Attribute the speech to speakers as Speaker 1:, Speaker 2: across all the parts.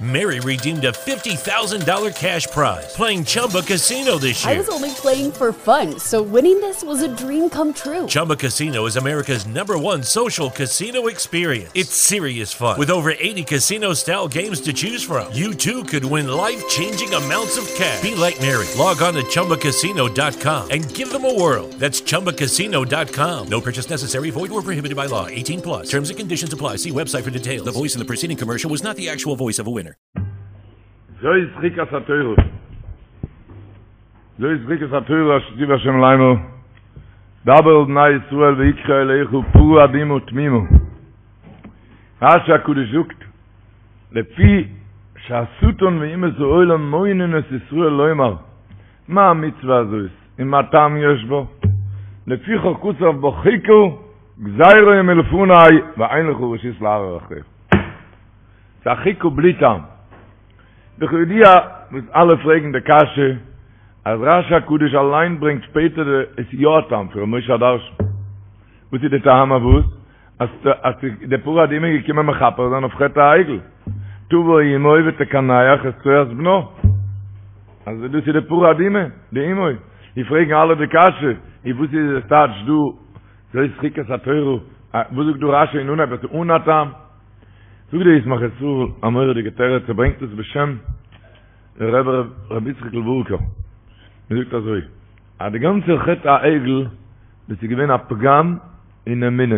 Speaker 1: Mary redeemed a $50,000 cash prize playing Chumba Casino this year.
Speaker 2: I was only playing for fun, so winning this was a dream come true.
Speaker 1: Chumba Casino is America's number one social casino experience. It's serious fun. With over 80 casino style games to choose from, you too could win life changing amounts of cash. Be like Mary. Log on to chumbacasino.com and give them a whirl. That's chumbacasino.com. No purchase necessary, void or prohibited by law. 18 plus. Terms and conditions apply. See website for details. The voice in the preceding commercial was not the actual voice of a winner.
Speaker 3: זאת חוקת התורה. זאת חוקת התורה אשר ציווה השם לאמור. דבר אל בני ישראל ויקחו אליך פרה אדומה תמימה. רש"י הקדוש זאגט, לפי שהשטן ואומות העולם מונין את ישראל לומר, מה המצוה הזאת ומה טעם יש בה? לפיכך כתב בה חוקה גזירה היא מלפני ואין לך רשות לערער אחריה. ס'איז א חוקה בלי טעם. וכידוע וואס אלע פרעגן די קשיא אז רש"י הקדוש אליין ברענגט שפעטער די עס איז יא א טעם פון ר' משה הדרשן. וואס איז די טעם אויף וואס? אז אז די פרה אדומה איז געקומען מכפר זיין אויף חטא העגל. תבוא אמו ותקנח את צואת בנה. אז דאס איז די פרה אדומה, די אמו. ווי פרעגן אלע די קשיא, און וואס איז עס טייטש דא זאת חוקת התורה, וואס זאגט דא רש"י אין אנהייב אז ס'איז אן א טעם? זאגט דער ישמח ישראל א מורא'דיגע תירוץ, ער ברענגט עס בשם דער רבי רבי יצחק'ל ווארקער, ער זאגט אזוי, אז די גאנצע חטא העגל דאס איז געווען א פגם אין אמונה,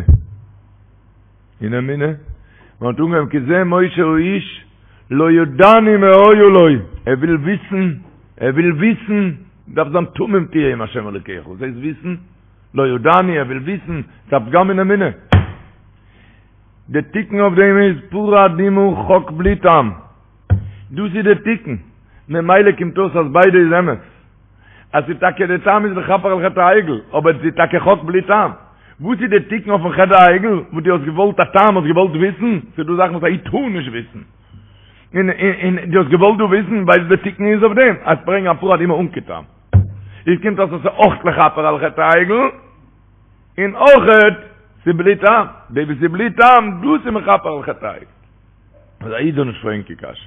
Speaker 3: אין אמונה, מען האט אנגעהויבן כי זה משה האיש לא ידענו מה היה לו, ער וויל וויסן, ער וויל וויסן, דארף זיין תמים תהיה עם השם אלוקיך, וואס הייסט וויסן? לא ידענו, ער וויל וויסן, ס'איז א פגם אין אמונה. די תיקון אויף דעם איז פרה אדומה חק בלי טעם. דאס איז די תיקון. ממילא קומט אויס אז ביידע איז אמת. אז ס'איז טאקע די טעם איז לכפר על חטא העגל, אבער ס'איז טאקע חק בלי טעם. וואס איז די תיקון אויפן חטא העגל? וואס דו האסט געוואלט א טעם, האסט געוואלט וויסן? ס'איז דא זאכן וואס א איד טאר נישט וויסן. און און דו האסט געוואלט דא וויסן, ווייסט די תיקון איז אויף דעם, אז ברענג א פרה אדומה אן קיין טעם. איז קומט אויס אז ס'איז אויך לכפר על חטא העגל. און אויכעט ס'איז בלי טעם, די וואס איז בלי טעם דאס איז מכפר על חטא העגל. אז א איד זאל נישט פרעגן קיין קשיות.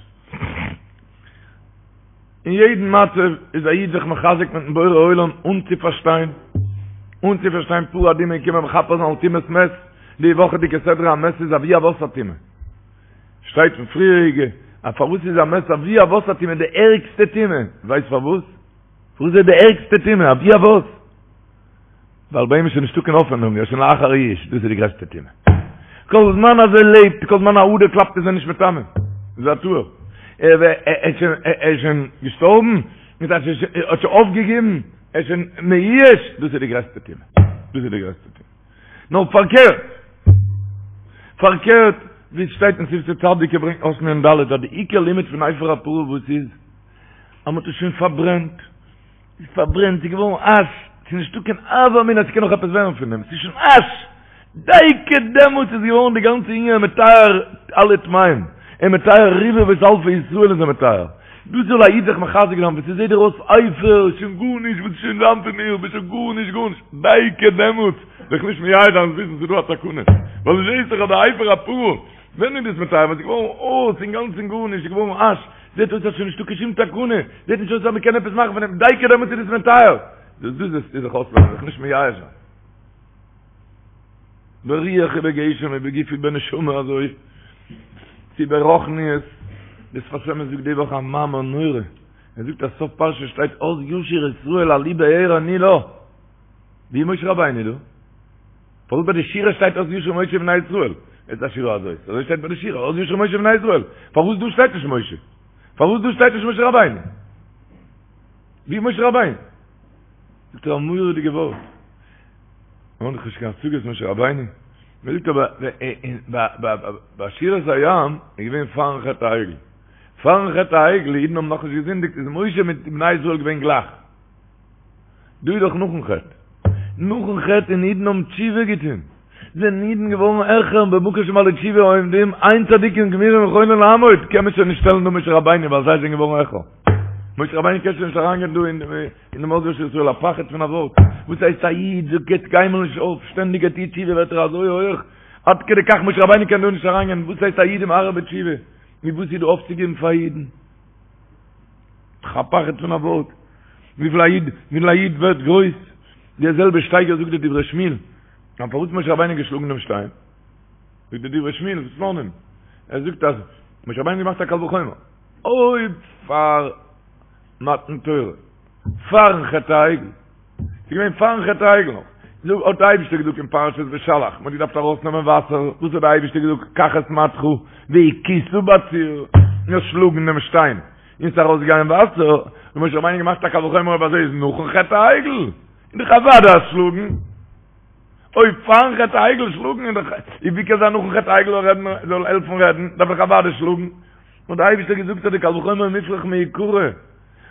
Speaker 3: אין יעדן מצב איז א איד זיך מחזק מיטן בורא עולם אן צו פארשטיין, אן צו פארשטיין פרה אדומה איז געקומען מכפר זיין על טומאת מת, די וואכעדיגע סדרה א מת איז אבי אבות הטומאה. שטייט פון פריעריגע אז פארוואס איז א מת אבי אבות הטומאה די ערגסטע טומאה, ווייסט פארוואס? פארוואס איז די ערגסטע טומאה אבי אבות? ווייל ביי אים איז שוין נישטא קיין האפענונג, ער איז שוין לאחר יאוש, דאס איז די גרעסטע טומאה. כל זמן אז ער לעבט, כל זמן א אדער קלאפט איז ער נישט מטמא, איז ער טהור. ער איז שוין געשטארבן, מיט אז ער האט שוין אויפגעגעבן, ער איז שוין מיואש, דאס איז די גרעסטע טומאה. דאס איז די גרעסטע טומאה. נאר פארקערט, פארקערט, ווי עס שטייט אין שפתי צדיק, ער ברענגט אות מ"ד, אז די עיקר לימוד פון אפר הפרה וואס איז, אז מען האט עס שוין פארברענט, ס'איז פארברענט, ס'איז געווארן אש, ס'איז נישטא קיין הוה אמינא אז ס'קען נאך עפעס ווערן פון דעם, ס'איז שוין אש! דייקא דעמאלטס איז געווארן די גאנצע ענין מטהר אלע טמאים, און מטהר רבבות אלפי ישראל איז ער מטהר. דאס זאל א איד זיך מחזק זיין, ווען ס'זעט דיר אויס אפר, שוין גארנישט, וואס איז שוין זיין פון מיר, ביסט שוין גארנישט גארנישט, דייקא דעמאלטס זיך נישט מייאש זיין, וויסן ס'איז דא א תקנה, ווייל דו זעסט דאך אז די אפר הפרה, ווען איז דאס מטהר? ווען ס'איז געווארן אויס אינגאנצן גארנישט, ס'איז געווארן אש, זעט אויס אז שוין נישטא קיין שום תקנה, זעט נישט אויס אז מ'קען עפעס מאכן פון דעם, דייקא דעמאלטס איז עס מטהר. דאס דאס איז זיך אויסלערנען, זיך נישט מייאש זיין. ברוח ובגשם ובגוף ובנשמה אזוי, צו ברוחניות, דער שפת אמת זאגט די וואך א מאמר נורא, ער זאגט אז סוף פרשה שטייט אז ישיר ישראל עלו באר ענו לה, ווי איז משה רבינו דא? פארוואס ביי די שירה שטייט אז ישיר משה ובני ישראל? את השירה הזאת. אזוי שטייט ביי די שירה, אז ישיר משה ובני ישראל. פארוואס דא שטייט נישט משה? פארוואס דא שטייט נישט משה רבינו? ווי איז משה רבינו? זאגט ער א מורא'דיגע ווארט. מ'האט דאך נישט קיין השגות משה רבינו. מ'זאגט אבער ביי שירת הים איז געווען פארן חטא העגל. פארן חטא העגל, אידן האבן נאכנישט געזינדיגט, איז משה מיט בני ישראל געווען גלייך. דא איז דאך נאכן חטא. נאכן חטא און אידן האבן תשובה געטון. זענען אידן געווארן העכער במקום שבעלי תשובה עומדים, אין צדיקים גמורים יכולים לעמוד, קען מען שוין נישט שטעלן דא משה רבינו ווייל זיי זענען געווארן העכער. משה רבינו קען שוין נישט אריינגיין דא אין דעם אז ישיר ישראל, א פחד פון א ווארט. וואס הייסט א איד גיבט קיינמאל נישט אויף, שטענדיג ער טוט תשובה ווערט ער אזוי הויעך, עד כדי כך משה רבינו קען דא נישט אריינגיין, וואס הייסט א איד איז מהרהר בתשובה? נו וואס איז דא אויפצוגעבן פאר אידן? א פחד פון א ווארט. וויפיל א איד, וויפיל א איד ווערט גרויס. די זעלבע שטייגער זאגט די דברי שמואל. אז פארוואס משה רבינו געשלאגן דעם שטיין? זאגט די דברי שמואל, סלאנים. ער זאגט אז משה רבינו געמאכט א קל וחומר. אויב פאר מתן תורה, פארן חטא העגל, ס'איז געווען פארן חטא העגל נאך, זאג, האט די אייבישטער געזאגט אין פרשת בשלח, מ'האט געדארפט ארויסנעמען וואסער, וואס האט די אייבישטער געזאגט, קח את מטך והכית בצור, נאר שלאגן דעם שטיין, און ס'איז ארויסגעגאנגען וואסער, האט משה רבינו געמאכט א קל וחומר אויב אזוי איז נאכן חטא העגל, איז דאך אוודאי אז שלאגן, אויב פארן חטא העגל שלאגן איז דאך, איז ווי קען זיין נאכן חטא העגל זאל רעדן, זאל העלפן רעדן, דארף דאך אוודאי שלאגן, האט די אייבישטער געזאגט אז די קל וחומר מופרך מעיקרא.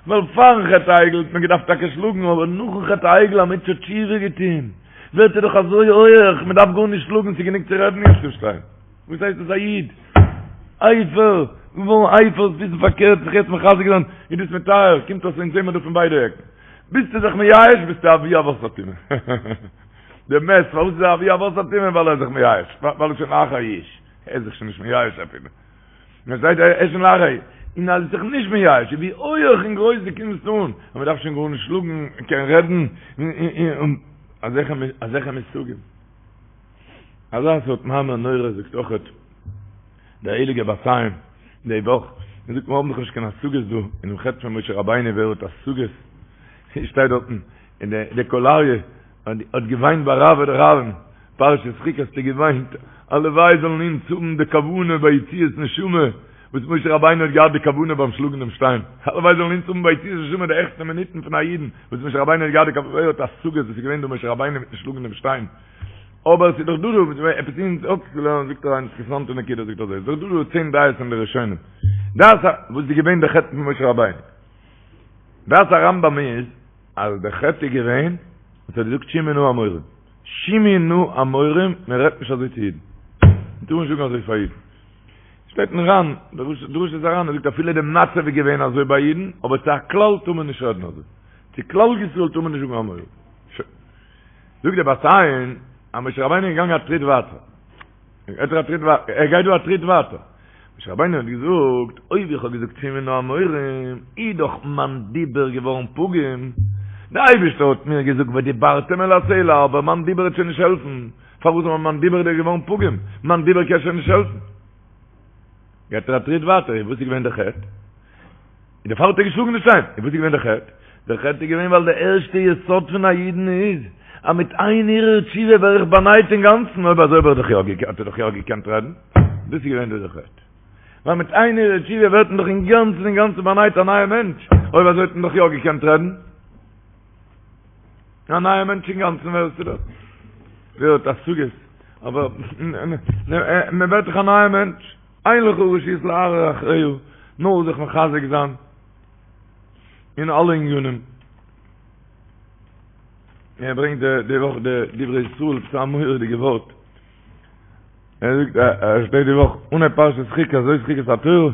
Speaker 3: ווייל פארן חטא העגל האט מען געדארפט טאקע שלאגן, אבער נאכן חטא העגל אז מענטש האט תשובה געטון, ווערט ער דאך אזוי הויעך, מען דארף גארנישט שלאגן, ס'איז גענוג צו רעדן יעצט צום שטיין. וואס הייסט עס א איד? אפר, געווארן אפר, וויסן פארקערט, זיך יעצט מחזק זיין, איז דאס מטהר, קומט אויס אונז זעמער דא פון ביידע עקן. ביסטו זיך מייאש, ביסטו אבי אבות הטומאה. דער מת, פארוואס איז ער אבי אבות הטומאה? ווייל ער איז זיך מייאש, ווייל ער איז שוין לאחר יאוש, ער איז זיך שוין נישט מייאש אפילו. מען זעט ער איז שוין לאחר, און אז זיך נישט מייאש, ווי הויעך און גרויס דו קומסט אן, אז מען דארף שוין גארנישט שלאגן, מען קען רעדן, און אזעלכע אזעלכע מושגים. אזא סארט מאמר נורא זאגט אויכעט דער הייליגער בת עין די וואך, מען זאגט מיר האבן דאך נישט קיין השגות דא אינעם חטא פון משה רבינו ווער האט השגות, שטייט דארטן אין די קול אריה, האט געוויינט ביי רעוא דרעוין, פרשת חוקת האט ער געוויינט, הלוואי זאלן אונז האבן די כוונה ביי יציאת נשמה, וואס משה רבינו האט געהאט די כוונה ביים שלאגן דעם שטיין, הלוואי זאלן אונז האבן ביי יציאת נשמה די העכסטע מינוטן פון א אידן, וואס משה רבינו האט געהאט די כוונה, ווער האט השגות וואס איז געווען דא משה רבינו מיטן שלאגן דעם שטיין, אבער עס איז דאך דא דא עפעס אונז אפצולערנען, זאגט ער א אינטערעסאנטע נקודה, זאגט אזוי, עס איז דאך דא דא צען דעות אין די ראשונים, דעת ה, וואס איז געווען די חטא פון משה רבינו, דעת הרמב"ם איז, אז דער חטא איז געווען וואס ער האט געזאגט שמעו נא המורים, שמעו נא המורים, מען רעדט נישט אזוי צו אידן, מען טאר נישט זאגן אזוי פאר אידן. שטייט אין ר"ן, דרשות הר"ן, ער זאגט אפילו די מצב איז געווען אזוי ביי אידן, אבער צו א כלל טאר מען נישט רעדן אזוי, צו כלל ישראל טאר מען נישט זאגן המורים. שוין. זאגט דער בת עין, אז משה רבינו איז געגאנגען א טריט ווייטער. ער גייט א טריט ווייטער, ער גייט דא א טריט ווייטער. משה רבינו האט געזאגט, אויב איך האב געזאגט שמעו נא המורים, איז דאך מיין דיבור געווארן פגום. דער אייבערשטער האט מיר געזאגט ודיברתם אל הסלע, אבער מיין דיבור וועט שוין נישט העלפן. פארוואס אבער מיין דיבור איז געווארן פגום? מיין דיבור קען שוין נישט העלפן. גייט ער א טריט ווייטער, און וואס איז געווען דער חטא? און דערפאר האט ער געשלאגן די שטיין. און וואס איז געווען דער חטא? דער חטא איז געווען ווייל דער ערשטע יסוד פון א אידן איז, אז מיט איין הרהור תשובה ווער איך באנייט אינגאנצן, אויב אזוי האב איך דאך יא האט ער דאך יא געקענט רעדן. דאס איז געווען דא דער חטא. ווייל מיט איין הרהור תשובה ווערט מען דאך אינגאנצן אינגאנצן באנייט א נייער מענטש, אויב אזוי האט מען דאך יא געקענט רעדן. א נייער מענטש אינגאנצן ווערסטו דאך. ווער האט השגות? אבער מען ווערט דאך א נייער מענטש. אין לך רשות להרהר אחריה, נאר זיך מחזק זיין אין אלע ענינים. ער ברענגט די וואך די דברי ישראל, ס'איז א מורא'דיגע ווארט. ער זאגט, ער שטייט די וואך אנהייב פרשת חוקת, זאת חוקת התורה.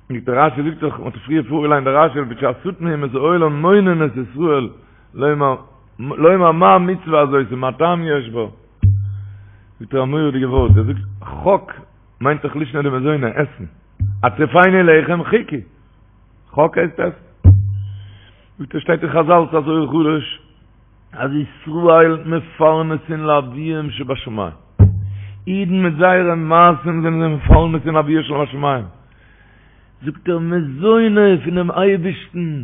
Speaker 3: זאגט דער רשי זאגט דאך, מ'האט פריער פארגעליינט די רשי, לפי שהשטן ואומות העולם מונין את ישראל, לומר, לומר מה המצוה הזאת ומה טעם יש בה. זאגט ער א מורא'דיגע ווארט, ער זאגט, חק מיינט דאך לישנא דמזונא, עסן. הטריפני לחם חוקי. חק הייסט עסן. זאגט ער שטייט אין חזל ס'איז א זוהר חדש אז ישראל מפרנסין לאביהם שבשמים. אידן מיט זייערע מעשים זענען זיי מפרנסין לאביהם שבשמים. זאגט ער מזוני פונעם אייבערשטן.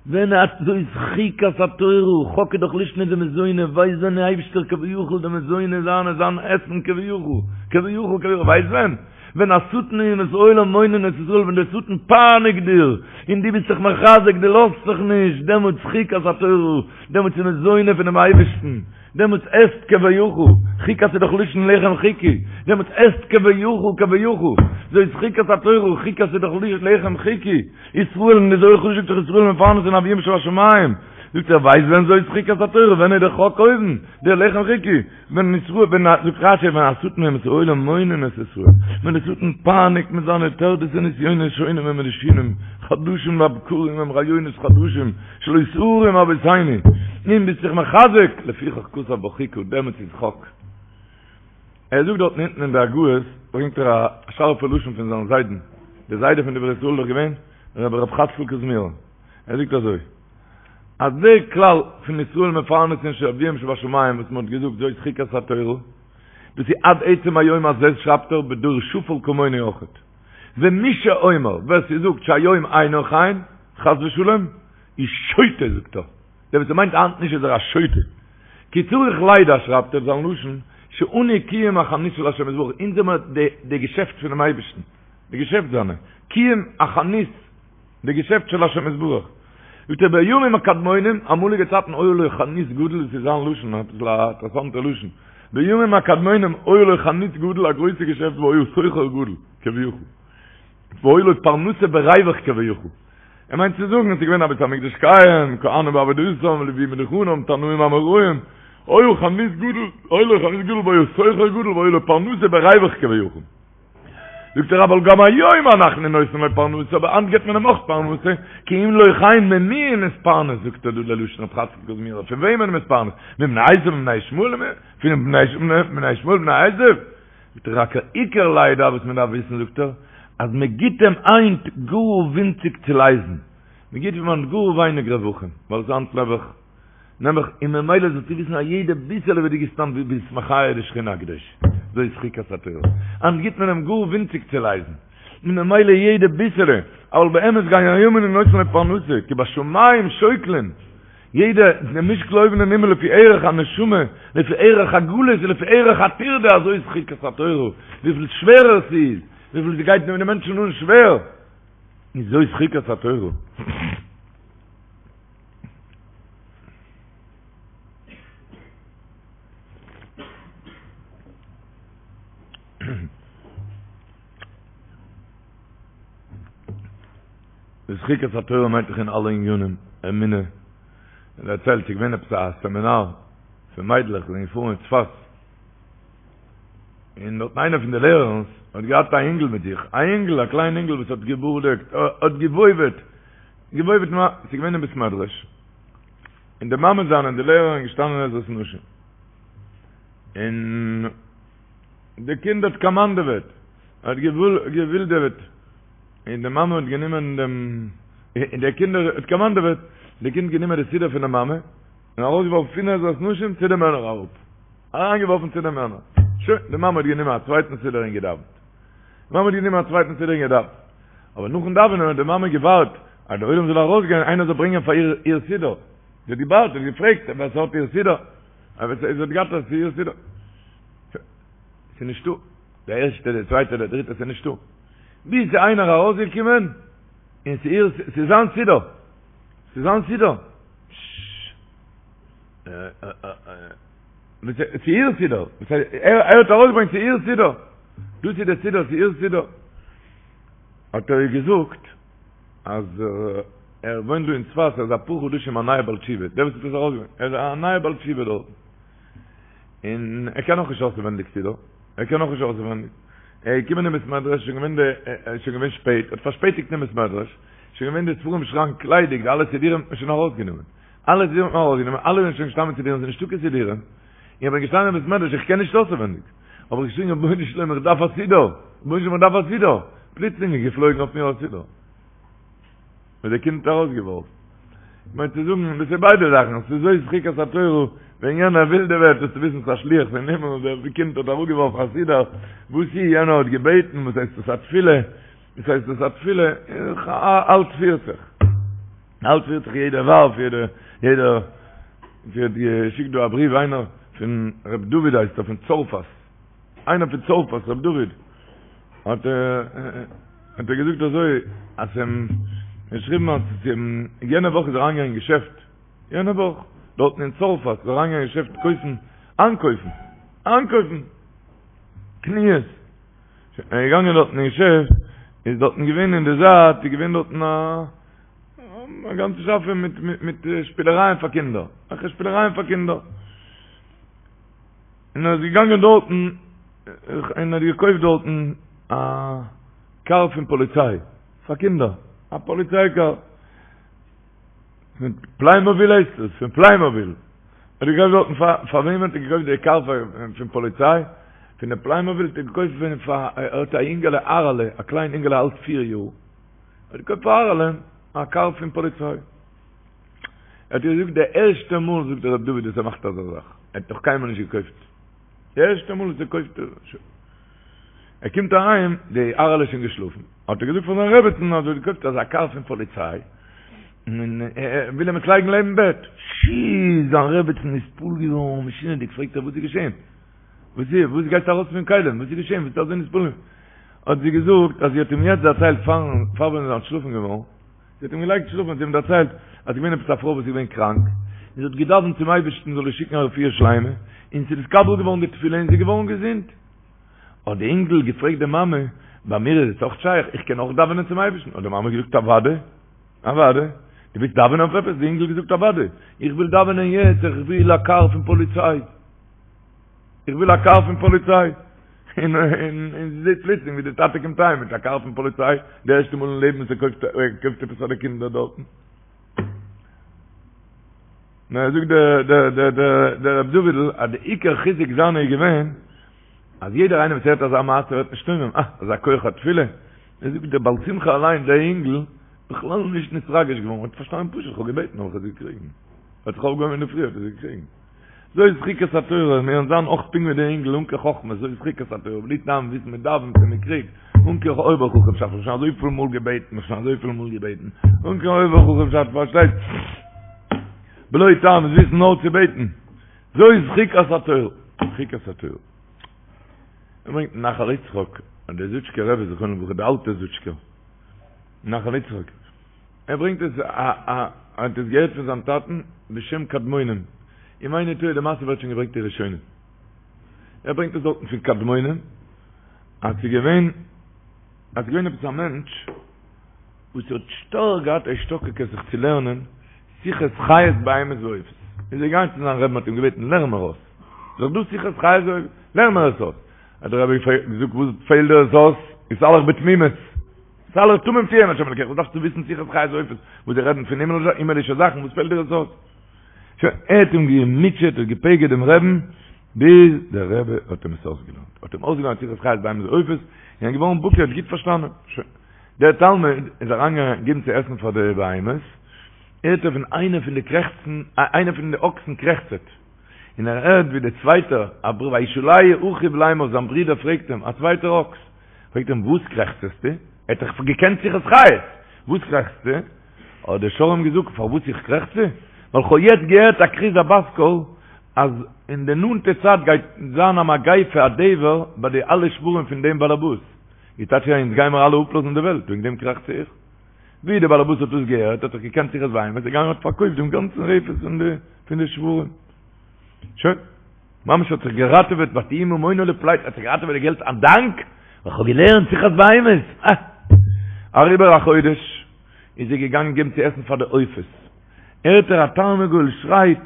Speaker 3: ווען האט זאת חוקת התורה, חק איז דאך לישנא דמזונא, ווייסט ווען די אייבישטער כביכול די מזוני זיינע זיין עסן כביכול, כביכול כביכול, ווייסט ווען? ווען השטן ואומות העולם מונין את ישראל, ווען דער שטן פייניגט דיר, און דו ביסט זיך מחזק, דו לאזט זיך נישט, דעמאלטס חוקת התורה, דעמאלטס איז מזוני פונעם אייבישטן, דעמאלטס עסט כביכול, חוקת איז דאך לשון לחם חוקי, דעמאלטס עסט כביכול כביכול, זאת חוקת התורה, חוקת איז דאך לחם חוקי, ישראל און די זוהר הקדוש זאגט דאך ישראל מפרנסין לאביהם שבשמים, זאגט ער ווייסט ווען זאת חוקת התורה, ווען איז דער חק אויבן, דער לחם חוקי, ווען ישראל, ווען א, זאגט רשי, ווען השטן ואומות העולם מונין את ישראל, ווען דער שטן פייניגט מיט זיינע טרדות ונסיונות שונים ומשונים, חדשים לבקרים הם רעיונות חדשים, שלא שערום אבותינו, און ביסט זיך מחזק, לפיכך כתב בה חוקה, דעמאלטס איז חק. ער זאגט דארטן אונטן אין די הגהות, ברענגט ער א שארפע לשון פון זיין זיידן, דער זיידע פון דברי ישראל איז דאך געווען רבי ר' חצקל קוזמירער, ער זאגט אזוי, אז דער כלל פון ישראל מפרנסין של אביהם שבשמים וואס מען האט געזאגט זאת חוקת התורה, דאס איז עד עצם היום הזה שרייבט ער בדור שפל כמוני אויכעט. ומי שאומר, ווער ס'זאגט שהיום אינו כן, חס ושלום, איז שוטה זאגט ער. דער וואס ס'מיינט היינט נישט איז ער א שוטה. כי צריך לידע שרייבט ער זיין לשון, שאנו קיום החנות של השם יתברך, אונז זעמער די געשעפט פונעם אייבערשטן, די געשעפט זיינע, קיום החנות, די געשעפט של השם יתברך. זאגט ער בימים הקדמונים, אמאליגע צייטן היה לו חנות גדול, דאס איז זיין לשון, אביסל א אינטערעסאנטע לשון, בימים הקדמונים היה לו חנות גדול, א גרויסע געשעפט והיה סוחר גדול, כביכול, והיה לו פרנסה בריווח כביכול. ער מיינט צו זאגן עס איז געווען א בית המקדש קיים, כהנים בעבודתם, לוויים בדוכנם, תנאים אמוראים, היה חנות גדול, היה לו חנות גדול והיה סוחר גדול והיה לו פרנסה בריווח כביכול. זאגט ער אבל גם היום אנחנו נותנים לו פרנסה, אבער היינט געבט מען אים אויך פרנסה, כי אם לא כן ממי הוא מתפרנס, זאגט ער דא ללשון רב חצקל קוזמירער, פון וועמען איז מתפרנס? מבני עשו מבני ישמעאל? פון בני ישמעאל בני עשו? זאגט ער רק העיקר לידע וואס מען דארף וויסן זאגט ער, אז מען גיט אים היינט גאר ווינציג צו לייזן, מען גיט אים היינט גאר ווייניג רווחים, ווייל עס איז היינט נעבעך נעבעך, און ממילא זאלסטו וויסן אז יעדע ביסעלע וואס דו גיבסט היינט ביסט מחיה די שכינה הקדושה, זאת חוקת התורה, היינט גיט מען אים גאר ווינציג צו לייזן, און ממילא יעדע ביסעלע, אבל באמת גם היום אנו נותנים לו פרנסה, כי בשמים שוקלים. יעדע די משקל אויבן אין הימל לפי ערך הנשמה, לפי ערך הגלות ולפי ערך הטירדה אזוי איז חוקת התורה, וויפיל שווערער ס'איז, וויפיל ס'גייט די מענטשן אן שווער, איז זאת חוקת התורה. זאת חוקת התורה מיינט דאך אין אלע עניינים, אמונה, ער דערציילט ס'איז געווען עפעס א סעמינאר פון מיידלעך זענען געפארן אין צפת, און דארטן איינער פון די לערערנס האט געהאט א אינגל מיט זיך, א אינגל, א קליין אינגל וואס האט געבורדעקט, האט געוואויוועט, געוואויוועט, ס'איז געווען אין בית מדרש, און די מאמע זיינע און די לערערין געשטאנען עזרת נשים, און די קינד האט קאמאנדעוועט, האט געווילדעוועט. און די מאמע האט גענומען דעם, און דער קינד האט קאמאנדעוועט, די קינד גענומען די סידור פון די מאמע, און ארויסגעווארפן פון עזרת נשים צו די מענער אראפ, אריינגעווארפן צו די מענער, שוין, די מאמע האט גענומען א צווייטן סידור און געדאווענט, די מאמע האט גענומען א צווייטן סידור און געדאווענט, אבער נאכן דאווענען האט די מאמע געווארט אז דער עולם זאל ארויסגיין, איינער זאל ברענגען פאר איר איר סידור, זי האט געווארט, זי האט געפרעגט ווער ס'האט איר סידור, אבער זי האט געהאט איר סידור, ס'איז נישטא. דער ערשטער, דער צווייטער, דער דריטער, ס'איז נישטא. ביז ס'איז איינער ארויסגעקומען, און ס'איז, ס'איז זיין סידור. ס'איז זיין סידור. ס'איז איר סידור. ער האט ארויסגעברענגט, ס'איז איר סידור. דאס איז דער סידור, ס'איז איר סידור. האט ער איר געזאגט, אז ער וואוינט דא אין צפת, ער איז אפאר חדשים א נייער בעל תשובה. דער וואס האט עס ארויסגעברענגט. ער איז א נייער בעל תשובה דארטן. און ער קען נאך נישט אויסעווענדיג סידור, ער קען נאך נישט אויסעווענדיג, ער איז געקומען אין בית מדרש, שוין געווען די, איז שוין געווען שפעט, האט פארשפעטיגט אין בית מדרש, שוין געווען די ספרים שראנק ליידיג, די אלע סידורים האט מען שוין ארויסגענומען, אלע סידורים האט מען ארויסגענומען, אלע זענען שוין געשטאנען מיט סידורים, ס'איז נישטא קיין סידורים, איך בין געשטאנען אין בית מדרש, איך קען נישט אויסעווענדיג, האב איך געשריגן רבונו של עולם איך דארף א סידור, רבונו של עולם איך דארף א סידור, פלוצלינג איז געפלויגן אויף מיר א סידור. וואס דער קינד האט ארויסגעווארפן. איך מיין צו זאגן, דאס איז ביידע זאכן, ס'איז זאת חוקת התורה, ווען יענער ווילדעוועט זאלסטו וויסן ס'איז א שליח פון הימל, דער קינד האט אראפגעווארפן א סידור, וואס איז, יענער האט געבעטן, וואס הייסט עס א תפילה, וואס הייסט עס א תפילה, אלץ פירט זיך, אלץ פירט זיך יעדער ווארף, יעדער, יעדער, ס'האט געשיקט דא א בריוו איינער פון ר' דוד הייסט ער פון צרפת. איינער פון צרפת ר' דוד האט האט ער געזאגט אזוי אז אים געשריבן אז יענע וואך איז אריינגעגאנגען אין געשעפט יענע וואך דארטן אין צרפת איז אריינגעגאנגען אין געשעפט קויפן איינקויפן איינקויפן קניות ער איז געגאנגען דארטן אין געשעפט איז דארטן געווען אין די זייט איז געווען דארטן א א גאנצע שאפע מיט מיט שפילערייען פאר קינדער אזעלכע שפילערייען פאר קינדער און ער איז געגאנגען דארטן און האט געקויפט דארטן א קאר פון פאליציי פאר קינדער, א פאליציי קאר, פון פליימאביל הייסט עס, פון פליימאביל, האט ער געקויפט דארטן פאר, פאר וועם האט ער געקויפט די קאר פון פאליציי? פון די פליימאביל האט ער געקויפט פון פאר ער האט א אינגעלע אהרעלע א קליין אינגעלע אלט פיר יאר האט געקויפט פאר אהרעלע א קאר פון פאליציי ער האט געזאגט די ערשטע מאל זאגט דער רב דוד וואס ער מאכט אזא זאך ער האט נאך קיינמאל נישט געקויפט די ערשטע מאל וואס ער קויפט ער קומט אהיים די אהרעלע איז שוין געשלאפן האט ער געזאגט פאר זיין רעבעצן אז ער האט געקויפט אזא קאר פון פאליציי און ער וויל אים עס לייגן לעבן בעט שי זיין רעבעצן איז נתפעל געווארן משונה'דיג פרעגט ער וואס איז געשען וואס איז? וואס גייסטו ארויס פון כלים? וואס איז געשען? וואס ביסטו אזוי נתפעל? האט זי געזאגט אז זי האט אים יעצט דערציילט פארן פאר ווען זי איז אנטשלאפן געווארן, זי האט אים געלייגט שלאפן האט זי אים דערציילט אז ס'איז געווען עפעס א פרוי וואס איז געווען קראנק, און זי האט געדאווענט צום אייבערשטן זאל איר שיקן א רפואה שלימה, און ס'איז נתקבל געווארן די תפילה און זי איז געווארן געזונט. האט די אינגל געפרעגט די מאמע, ביי מיר איז עס אויך שייך? איך קען אויך דאווענען צום אייבערשטן? האט די מאמע געזאגט אוודאי, אוודאי, דו ווילסט דאווענען אויף עפעס? די אינגל געזאגט אוודאי, איך וויל דאווענען יעצט, איך וויל א קאר פון פאליציי. איך וויל א קאר פון פאליציי. און און זי זעט פלוצלינג ווי די טאטע קומט אהיים מיט א קאר פון פאליציי, די ערשטע מאל אין לעבן וואס ער קויפט ער קויפט עפעס פאר די קינדער דארטן. נו, זאגט דער דער דער דער דער רב דוד'ל אז די עיקר חיזוק זיינע איז געווען אז יעדער איינער וואס הערט אזא מעשה ווערט נשתומם, אה, אזא כח התפילה. ער זאגט דער בעל שמחה אליין, דער אינגל, בכלל נישט נתרגש געווארן, האט פארשטאנען פשוט, איך האב געבעטן האב איך עס געקריגן. ער האט זיך אויפגעהויבן אינדערפרי האט ער עס געקריגן. זאת חוקת התורה, מיר וועלן זיין אויך פונקט ווי דער אינגל אן קיין חכמות, זאת חוקת התורה, בלי טעם וויסן מען דאווענט און מען קריגט, אן קיין אויבער-חכם'שאפט, כ'האב שוין אזויפיל מאל געבעטן, כ'האב שוין אזויפיל מאל געבעטן, אן קיין אויבער-חכם'שאפט, פארשטייט? בלא טעם וויסן נאר צו בעטן, זאת חוקת התורה, חוקת התורה. ער ברענגט נחל יצחק, אז דער זוטשקער רבי זכרונו לברכה, דער אלטער זוטשקער, נחל יצחק, ער ברענגט עס א א ער האט עס געהערט פון זיין טאטן בשם קדמונים, אם איני טועה די מעשה ווערט שוין געברענגט אין ראשונים, ער ברענגט עס דארטן פון קדמונים, אז ס'איז געווען אז ס'איז געווען עפעס א מענטש וואס האט שטארק געהאט א השתוקקות זיך צו לערנען שיחות חיות בהמות ועופות, איז ער געגאנגען צו זיין רבי'ן האט אים געבעטן לערן מיר אויס, ס'איז דאך דא שיחות חיות ועופות, לערן מיר עס אויס, האט דער רבי געזאגט וואס פעלט דיר עס אויס, התהלך בתמימות. התהלך תמים תהיה עם השם אלקיך, וואס דארפסטו וויסן שיחות חיות ועופות, וואס זיי רעדן פון הימעלישע זאכן, וואס פעלט דיר עס אויס? שוין, ער האט אים געמוטשעט, האט געפגר'ט דעם רעבן, ביז דער רבי האט אים עס אויסגעלערנט, האט אים אויסגעלערנט שיחות חיות בהמות ועופות, און ער איז געווארן בקי, האט גוט פארשטאנען. שוין, דער תלמיד איז אריינגעגאנגען געבן צו עסן פאר די בהמות, הערט ער פון איינע פון די קרעכצן, איינע פון די אקסן קרעכצעט, און ער הערט ווי דער צווייטער, וישאלהו אחיו לאמר, זיין ברודער פרעגט אים, א צווייטער אקס, פרעגט אים וואס קרעכצעסטו? ער האט דאך געקענט שיחות חיות, וואס קרעכצסטו? האט דער שור אים געזאגט, פארוואס איך קרעכצע? ווייל כ'האב יעצט געהערט א כרוז א בת קול, אז אין די נאנטע צייט גייט זיין א מגיפה א דבר ביי די אלע שוורים פון דעם באלעבאס, איז טייטש אז אונז גיימער אלע אפלאזן די וועלט, וועגן דעם קרעכצע איך. ווי דער באלעבאס האט דאס געהערט, האט ער געקענט שיחות בהמות, איז געגאנגען האט פארקויפט דעם גאנצן רפת פון די שוורים. שוין. ממש האט זיך געראטעוועט ותהי ממונו לפליטה, האט זיך געראטעוועט די געלט א דאנק ווייל כ'האב געלערנט שיחת בהמות, אה! אריבער א חודש איז ער געגאנגען געבן צו עסן פאר די עופות, הערט ער א תרנגול שרייט,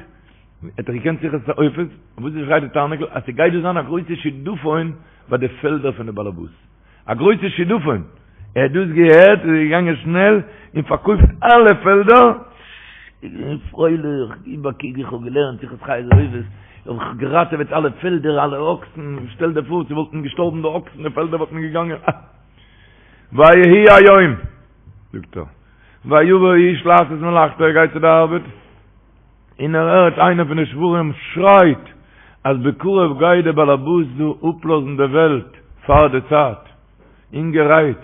Speaker 3: האט ער געקענט שיחת עופות, וואס שרייט די תרנגול? אז ס'גייט דא זיין א גרויסע שידופון ביי די פעלדער פון די באלעבאס. א גרויסע שידופון, ער האט דאס געהערט איז ער געגאנגען שנעל און פארקויפט אלע פעלדער, איז געווען פרייליך, גיב א קוק איך האב געלערנט שיחת חיות ועופות, האב איך געראטעוועט אלע פעלדער אלע אקסן, שטעל דיר פאר ס'וואלטן געשטארבן די אקסן די פעלדער וואלטן געגאנגען, אה. ויהי היום, זאגט ער, ויבא האיש לעשות מלאכתו, ער גייט צו די ארבעט, און ער הערט איינער פון די שוורים שרייט אז בקרוב גייט דער באלעבאס דא אפלאזן די וועלט פאר די צייט, אינגערהייט,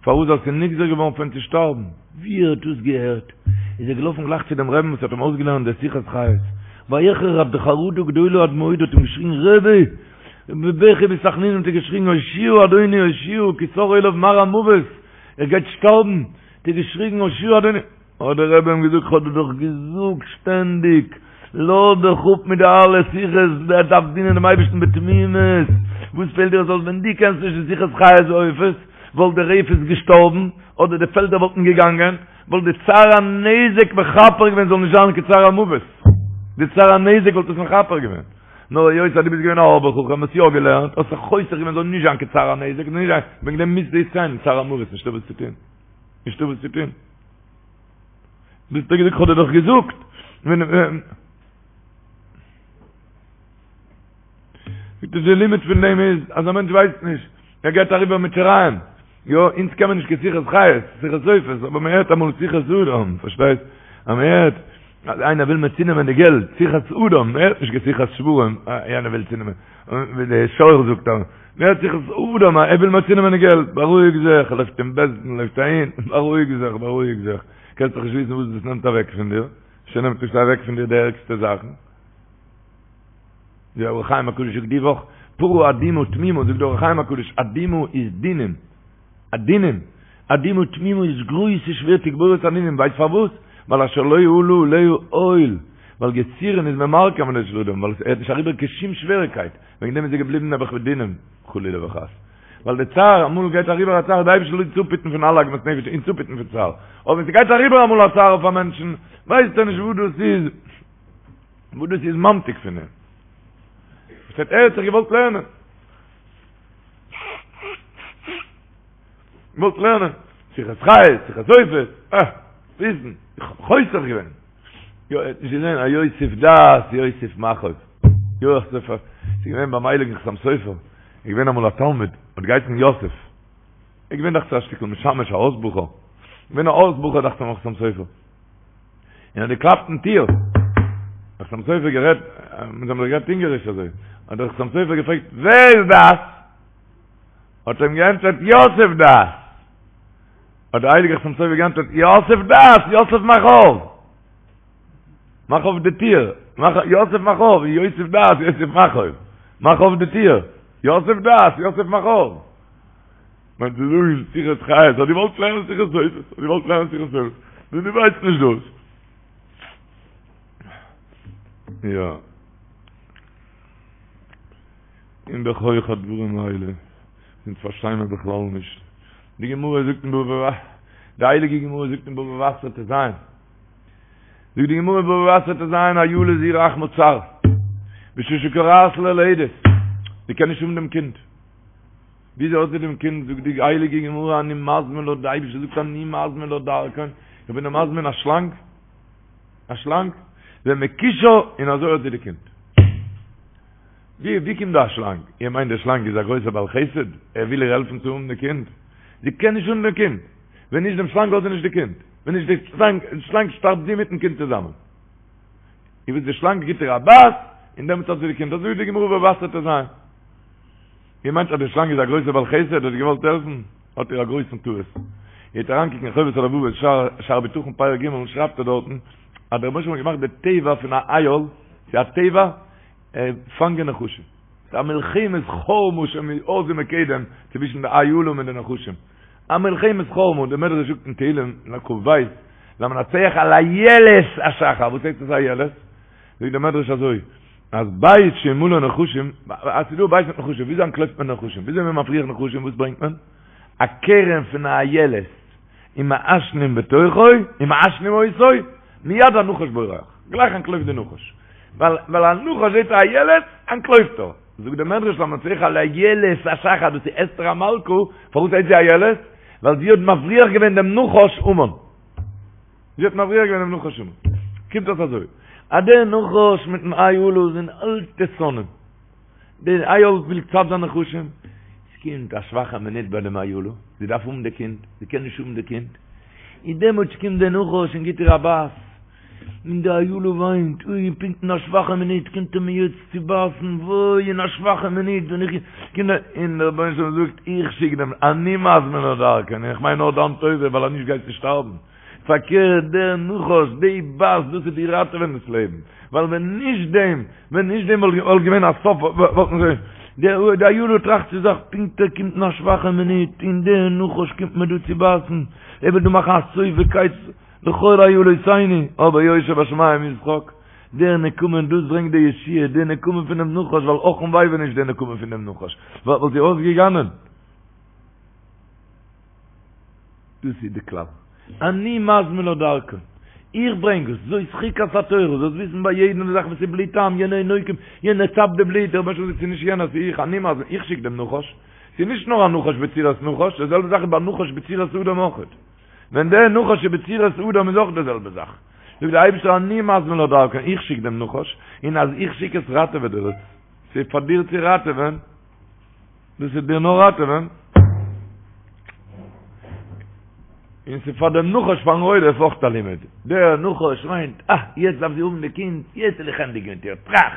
Speaker 3: פארוואס ווייל ס'איז נגזר געווארן פון אים צו שטארבן. ווי ער האט דאס געהערט איז ער געלאפן גלייך צו דעם רעבן וואס האט אים אויסגעלערנט די שיחת חיות, ויחרד חרדה גדולה עד מאוד האט אים געשריגן רבי! בבכי ובתחנונים האט ער געשריגן הושיעה אדוני הושיעה כי סר עליו מר המוות, ער גייט שטארבן, האט ער געשריגן הושיעה אדוני. האט דער רבי אים געזאגט, כ'האב דיר דאך געזאגט שטענדיג, לאז דיך אפ מיט די אלע שיחות, דו דארפסט דינען דעם אייבערשטן בתמימות, וואס פעלט דיר עס אויס ווען דו קענסט נישט די שיחות חיות ועופות, וואלט די רפת געשטארבן, אדער די פעלדער וואלטן געגאנגען, וואלט די צער הנזק מכפר געווען זאל נישט זיין קיין צער המוות, די צער הנזק וואלט עס מכפר געווען, נאר היות אז דו ביסט געווען א אויבער חכם, האסט יא געלערנט, האסט זיך חוסך געווען זאל נישט זיין קיין צער הנזק, זאל נישט זיין, וועגן דעם מוזטו יעצט גיין צער המוות, נישטא וואס צו טון. נישטא וואס צו טון. ביסט געזאגט, כ'האב דיר דאך געזאגט. ווען. זאגט ער די לימוד פון דעם איז אז א מענטש ווייסט נישט, ער גייט אריבער מיט שיריים, יא, אונז קען מען נישט קיין שיחת חיות, שיחת עופות, אבער מען הערט אמאל שיחת אדם, פארשטייסט? אז מען הערט אז איינער וויל מיר צונעמען די געלט, שיחת אדם, מען הערט נישט קיין שיחת שוורים, יענער וויל צונעמען, ווי די שור זאגט אז מען הערט שיחת אדם, ער וויל מיר צונעמען די געלט, בארואיג זיך, לויפט אין בית דין, לויפט אהין, בארואיג זיך, בארואיג זיך, קענסט דאך נישט וויסן וואס דאס נעמט אוועק פון דיר, אפשר נעמט עס אוועק פון דיר די ערגסטע זאכן. די אור החיים הקדוש זאגט די וואך, פרה אדומה תמימה, זאגט די אור החיים הקדוש, אדומה איז דינים, דינים, אדומה תמימה איז גרויסע שווער תגבורת הנינים, ווייסט פארוואס? ווייל אשר לא עלה עליה עול, ווייל יסורין איז ממרקי מעמדו של אדם, ווייל ער האט נישט אריבער קיין שום שוועריקייט, וועגן דעם איז ער געבליבן נעבעך מיט דינים, חלילה וחס. ווייל די צער, אמאל גייט אריבער א צער, די אייבערשטער זאל אונז אפהיטן פון אלע עגמת נפש, אונז אפהיטן פון צער, אבער ווען ס'גייט אריבער אמאל א צער אויף א מענטשן, ווייסט ער נישט וואס דאס איז, וואס דאס איז ממתיק פון אים. פארשטייט ער האט זיך געוואלט לערנען. געוואלט לערנען. שיחת חיות, שיחת עופות, אה, וויסן, איך האב חוסך געווען. יא, ער האט נישט געזען א יוסיף דעת, יוסיף מכאוב. יוסף, ס'איז געווען ביים הייליגן חתם סופר, איז געווען אמאל א תלמיד, האט געהייסן יוסף. ער איז געווען דאכט זיך א שטיקל משמש, א הויז בחור. געווען א הויז בחור דאכט זיך ביים חתם סופר. און האט געקלאפט אין טיר. האט חתם סופר גערעדט, מיט זיי האבן זיך גערעדט אונגעריש אזוי. האט דער חתם סופר געפרעגט, ווער איז דאס? האט ער אים געענטפערט, יוסף דאס. האט דער הייליגער חתם סופר געענטפערט, יוסף דאס, יוסף מאך אויף. מאך אויף די טיר. מאך, יוסף מאך אויף, יוסף דאס, יוסף מאך אויף. מאך אויף די טיר. יוסף דאס, יוסף מאך אויף. מיינט צו זאגן שיחת חיות, האט געוואלט לערנען שיחת עופות, האט געוואלט לערנען שיחת עופות, נו דו ווייסט נישט דאס. יא. און בכח הדברים האלה, אונז פארשטיי מיר בכלל נישט. די גמרא זאגט אין בבא, די הייליגע גמרא זאגט אין בבא בתרא ט"ז, זאגט די גמרא אין בבא בתרא ט"ז, אילה זו רחמה צר, בשעה שכורעת ללדת, זי קען נישט האבן דעם קינד. וויאזוי האט זי דעם קינד, זאגט די הייליגע גמרא, אני מזמין לה, די אייבערשטער זאגט אני מזמין לה דרקון, איך בין איר מזמין א שלאנג, א שלאנג, ומכישה, און אזוי האט זי די קינד. ווי ווי קומט דא א שלאנג? איר מיינט דער שלאנג איז א גרויסער בעל חסד, ער וויל איר העלפן צו האבן די קינד? זי קען נישט האבן די קינד, ווען נישט דעם שלאנג האט זי נישט די קינד, ווען נישט די שלאנג, שלאנג שטארבט זי מיטן קינד צוזאמען. איר ווייסט די שלאנג גיט איר א בייס, און דעמאלטס האט זי די קינד, אזוי זאגט די גמרא בבא בתרא ט"ז. איר מיינט אז די שלאנג איז א גרויסער בעל חסד האט געוואלט העלפן? האט איר א גרויסן טעות. איר וועט אריינקוקן אין חובת הלבבות שער שער בטחון פרק ג' שרייבט ער דארטן אז דער רבונו של עולם האט געמאכט די טבע פון א איל, ס'איז א טבע פאנגען נחשים. ס'איז א מלחמת חרמה שמאז ומקדם צווישן די אילים און די נחשים. א מלחמת חרמה, דער מדרש זאגט אין תהלים כ"ב, למנצח על איילת השחר, וואס הייסט עס איילת? זאגט דער מדרש אזוי, אז בית שמלא נחשים, אז ס'איז דא א בית מיט נחשים, וויאזוי אנטלויפט מען נחשים? וויאזוי איז מען מבריח נחשים? וואס ברענגט מען? א קרן פון א איילת, ומעשנים בתוכו, ומעשנים אותו, מיד הנחש בורח, גלייך אנטלויפט די נחש. ווייל ווייל א נחש זעט א איילת, אנטלויפט ער. זאגט דער מדרש למנצח על איילת השחר, דאס איז אסתר המלכה, פארוואס הייסט זי איילת? ווייל זי האט מבריח געווען דעם נחש המן. זי האט מבריח געווען דעם נחש המן. קומט אויס אזוי, אז דער נחש מיטן אילה זענען אלטע שונאים. דער איל וויל צד זיין נחשים, עס קומט א שוואכע מינוט ביי דעם אילה, זי דארף האבן די קינד, זי קען נישט האבן די קינד, און דעמאלטס קומט דער נחש און גיט איר א בייס, און די אילה וויינט, אוי, פונקט אין א שוואכע מינוט קומט ער מיר יעצט צו בייסן, וואוי, אין א שוואכע מינוט ווען איך קום דא, און דער רבונו של עולם זאגט, איך שיק דעם, אני מזמין לה דרקון, איך מיין נאר דיין טובה, ווייל אז נישט גייסטו שטארבן. פארקערט, דער נחש, די בייס, דאס וועט דיר ראטעווען דאס לעבן, ווייל ווען נישט דעם, ווען נישט דעם וואלט געווען א סוף, וואלט מען זיך, די אילה טראכט צו זיך, פונקט ער קומט אין א שוואכע מינוט, און דער נחש קומט מיר דא צו בייסן, ער וויל דא מאכן א סוף וקץ לכל אילותינו, אבער יושב בשמים ישחק, דער נקמה, דאס ברענגט די ישועה, די נקמה פונעם נחש, ווייל אך און וויי ווען נישט די נקמה פונעם נחש, וואלט זי אויסגעגאנען. דאס איז די כלל. אני מזמין לה דרקון. איך ברענג עס, זאת חוקת התורה, זאלסט וויסן ביי יעדן זאך וואס איז בלי טעם, יענער איז נוקם, יענער צאפט די בלוט, דער רבונו של עולם זאגט ס'איז נישט יענער ס'איז איך, אני מזמין, איך שיק דעם נחש. ס'איז נישט נאר א נחש בצורת נחש, די זעלבע זאך איז ביי נחש בצורת אדם אויך. ווען דער נחש איז בצורת אדם איז אויך די זעלבע זאך. זאגט דער אייבערשטער אני מזמין לה דרקון, איך שיק דעם נחש, און אז איך שיק עס ראטעוועט דיר עס. ס'איז פאר דיר צו ראטעווען, דאס איז דיר נאר ראטעווען, און ס'איז פאר דעם נחש פארן רודף אויך א לימוד, דער נחש מיינט, אה, יעצט דארף זי האבן די קינד, יעצט וועל איך ענדיגן מיט איר, טראך,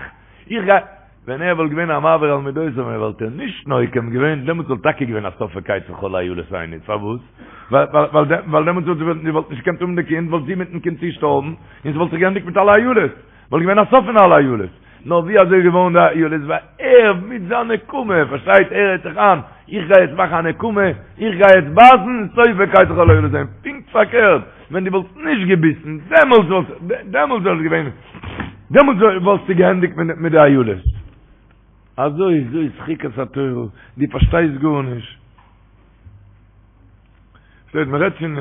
Speaker 3: איך גיי, ווען ער וואלט געווען א מעביר על מידותיו און וואלט ער נישט נוקם געווען, דעמאלטס וואלט טאקע געווען א סוף וקץ לכל אילותינו, פארוואס? ווייל דעמאלטס וואלט זי וואלט נישט געקענט האבן די קינד, וואלט זי מיטן קינד צושטארבן, און ס'וואלט זיך געענדיגט מיט אלע אילות, וואלט געווען א סוף פון אלע אילות. נאר ווי אזוי איז געווארן די אילות? ווייל ער מיט זיין נקמה, פארשטייט, ער רעדט זיך איין, איך גיי יעצט מאכן א נקמה, איך גיי יעצט בייסן, סוף וקץ לכל אילותינו. פונקט פארקערט, ווען דו וואלסט נישט געביסן, דעמאלטס וואלט, דעמאלטס וואלט געווען, דעמאלטס וואלסטו געענדיגט מיט די אילות. אזוי איז זאת חוקת התורה, דו פארשטייסט גארנישט. שטייט מען רעדט פון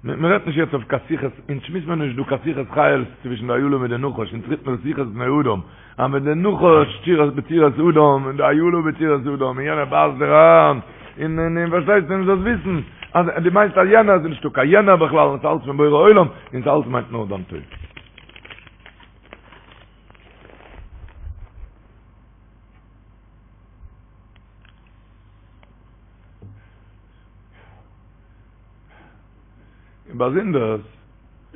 Speaker 3: מען רעדט נישט יעצט אויף קיין שיחות אונז שמועסט מען נישט דא קיין שיחות חיות צווישן די אילה מיט די נחש אונז רעדט מען שיחות בני אדם אז ווען די נחש צורת בצורת אדם און די אילה בצורת אדם און יענער בייסט דיר אריין און און און פארשטייסט און זאלסט וויסן אז דו מיינסט אז יענער איז נישטא קיין יענער בכלל און ס'אלץ פון בורא עולם און ס'אלץ מיינט נאר דיין טוב. און באזונדערס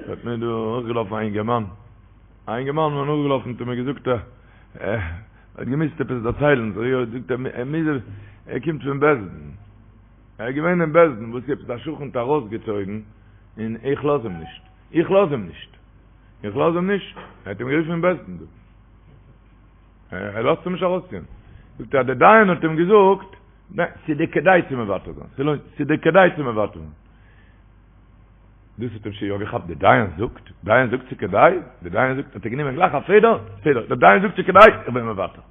Speaker 3: האט מיר דא נאכגעלאפן א אינגערמאן, א אינגערמאן איז מיר נאכגעלאפן האט ער מיר געזאגט ער האט געמוזט עפעס דערציילן, זאג איך זאגט ער ער מוז ער קומט פון בית דין, ער איז געווען אין בית דין וואס עפעס א שכן האט ארויסגעצויגן און איך לאז אים נישט, איך לאז אים נישט, איך לאז אים נישט, ער האט אים גערופן אין בית דין דא. ער לאזט אים נישט ארויסציען. זאגט ער אז דער דיין האט אים געזאגט, ניין, ס'איז דיר כדאי צו מוותר זיין, ס'לוינט, ס'איז דיר כדאי צו מוותר זיין. דאס האט אים שוין יא געכאפט, דער דיין זאגט, דיין זאגט ס'איז כדאי, דער דיין זאגט, האט ער גענומען גלייך א פעדער, פעדער, דער דיין זאגט ס'איז כדאי, איך בין מוותר.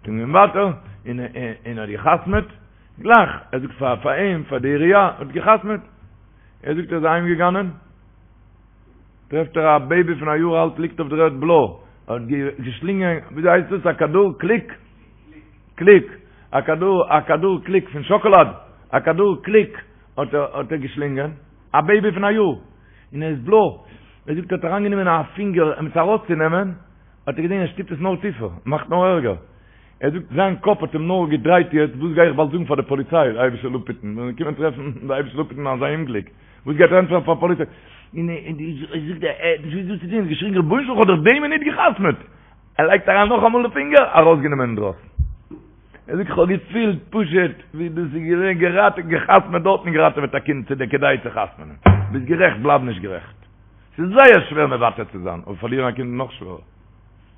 Speaker 3: איז מען מוותר, און און האט געחתמעט, גלייך, ער זאגט פאר פאר אים, פאר די עירייה, האט געחתמעט. ער זאגט ער איז אהיים געגאנען, טרעפט ער א בעיבי פון א יאר אלט ליגט אויף דער ערד בלוי, האט געשלינגען, וויאזוי הייסט דאס, א כדור קליק? קליק, א כדור, א כדור קליק פון שאקאלאד, א כדור קליק האט ער האט ער געשלינגען, א בעיבי פון א יאר, און ער איז בלוי, ער זאגט ער האט אריינגענומען א פינגער אים עס ארויסצונעמען, האט ער געזען ער שטופט עס נאר טיפער, מאכט נאר ערגער, ער זאגט זיין קאפ האט אים נאר געדרייט יעצט, וואס גיי איך באלד זאגן פאר די פאליציי, די אייבישטער זאל אפהיטן, ווען זיי קומען טרעפן, די אייבישטער זאל אפהיטן אזא אומגליק. וואס גייט ער ענטפערן פאר פאליציי? און ער זאגט ער האט נישט געוואוסט וואס צו טון, ער האט געשריגן רבונו של עולם כ'האב דאך די מינוט גע'חתמ'עט! ער לייגט אריין נאכאמאל די פינגער, ארויסגענומען אינדרויסן. ער זאגט כ'האב געפילט פשוט ווי דאס איז געווען געראטעוועט, גע'חתמ'עט דארט און געראטעוועט א קינד, ס'איז דיר כדאי צו חתמ'נען. ביסט גערעכט בלייב נישט גערעכט. ס'איז זייער שווער מוותר צו זיין, אבער פארלירן א קינד איז נאך שווערער.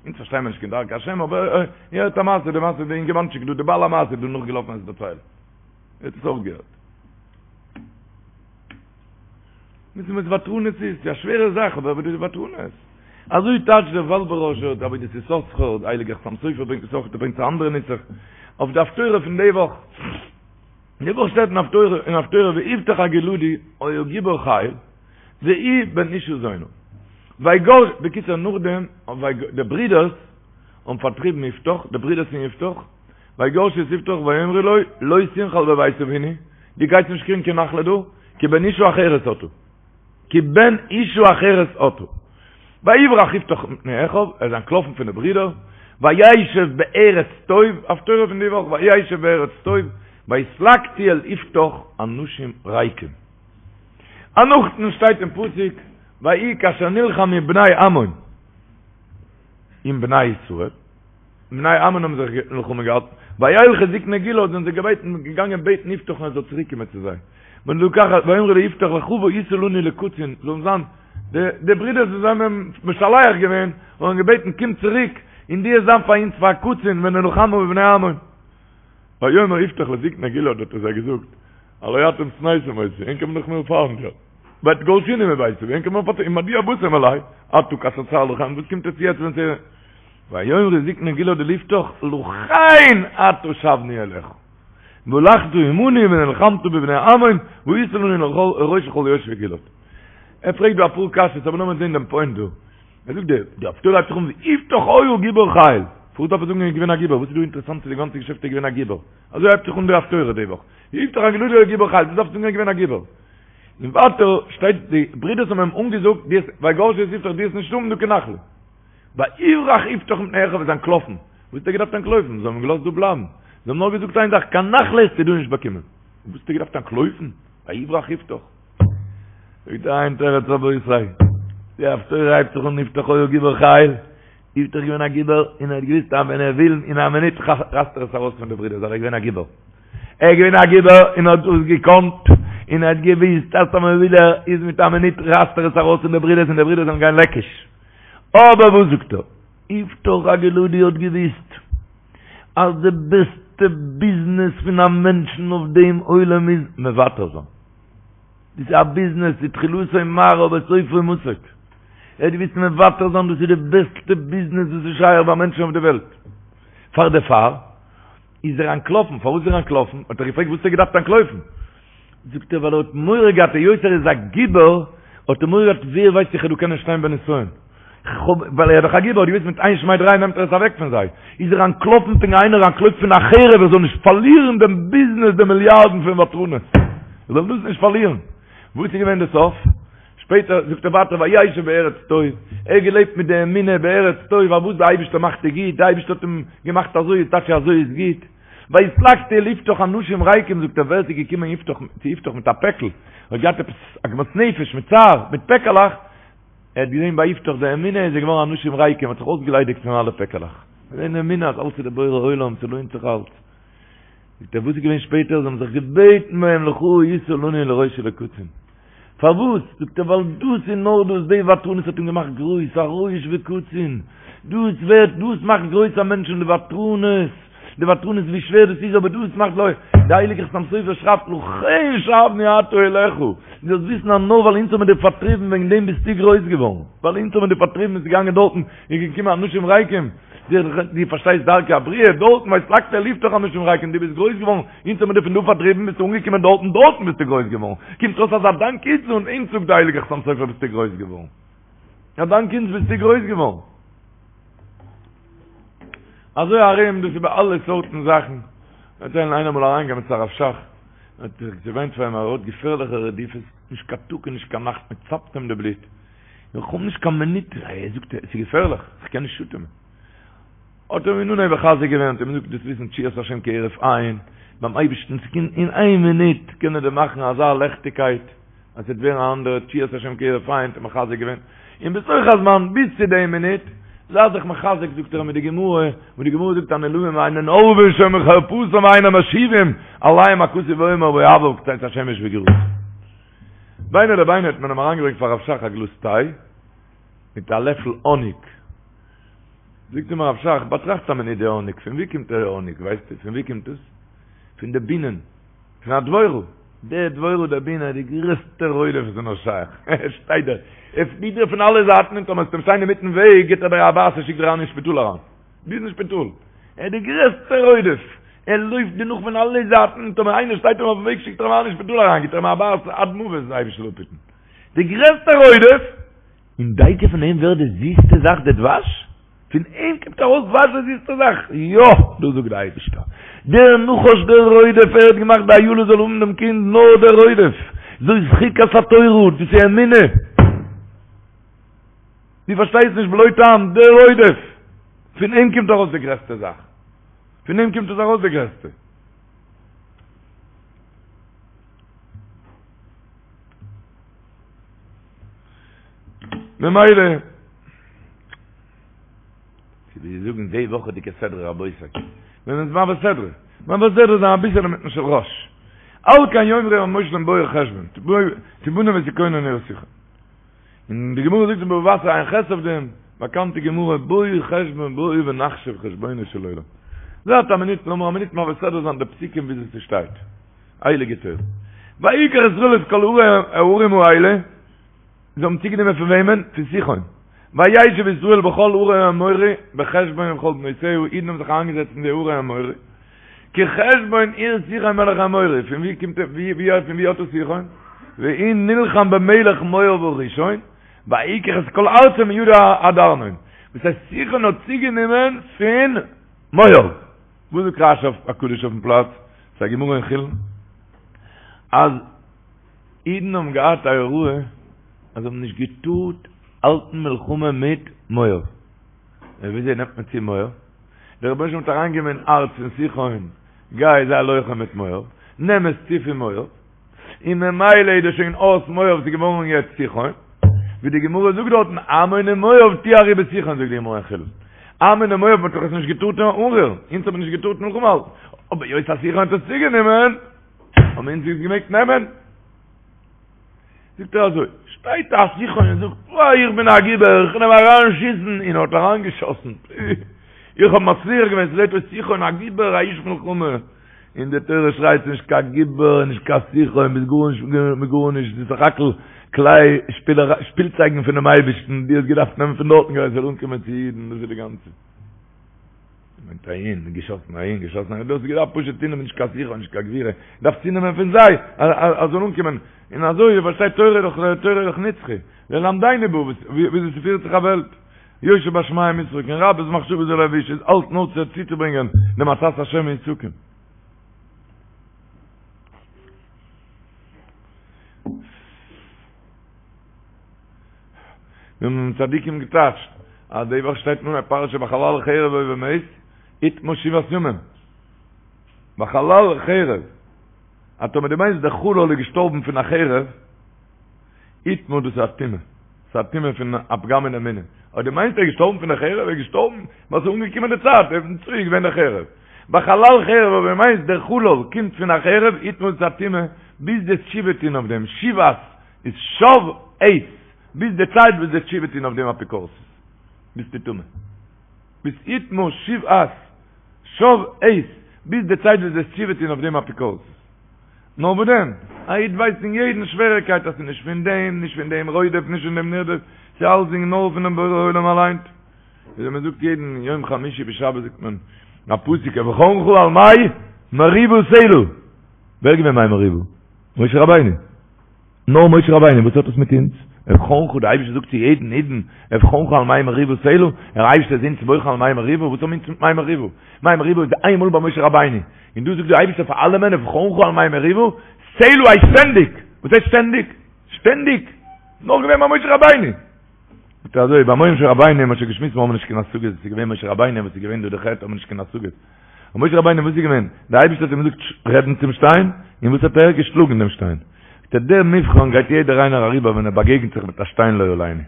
Speaker 3: אונז פארשטייען מיר נישט קיין דרכי השם, אבער איר הערט א מעשה, די מעשה די אינגערמאנטשיק דא, די בעל המעשה איז דא נאכגעלאפן עס דערציילן. איר האט עס אויך געהערט. וויסן וואס ותרנות איז? ס'איז א שווערע זאך, אבער וואס איז ותרנות? אזוי טייטשט דער וואלבעראשער, דער עבודת יששכר, דער הייליגער חתם סופר ברענגט עס אויך, ער ברענגט א אנדערע נוסח, אויף די הפטורה פון די וואך. די וואך שטייט אין הפטורה, אין הפטורה ויפתח הגלעדי היה גיבור חיל, והוא בן אשה זונה. ויגר, בקיצור נאכדעם, די ברידערס האבן פארטריבן יפתח, די ברידערס פון יפתח, ויגרשו את יפתח ויאמרו לו, לא תנחל בבית אבינו, דו גייסט נישט קריגן קיין נחלה דא, כי בן אשה אחרת אתה. כי בן אשה אחרת אתה. ויברח יפתח מפני אחיו, ער איז אנטלאפן פון די ברידער, וישב בארץ טוב, הפטורה פון די וואך, וישב בארץ טוב, ויתלקטו אל יפתח אנשים ריקים. און נאכדעם שטייט אין פסוק, ויהי כאשר נלחמו בני עמון עם בני ישראל, בני עמון האבן זיך מלחמה געהאלטן, וילכו זקני גלעד זענען זיי געבעטן געגאנגען בעטן יפתח'ן ער זאל צוריק קומען צו זיי, ולקחת ויאמרו ליפתח לכה והיית לנו לקצין, זאלן זיין די די ברידערס וואס זיי האבן אים משלח געווען און געבעטן קום צוריק און דו וועסט זיין פאר אונז פאר א קצין ונלחמה בבני עמון. ויאמר יפתח לזקני גלעד האט ער זיי געזאגט, הלא אתם שנאתם אותי, ענק האבן דאך מיר פיינט געהאט, ותגרשוני מבית אבי, ענק האבן מיר פארטריבן, ומדוע באתם אלי, עתה כאשר צר לכם, וואס קומט עטס יעצט ווען ס'איז. ויאמרו זקני גלעד אל יפתח לכן עתה שבנו אליך והלכת עמנו ונלחמת בבני עמון והיית לנו לראש לכל יושבי גלעד. ער פרעגט דא אפאר קשיות אבער לאמיר זען דעם פוינט דא. ער זאגט די די הפטורה הייבט זיך אן ויפתח היה גיבור חיל. פארוואס דארף ער זאגן ער איז געווען א גיבור? וואס איז דא אינטערעסאנט צו די גאנצע געשעפט ער איז געווען א גיבור? אזוי הייבט זיך אן די הפטורה די וואך. ויפתח הגלעדי היה גיבור חיל. וואס דארף ער זאגן ער איז געווען א גיבור? און ווייטער שטייט די ברידערס האבן אים אנגעזאגט דו וועסט ויגרשו את יפתח דו וועסט נישט האבן דא קיין נחלה. ויברח יפתח מפני אחיו איז אנטלאפן. וואס האט ער געדארפט אנטלויפן? זיי האבן אים געלאזט דא בלייבן. זיי האבן נאר געזאגט איין זאך, קיין נחלה וועסטו דא נישט באקומען. וואס האט ער געדארפט אנטלויפן? ויברח יפתח. זאגט ער איין תירוץ רבותי, די הפטורה הייבט זיך אן יפתח היה גיבור חיל, יפתח איז געווען א גיבור און ער האט געוויסט אז ווען ער וויל אין א מינוט רייסט ער עס ארויס פון די ברידער, ווייל ער איז געווען א גיבור. ער איז געווען א גיבור און האט דאס געקאנט, און ער האט געוויסט אז טאמער וויל ער איז מיט א מינוט רייסט ער עס ארויס פון די ברידערס און די ברידערס זאלן גיין לעקיש. אבער וואס זאגט ער? יפתח הגלעדי האט געוויסט אז די בעסטע ביזנעס פון א מענטשן אויף דעם עולם איז מוותר זיין. דאס איז א ביזנעס, ס'איז תחילתו מר אבער סופו מתוק. ער האט געוויסט מוותר זיין דאס איז די בעסטע ביזנעס וואס איז שייך ביי מענטשן אויף די וועלט. פאר דערפאר איז ער אנטלאפן. פארוואס איז ער אנטלאפן? האט ער געפרעגט וואס האט ער געדארפט אנטלויפן? זאגט ער ווייל ער האט מורא געהאט היות ער איז א גיבור האט ער מורא געהאט ווער ווייסט איך וועל דא קענען שטיין בנסיון. ווייל ער איז דאך א גיבור, האט געוויסט מיט איין שמיי דריי נעמט ער עס אוועק פון זיי. איז ער אנטלאפן פונקט ווי איינער אנטלויפט פון א חרב ער זאל נישט פארלירן דעם ביזנעס די מיליארדן פון ותרנות. ער זאל דאס נישט פארלירן. וואס איז געווען די סוף? שפעטער זאגט ער ווייטער וישב בארץ טוב, ער האט געלעבט מיט די אמונה בארץ טוב אז וואס די אייבערשטער מאכט איז גוט, די אייבערשטער האט אים געמאכט אזוי איז טאקע אזוי איז גוט. ויתלקטו אל יפתח אנשים ריקים זאגט ער ווער ס'איז געקומען יפתח צו יפתח מיט א פעקל, האט געהאט עפעס עגמת נפש מיט צער, מיט פעקעלעך, ער האט געזען ביי יפתח די אמונה איז ער געווארן אנשים ריקים, האט זיך אויסגעליידיגט פון אלע פעקעלעך. געזען די אמונה אז אלץ איז די בורא עולם, ס'לוינט זיך אלץ. זאגט ער וואס איז געווען שפעטער, זיי האבן זיך געבעטן ביי אים לכה היתה לנו לראש ולקצין. פארוואס? זאגט ער ווייל דאס און נאר דאס, די ותרנות האט אים געמאכט גרויס, א ראש וקצין. דאס ווערט, דאס מאכט גרויס א מענטש און די ותרנות, די ותרנות ווי שווער דאס איז אבער דאס מאכט לוי, די הייליגע חתם סופר שרייבט לכן שבנו עתה אליך, דו זאלסט וויסן אז נאר ווייל אונז האבן מיר דיר פארטריבן וועגן דעם ביסטו גרויס געווארן, ווייל אונז האבן מיר דיר פארטריבן ביסטו געגאנגען דארטן איז געקומען אנשים ריקים, דו פארשטייסט דרכי הבריאה, דארטן ויתלקטו אל יפתח אנשים ריקים, דו ביסט גרויס געווארן, אונז האבן מיר דיר פון דא פארטריבן ביסטו אנגעקומען דארטן, דארטן ביסטו גרויס געווארן, קומט אויס אז א דאנק אונז און אונז זאגט די הייליגע חתם סופר ביסטו גרויס געווארן, א דאנק אונז ביסטו גרויס געווארן. אזוי ארום דאס איז ביי אלע סארטן זאכן, דערציילן איינער אמאל אריינגעקומען צו הרב שך, האט זיך געוויינט פאר אים ער האט געפערליכע רדיפות, נישט קיין טאג און נישט קיין נאכט, מען צאפט אים די בלוט, איך האב נישט קיין מינוט, ער זאגט עס איז געפערליך, איך קען נישט אטעמען. האט ער אים אין אנהייב מחזק געווען, האט אים געזאגט דארפסט וויסן תשועת השם כהרף עין, ביים אייבערשטן ס'קען אין איין מינוט קען ער דיר מאכן אזא לעכטיגקייט, אז ס'וועט ווערן א אנדערע תשועת השם כהרף עין, האט ער מחזק געווען, און בתוך הזמן ביז צו די מינוט, זיי זיך מחזק זאגט ער מיט די גמרא, וואס די גמרא זאגט הנעלבים אינן עורבין שומעים חרפתם ואינן משיבים, עליהם הכתוב אומר ואוהביו כצאת השמש בגבורתו. ביני לביני האט מען אים אריינגעברענגט פאר הרב שך א גלאז טיי, מיט א לעפל האניג. זאגט אים הרב שך, באטראכט א מינוט די האניג, פון וואו קומט די האניג, ווייסטו פון וואו קומט עס? פון די בינען. פון א דבורה, די דבורה די בינע איז די גרעסטע רודף וואס איז נאר שייך, ער שטייט דער, ער פליט דיר פון אלע זייטן און טאמער וועסטו אים שטיין אינמיטן וועג גיבט ער דיר א בייס און שיקט דיר אריין אין שפיטאל אריין, ביז אין שפיטאל, ער איז די גרעסטע רודף, ער לויפט דיר נאך פון אלע זייטן און טאמער איינער שטייט אים אויפן וועג שיקט ער אים אריין אין שפיטאל אריין, גיבט ער אים א בייס עד מוות, דער אייבערשטער זאל אפהיטן, די גרעסטע רודף, און דייקא פון אים ווערט די זיסטע זאך די דבש? פון אים קומט ארויס דבש די זיסטע זאך? יא! דאס זאגט די אייבישטער. דער נחש דער רודף ער האט געמאכט די אילה זאל האבן דעם קינד נאר דער רודף. זאת חוקת התורה, דאס איז אמונה. דו פארשטייסט נישט בלא טעם, דער רודף. פון אים קומט ארויס די גרעסטע זאך. פון אים קומט עס ארויס די גרעסטע. ממילא, ווי זיי זאגן די וואכעדיגע סדרה רבותי, ווען מ'איז מעביר סדרה, מעביר סדרה זיין אביסעלע מיטן של ראש. על כן יאמרו המושלים בואו חשבון, תבנה ותכונן עיר סיחון. און די גמרא זאגט אין בבא בתרא ע"ח אויף דעם, באקאנטע גמרא, בואו חשבון בואו ונחשב חשבונו של עולם. זייט א מינוט, לאמיר א מינוט מעביר סדרה זיין די פסוקים וויאזוי ס'שטייט. הייליגע תורה. ויקח ישראל את כל הערים האלה, זיי האבן צוגענומען פון וועמען? פון סיחון. וישב ישראל בכל ערי האמורי, בחשבון ובכל בנותיה, אידן האבן זיך איינגעזעצט אין די ערי האמורי. כי חשבון עיר סיחון מלך האמורי, פון ווי קומט ער, ווי, ווי, פון ווי האט עס סיחון? והוא נלחם במלך מואב הראשון, ויקח את כל ארצו מידו עד ארנון. וואס הייסט סיחון האט צוגענומען פון מואב. וואס זאגט רש"י הקדוש אויפן פלאץ? ס'איז א גמרא אין חולין אז אידן האבן געהאט א הוראה אז זיי האבן נישט געטארט האלטן מלחמה מיט מואב. און וויאזוי נעמט מען צו מואב? דער רבונו של עולם האט אריינגעגעבן אין הארץ פון סיחון, גיי זיי לוחם מיט מואב, נעם עס צו פון מואב, און ממילא איז דאס שוין אויס מואב, ס'איז געווארן יעצט סיחון, ווי די גמרא זאגט דארטן, עמון ומואב טהרו בסיחון זאגט די גמרא אין חולין, עמון ומואב מ'האט דאך עס נישט געטארט אנרירן, אונז האט מען נישט געטארט מלחמה האלטן, אבער היות אז סיחון האט עס צוגענומען, האבן אונז עס געמעגט נעמען. זאגט ער אזוי, שטייט א סיחון און זאגט, וואי איך בין א גיבור, איך קען אים אריין שיסן, און ער האט אריין געשאסן, איך האב מצליח געווען, ס'זעט אויס סיחון א גיבור, א איש מלחמה, און די תורה שרייט נישט קיין גיבור, נישט קיין סיחון, ביסט גארנישט מיט גארנישט, ס'איז סך הכל כלי שפילצייגן פונעם אייבערשטן, דו האסט געדארפט נעמען פון דארטן כדי ס'זאל אנקומען צו אידן, דאס איז די גאנצע. מיינט אהין, געשאסן אהין, געשאסן אהין, דו האסט געדארפט פשוט צונעמען נישט קיין סיחון, נישט קיין גבורה, דארפסט צונעמען פון זיי, אז זאל אנקומען, און אזוי, איר פארשטייט, תורה איז דאך, תורה איז דאך נצחי, ללמדנו בה, וויאזוי ס'פירט זיך א וועלט, יושב בשמים ישחוק, און רבות מחשבות בלב איש, איז אלץ נאר צו צוצוברענגען דעם עצת השם היא תקום. ווי האבן צדיקים געטייטשט אז די וואך שטייט אין פרשה בחלל חרב או במת יטמא שבעת ימים בחלל חרב אז טאמער דו מיינסט דער חלל איז געשטארבן פון א חרב יטמא דאס איז א טומאה ס'איז א טומאה פון א פגם אין אמונה אויב דו מיינסט ער איז געשטארבן פון די חרב ער איז געשטארבן ווייל ס'איז אנגעקומען די צייט און צו איז געווען די חרב בחלל חרב אויב דו מיינסט דער חלל קומט פון א חרב יטמא דאס איז א טומאה ביז דו'סט תשובה טון אויף דעם שבעת איז שב עת, ביז די צייט וואס דו'סט תשובה טון אויף דעם אפיקורסות, ביסטו טמא. ביז יטמא שבעת, שב עת, ביז די צייט וואס דו'סט תשובה טון אויף דעם אפיקורסות. נאר וואס דען, א איד ווייסט אין יעדן שוועריקייט אז ס'איז נישט פון דעם, נישט פון דעם רודף, נישט פון דעם נרדף, ס'איז אלסדינג נאר פונעם בורא עולם אליין. וויאזוי מען זאגט יעדן יום חמישי בשבת זאגט מען א פסוק אבחנך על מי מריבה סלה. ווער איז געווען מי מריבה? משה רבינו. נאר משה רבינו, וואס האט עס מיט אונז? אבחנך, דער אייבערשטער זאגט צו יעדן אידן, אבחנך על מי מריבה סלה, דער אייבערשטער איז אונז בוחן על מי מריבה, וואס האבן אונז מיט מי מריבה? מי מריבה איז איינמאל ביי משה רבינו, און דא זאגט דער אייבערשטער פאר אלעמען, אבחנך על מי מריבה סלה הייסט שטענדיג! וואס הייסט שטענדיג? שטענדיג! נאר געווען ביי משה רבינו! זאגט ער אזוי, ביי משה רבינו, מ'האט שוין געשמועסט, מיר האבן נישט קיין השגות, וואס איז געווען משה רבינו, וואס איז געווען דא די חטא, האבן מיר נישט קיין השגות. און משה רבינו וואס איז געווען? דער אייבערשטער האט אים געזאגט רעדן צום שטיין, און וואס האט ער? געשלאגן דעם שטיין. זאגט ער, דער מבחן גייט יעדער איינער אריבער ווען ער באגעגנט זיך מיט א שטיין לא עלינו. ווען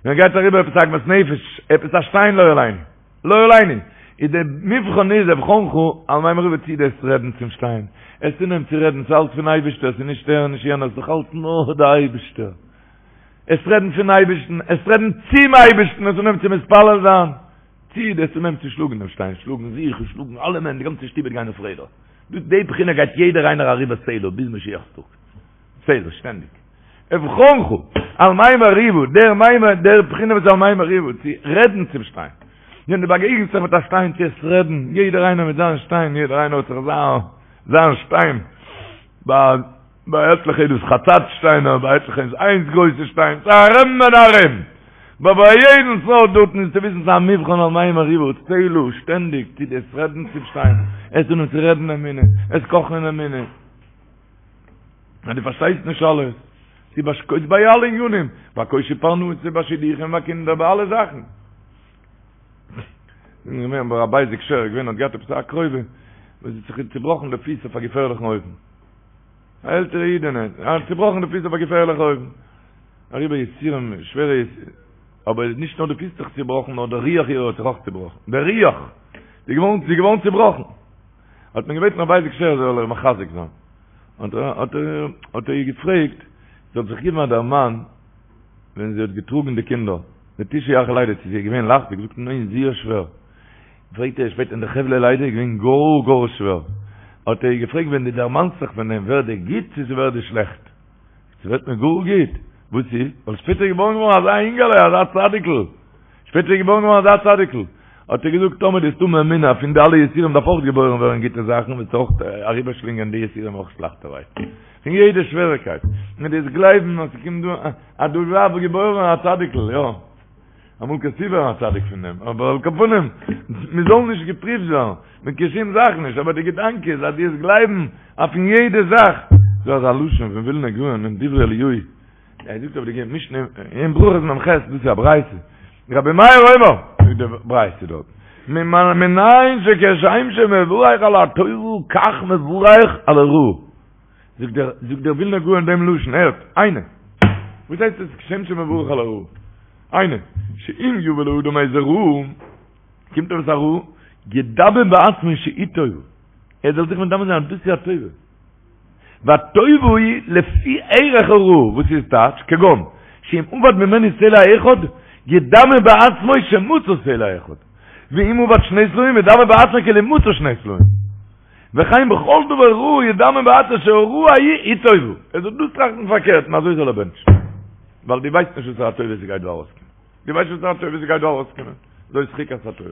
Speaker 3: ער גייט אריבער עפעס א עגמת נפש, עפעס א שטיין לא עלינו, לא עלינו, איז דער מבחן איז אבחנך על מי מריבה צי דו'סט רעדן צום שטיין, וועסט אנהייבן צו רעדן, ס'איז אלץ פון אייבערשטער, ס'איז נישט ער און נישט יענער, ס'איז דאך אלץ נאר דער אייבערשטער. וועסט רעדן פון אייבערשטן, וועסט רעדן צום אייבערשטן, וועסט אנהייבן צו מתפלל זיין. צי דו'סט אנהייבן צו שלאגן דעם שטיין, שלאגן זיך און שלאגן אלעמען, די גאנצע שטוב וועט גיין אויף רעדער. דאס די בחינה גייט יעדער איינער אריבער סלה ביז משיח'ס טאג. סלה, שטענדיג. אבחנך, על מי מריבה, דער מי דער בחינה וואס על מי מריבה, צו רעדן צום שטיין. ווען דו באגעגנסט זיך מיט א שטיין צו עס רעדן, יעדער איינער מיט זיין שטיין, יעדער איינער האט זיך זיין זיין שטיין. ביי ביי עטליכע איז דאס חצץ שטיינער, ביי עטליכע איז איינס גרויסע שטיין, ס'איז ארום און ארום. אבער ביי יעדן סארט דארטן איז צו וויסן ס'איז א מבחן על מי מריבה, סלה, שטענדיג צו דו'סט רעדן צום שטיין, וועסט אנהייבן צו רעדן אמונה, וועסט קאכן אין אמונה. אז דו פארשטייסט נישט אלעס, ס'איז ביי ביי אלע ענינים, ביי קושי פרנסה, ביי שידוכים, ביי קינדער, ביי אלע זאכן. געווען ביי רבי אייזיק שער, געווען האט געהאט עפעס א קרובה וואס האט זיך צובראכן די פיס אויף א געפערליכן אופן. א עלטערע אידענע, האט צובראכן די פיס אויף א געפערליכע אופן. אריבער יסורים, שווערע יסורים. אבער נישט נאר די פיס האט זיך צובראכן, נאר דער רוח אירע האט זיך אויך צובראכן. דער רוח! זי איז געווארן, זי איז געווארן צובראכן. האט מען געבעטן רבי אייזיק שער זאל איר מחזק זיין. האט ער, האט ער, האט ער איר געפרעגט, זי זאל זיך געבן א דערמאן, ווען זי האט געטראגן די קינדער, די תשעה ירחי לידה, צו זי איז געווען לייכט? זי האט געזאגט ניין, זייער שווער. פרעגט ער שפעטער אין די חבלי לידה איז געווען גאר גאר שווער, האט ער איר געפרעגט ווען דו דערמאנסט זיך פון דעם ווערט דיר גוט צו ס'ווערט דיר שלעכט? ס'ווערט מיר גאר גוט, וואס איז? ווייל שפעטער איז געבוירן געווארן אזא אינגעלע אזא צדיק'ל, שפעטער איז געבוירן געווארן אזא צדיק'ל, האט ער געזאגט טאמער דו וועסט האבן אמונה פון די אלע יסורים דארף אויך געבוירן ווערן גוטע זאכן וועסטו אויך אריבערשלינגען די יסורים אויך לייכטערהייט, פון יעדע שוועריקייט, און דו וועסט גלייבן אז ס'קומט דא אז דא דארף געבוירן א צדיק'ל, יא. אמאל קענסטו ווערן א צדיק פון דעם, אבער על כל פנים, מען זאל נישט געפריווט ווערן, מיט קיין שום זאך נישט, אבער די געדאנק איז אז דו וועסט גלייבן אויף אין יעדע זאך, דא אזא לשון פון ווילנא גאון אין דברי אליהו, ער זאגט אויף די משנה אין ברכות מ"ח, דאס איז א ברייתא, רבי מאיר אומר, זאגט די ברייתא דארט, מנין שכשם שמברך על הטובה כך מברך על הרעה. זאגט דער זאגט דער ווילנער גאון דעם לשון, הערט, היינו. וואס הייסט עס כשם שמברך על הרעה? היינו, שאם יבא לאדם איזה רעה, קומט עפעס א רעה, ידמה בעצמו שהיא טובה. ער זאל זיך מדמה זיין אז דאס איז א טובה. והטובה היא לפי ערך הרעה, וואס איז טייטש, כגון, שאם אבד ממנו סלע אחד, ידמה בעצמו שמצא סלע אחד. ואם אבד שני סלעים, ידמה בעצמו כאילו מצא שני סלעים. וכן בכל דבר רע ידמה בעצמו שהרעה ההיא היא טובה. ער זאל דאס טראכטן פארקערט און אזוי זאל ער בענטשן. ווייל דו ווייסט נישט וואסערע טובה ס'גייט דא ארויסקומען. דו ווייסט נישט וואסערע טובה ס'גייט דא ארויסקומען. זאת חוקת התורה.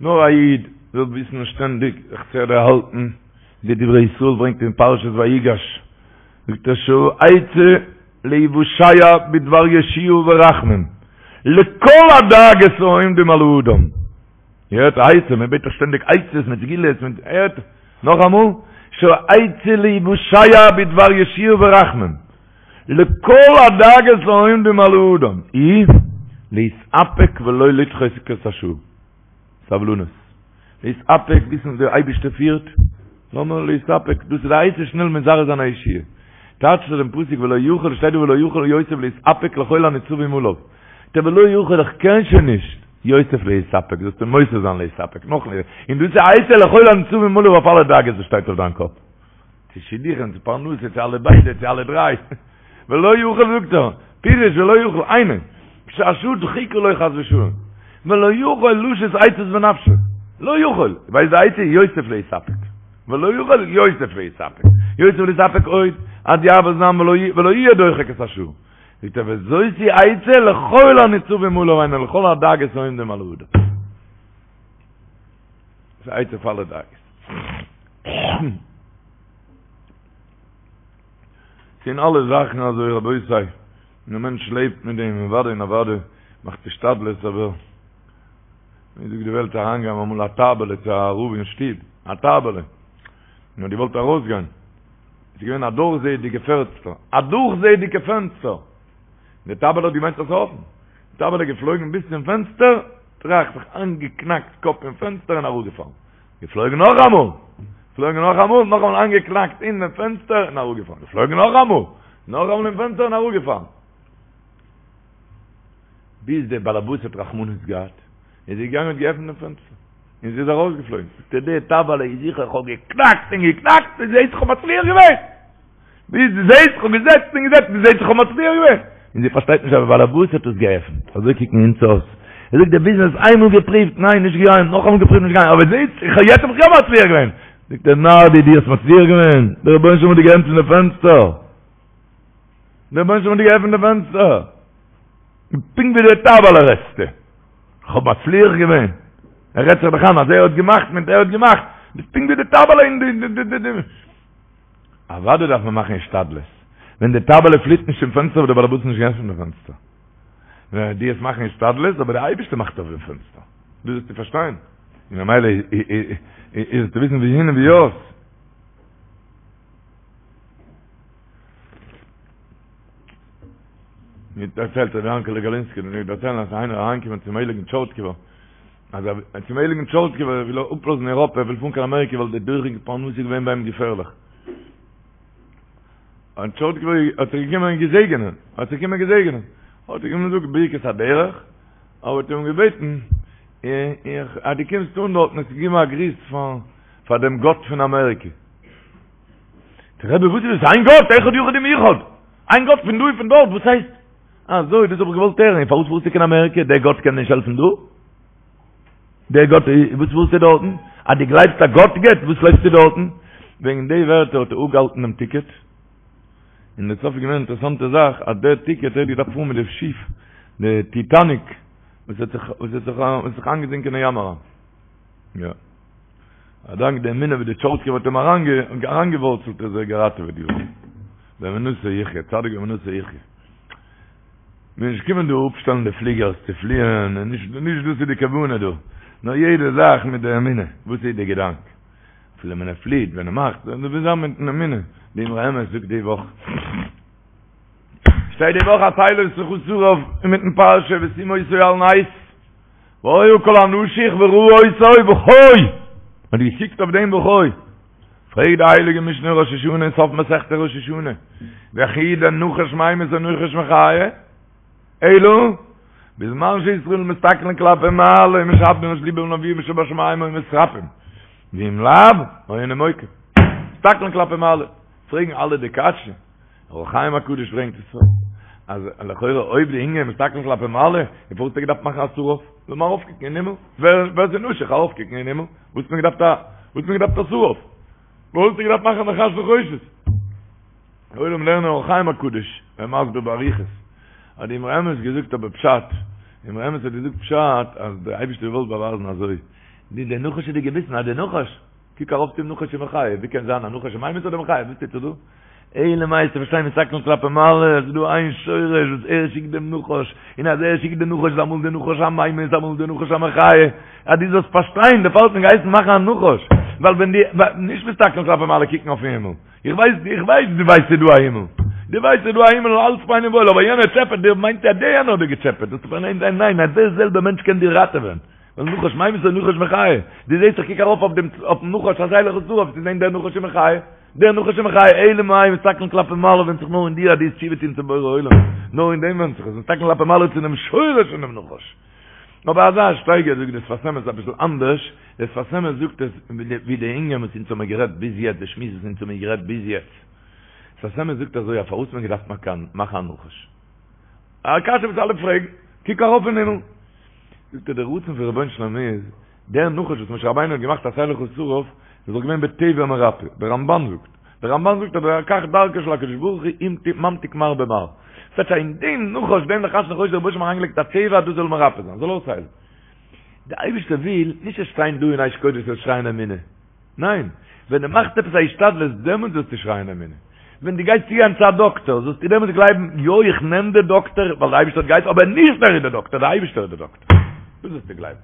Speaker 3: נאר א איד זאל וויסן שטענדיג זיך צו דערהאלטן, די דברי ישראל ברענגט אין פרשת ויגש, זאגט ער שהעצה להיוושע בדבר ישועה ורחמים לכל הדאגות העומדים על האדם, איר הערט א עצה, מען בעט דאך שטענדיג עצות מיט סגולות מיט, הערט נאכאמאל, שהעצה להיוושע בדבר ישועה ורחמים לכל הדאגות העומדים על האדם היא להתאפק ולא לדחוק את השעה. סבלנות. להתאפק, וויסן אז דער אייבערשטער פירט, לאמיר להתאפק, דאס איז די עצה שנעל מזרז זיין א ישועה. טייטשט ער דעם פסוק ולא יכול, שטייט דא ולא יכול יוסף להתאפק לכל הניצבים עליו. טא ולא יכול איך קען שוין נישט, יוסיף להתאפק, זאלסטו מוסיף זיין להתאפק, נאך מער, און דאס איז א עצה לכל הניצבים עליו אויף אלע דאגות וואס שטייט אויף דיין קאפ. צו שידוכים, צו פרנסה, צו אלע ביידע, צו אלע דריי. ולא יכול זאגט ער, פירוש ולא יכול, היינו, כשהשעה דחוקה לו חס ושלום, ולא יכול לשית עצות בנפשו, לא יכול, ווייסט די עצה? יוסיף להתאפק, ולא יכול יוסיף להתאפק, יוסיף להתאפק עוד, עד יעבור זעם ולא יהיה דוחק את השעה. זאגט ער וזאת היא עצה לכל הניצבים עליו היינו לכל הדאגות העומדים על האדם. ס'איז א עצה פאר אלע דאגות. ס'אין אלע זאכן אזוי רבותי, און א מענטש לעבט מיט דעם, אוודאי און אוודאי מאכט השתדלות אבער ווי זאגט די וועלט אריינגעגאנגען אמאל א טייבעלע צו א רב אין שטוב, א טייבעלע, און האט געוואלט ארויסגיין, עס איז געווען א דורכזעעדיגע פענסטער, א דורכזעעדיגע פענסטער, די טייבעלע האט געמיינט אז ס'איז אפן, די טייבעלע איז געפלויגן ביז צום פענסטער, טראך, זיך איינגעקנאקט קאפ אין פענסטער און אראפגעפאלן. געפלויגן נאכאמאל! געפלויגן נאכאמאל, נאכאמאל איינגעקנאקט אין דעם פענסטער און אראפגעפאלן. געפלויגן נאכאמאל! נאכאמאל אין פענסטער און אראפגעפאלן. ביז דער באלעבאס האט רחמנות געהאט, איז ער געגאנגען און האט געעפנט דעם פענסטער, און זי איז ארויסגעפלויגן. זאגט ער, די טייבעלע איז זיכער, איך האב געקנאקט און געקנאקט, ביז זעהט איך האב מצליח געווען! ביז דו זעהסט איך האב געזעצט און געזעצט דו זעהסט איך האב מצליח געווען. און זי פארשטייט נישט אז דער באלעבאס האט עס געעפנט. אזוי קוקן אונז אויס. ער זאגט די ביזנעס איינמאל געפריווט, ניין נישט געגאנגען, נאכאמאל געפריווט נישט געגאנגען, אבער זעהסט איך האב יעצט האב איך יא מצליח געווען. זאגט ער נאר דו דו האסט מצליח געווען, דער רבונו של עולם האט דיר געעפנט די פענסטער. דער רבונו של עולם האט דיר געעפנט די פענסטער. פונקט ווי די טייבעלע רעדסטו. איך האב מצליח געווען. ער רעדט זיך דאך איין אז ער האט געמאכט מיט ער האט געמאכט. ביסט פונקט ווי די טייבעלע אין די די די די. אוודאי דארף מען מאכן השתדלות. ווען די טייבעלע פליט נישט צום פענסטער וואלט דער באלעבאס נישט געעפנט די פענסטער. ווען דו וועסט מאכן השתדלות, אבער דער אייבערשטער מאכט אויף דעם פענסטער. דאס זאלסטו פארשטיין. און ממילא איז צו וויסן ווי הין און ווי אויס. מיר דערציילט רבי יענקעלע גאלינסקי, מיר דערציילן אז איינער אריינגעקומען צום הייליגן טשורטקובער, אז ער צום הייליגן טשורטקובער וויל ער אפלאזן אייראפע, ער וויל פארן קיין אמעריקע ווייל די דוחק פרנסה איז געווען ביי אים געפערליך. און טשורטקובער האט זיך געקומען געזעגענען, האט זיך געקומען געזעגענען, האט ער אים געזאגט ברכת הדרך, אבער האט אים געבעטן, איך, אז דו קומסט אן דארטן, זאלסט געבן א גריס פאר, פאר דעם גאט פון אמעריקע. דער רבי, וואס איז דאס? איין גאט, אחד יחיד ומיוחד! איין גאט פון דא און פון דארט, וואס הייסט? אזוי, דאס האב איך געוואלט הערן, און פארוואס פארסטו קיין אמעריקע? דער גאט קען נישט העלפן דא? דער גאט, וואס פארסטו דארטן? אז דו גלייבסט אז גאט געבט, וואס לויפסטו דארטן? וועגן די ווערטער האט ער אפגעהאלטן דעם טיקעט, און דער סוף איז געווען אן אינטערעסאנטע זאך, אז דער טיקעט, ער האט געדארפט פארן מיט די שיף, די טיטאניק, וואס האט זיך, וואס האט זיך, וואס האט זיך איינגעזינקען אין ים אריין. יא. א דאנק די אמונה ווי די טשורטקובער האט אים אריינגעווארצלט איז ער געראטעוועט געווארן. באמונתו יחיה, צדיק באמונתו יחיה. מיר נישט קומען דא אפשטעלן די פליגערס צו פליען, און נישט נישט דאס איז די כוונה דא. נאר יעדע זאך מיט די אמונה, וואס איז די געדאנק? אפילו ווען ער פליעט, ווען ער מאכט, דאס מוז זיין מיטן אמונה. די אמרי אמת זאגט די וואך, שטייט די וואך עשה לך שרף אינמיטן פרשה ושים אותו על נס, והיה כל הנשוך וראה אותו וחי, מען האט געקוקט אויף דעם וחי, פרעגט די הייליגע משנה ראש השנה סוף מסכת ראש השנה, וכי דנחש ממית או נחש מחיה? אלא בזמן שישראל מסתכלין כלפי מעלה ומשעבדין את לבם לאביהם שבשמים היו מתרפאים, ואם לאו, היו נימוקים. מסתכלין כלפי מעלה. פרעגן אלע די קשיא, אור החיים הקדוש ברענגט עס אז לכאורה אויב די ענין מסתכלין כלפי מעלה, איז פארוואס האט ער געדארפט מאכן א שרף? זאל מען ארויפקוקן אין הימל, ווער ווער ס'איז נשוך ארויפקוקן אין הימל, וואס האט מען געדארפט א וואס האט מען געדארפט א שרף? וואס האט ער געדארפט מאכן א נחש נחושת? עולם לערנען אור החיים הקדוש, ער מסביר באריכות, האט די אמרי אמת געזאגט אבער פשט, די אמרי אמת האט געזאגט פשט אז דער אייבערשטער האט געוואלט באווייזן אזוי, די די נחש איז די געביסן אז די נחש, קוק ארויף צום נחש ומחיה, ווי קען זיין א נחש ממית אדער מחיה, וואס טוט זיך דא? אלא מאי צו פארשטיין מסתכלין כלפי מעלה, עס איז דא איין שורש וואס ער שיקט דעם נחש, און אז ער שיקט די נחש איז אמאל די נחש א ממית אמאל די נחש א מחיה, אז דו זאלסט פארשטיין דערפאר האט מען געהייסן מאכן א נחש, ווייל ווען די, נישט מסתכלין כלפי מעלה קוקן אויפן הימל, איך ווייס, איך ווייס דו ווייסט ס'איז דא א הימל, דו ווייסט ס'איז דא א הימל און אלץ פיין און וואויל, אבער יענער טשעפעט דיר, מיינט אז דער יענער האט דיר געטשעפעט, דאס איז ניין ניין ניין, אז דער זעלבער מענטש קען דיר ראטעווען, ווייל נחש ממית או נחש מחיה, דו זעסט איך קוק ארויף אויף דעם אויפן נחש עשה לך שרף, צו זען דער נחש איז מחיה, דער נחש איז מחיה, אלא מאי מסתכלין כלפי מעלה ווענדט זיך נאר אין דיר אז דו וועסט תשובה טון צום בורא עולם, נאר אין דעם ווענדט זיך עס, מסתכלין כלפי מעלה צו דעם שורש פון דעם נחש. אבער אזא שטייגער זאגט דער שפת אמת אביסל אנדערש, דער שפת אמת זאגט עס ווי די ענין וואס אונז האמיר גערעדט ביז יעצט, די שמועס וואס אונז האמיר גערעדט ביז יעצט. שפת אמת זאגט אזוי אז פארוואס האט מען געדארפט מאכן א נחש? א קשיא וואס אלע פרעגן, קוק ארויף אין הימל. זאגט ער דער רצון פון רבונו של עולם איז, דער נחש וואס משה רבינו האט געמאכט עשה לך שרף, איז דאך געווען בטבע מרפא, דער רמבן זאגט, דער רמבן זאגט אז כך דרכו של הקדוש ברוך הוא אם ממתיק מר במר. ס'טייטש אז אין דעם נחש, דעם נחש נחושת האט דער רבונו של עולם אריינגעלייגט א טבע אז דאס זאל מרפא זיין, זאל אויסהיילן. דער אייבערשטער וויל נישט זאלסט שטיין דא אין אש קודש זאלסט שרייען אמונה. ניין, ווען דו מאכסט עפעס א השתדלות דעמאלטס זאלסטו שרייען אמונה. ווען דו גייסט צוגיין צו א דאקטער זאלסטו דעמאלטס גלייבן, יא איך נעם די דאקטער ווייל דער אייבערשטער האט געהייסן, אבער נישט ער איז דער דאקטער, דער אייבערשטער איז דער דאקטער. דאס זאלסטו גלייבן.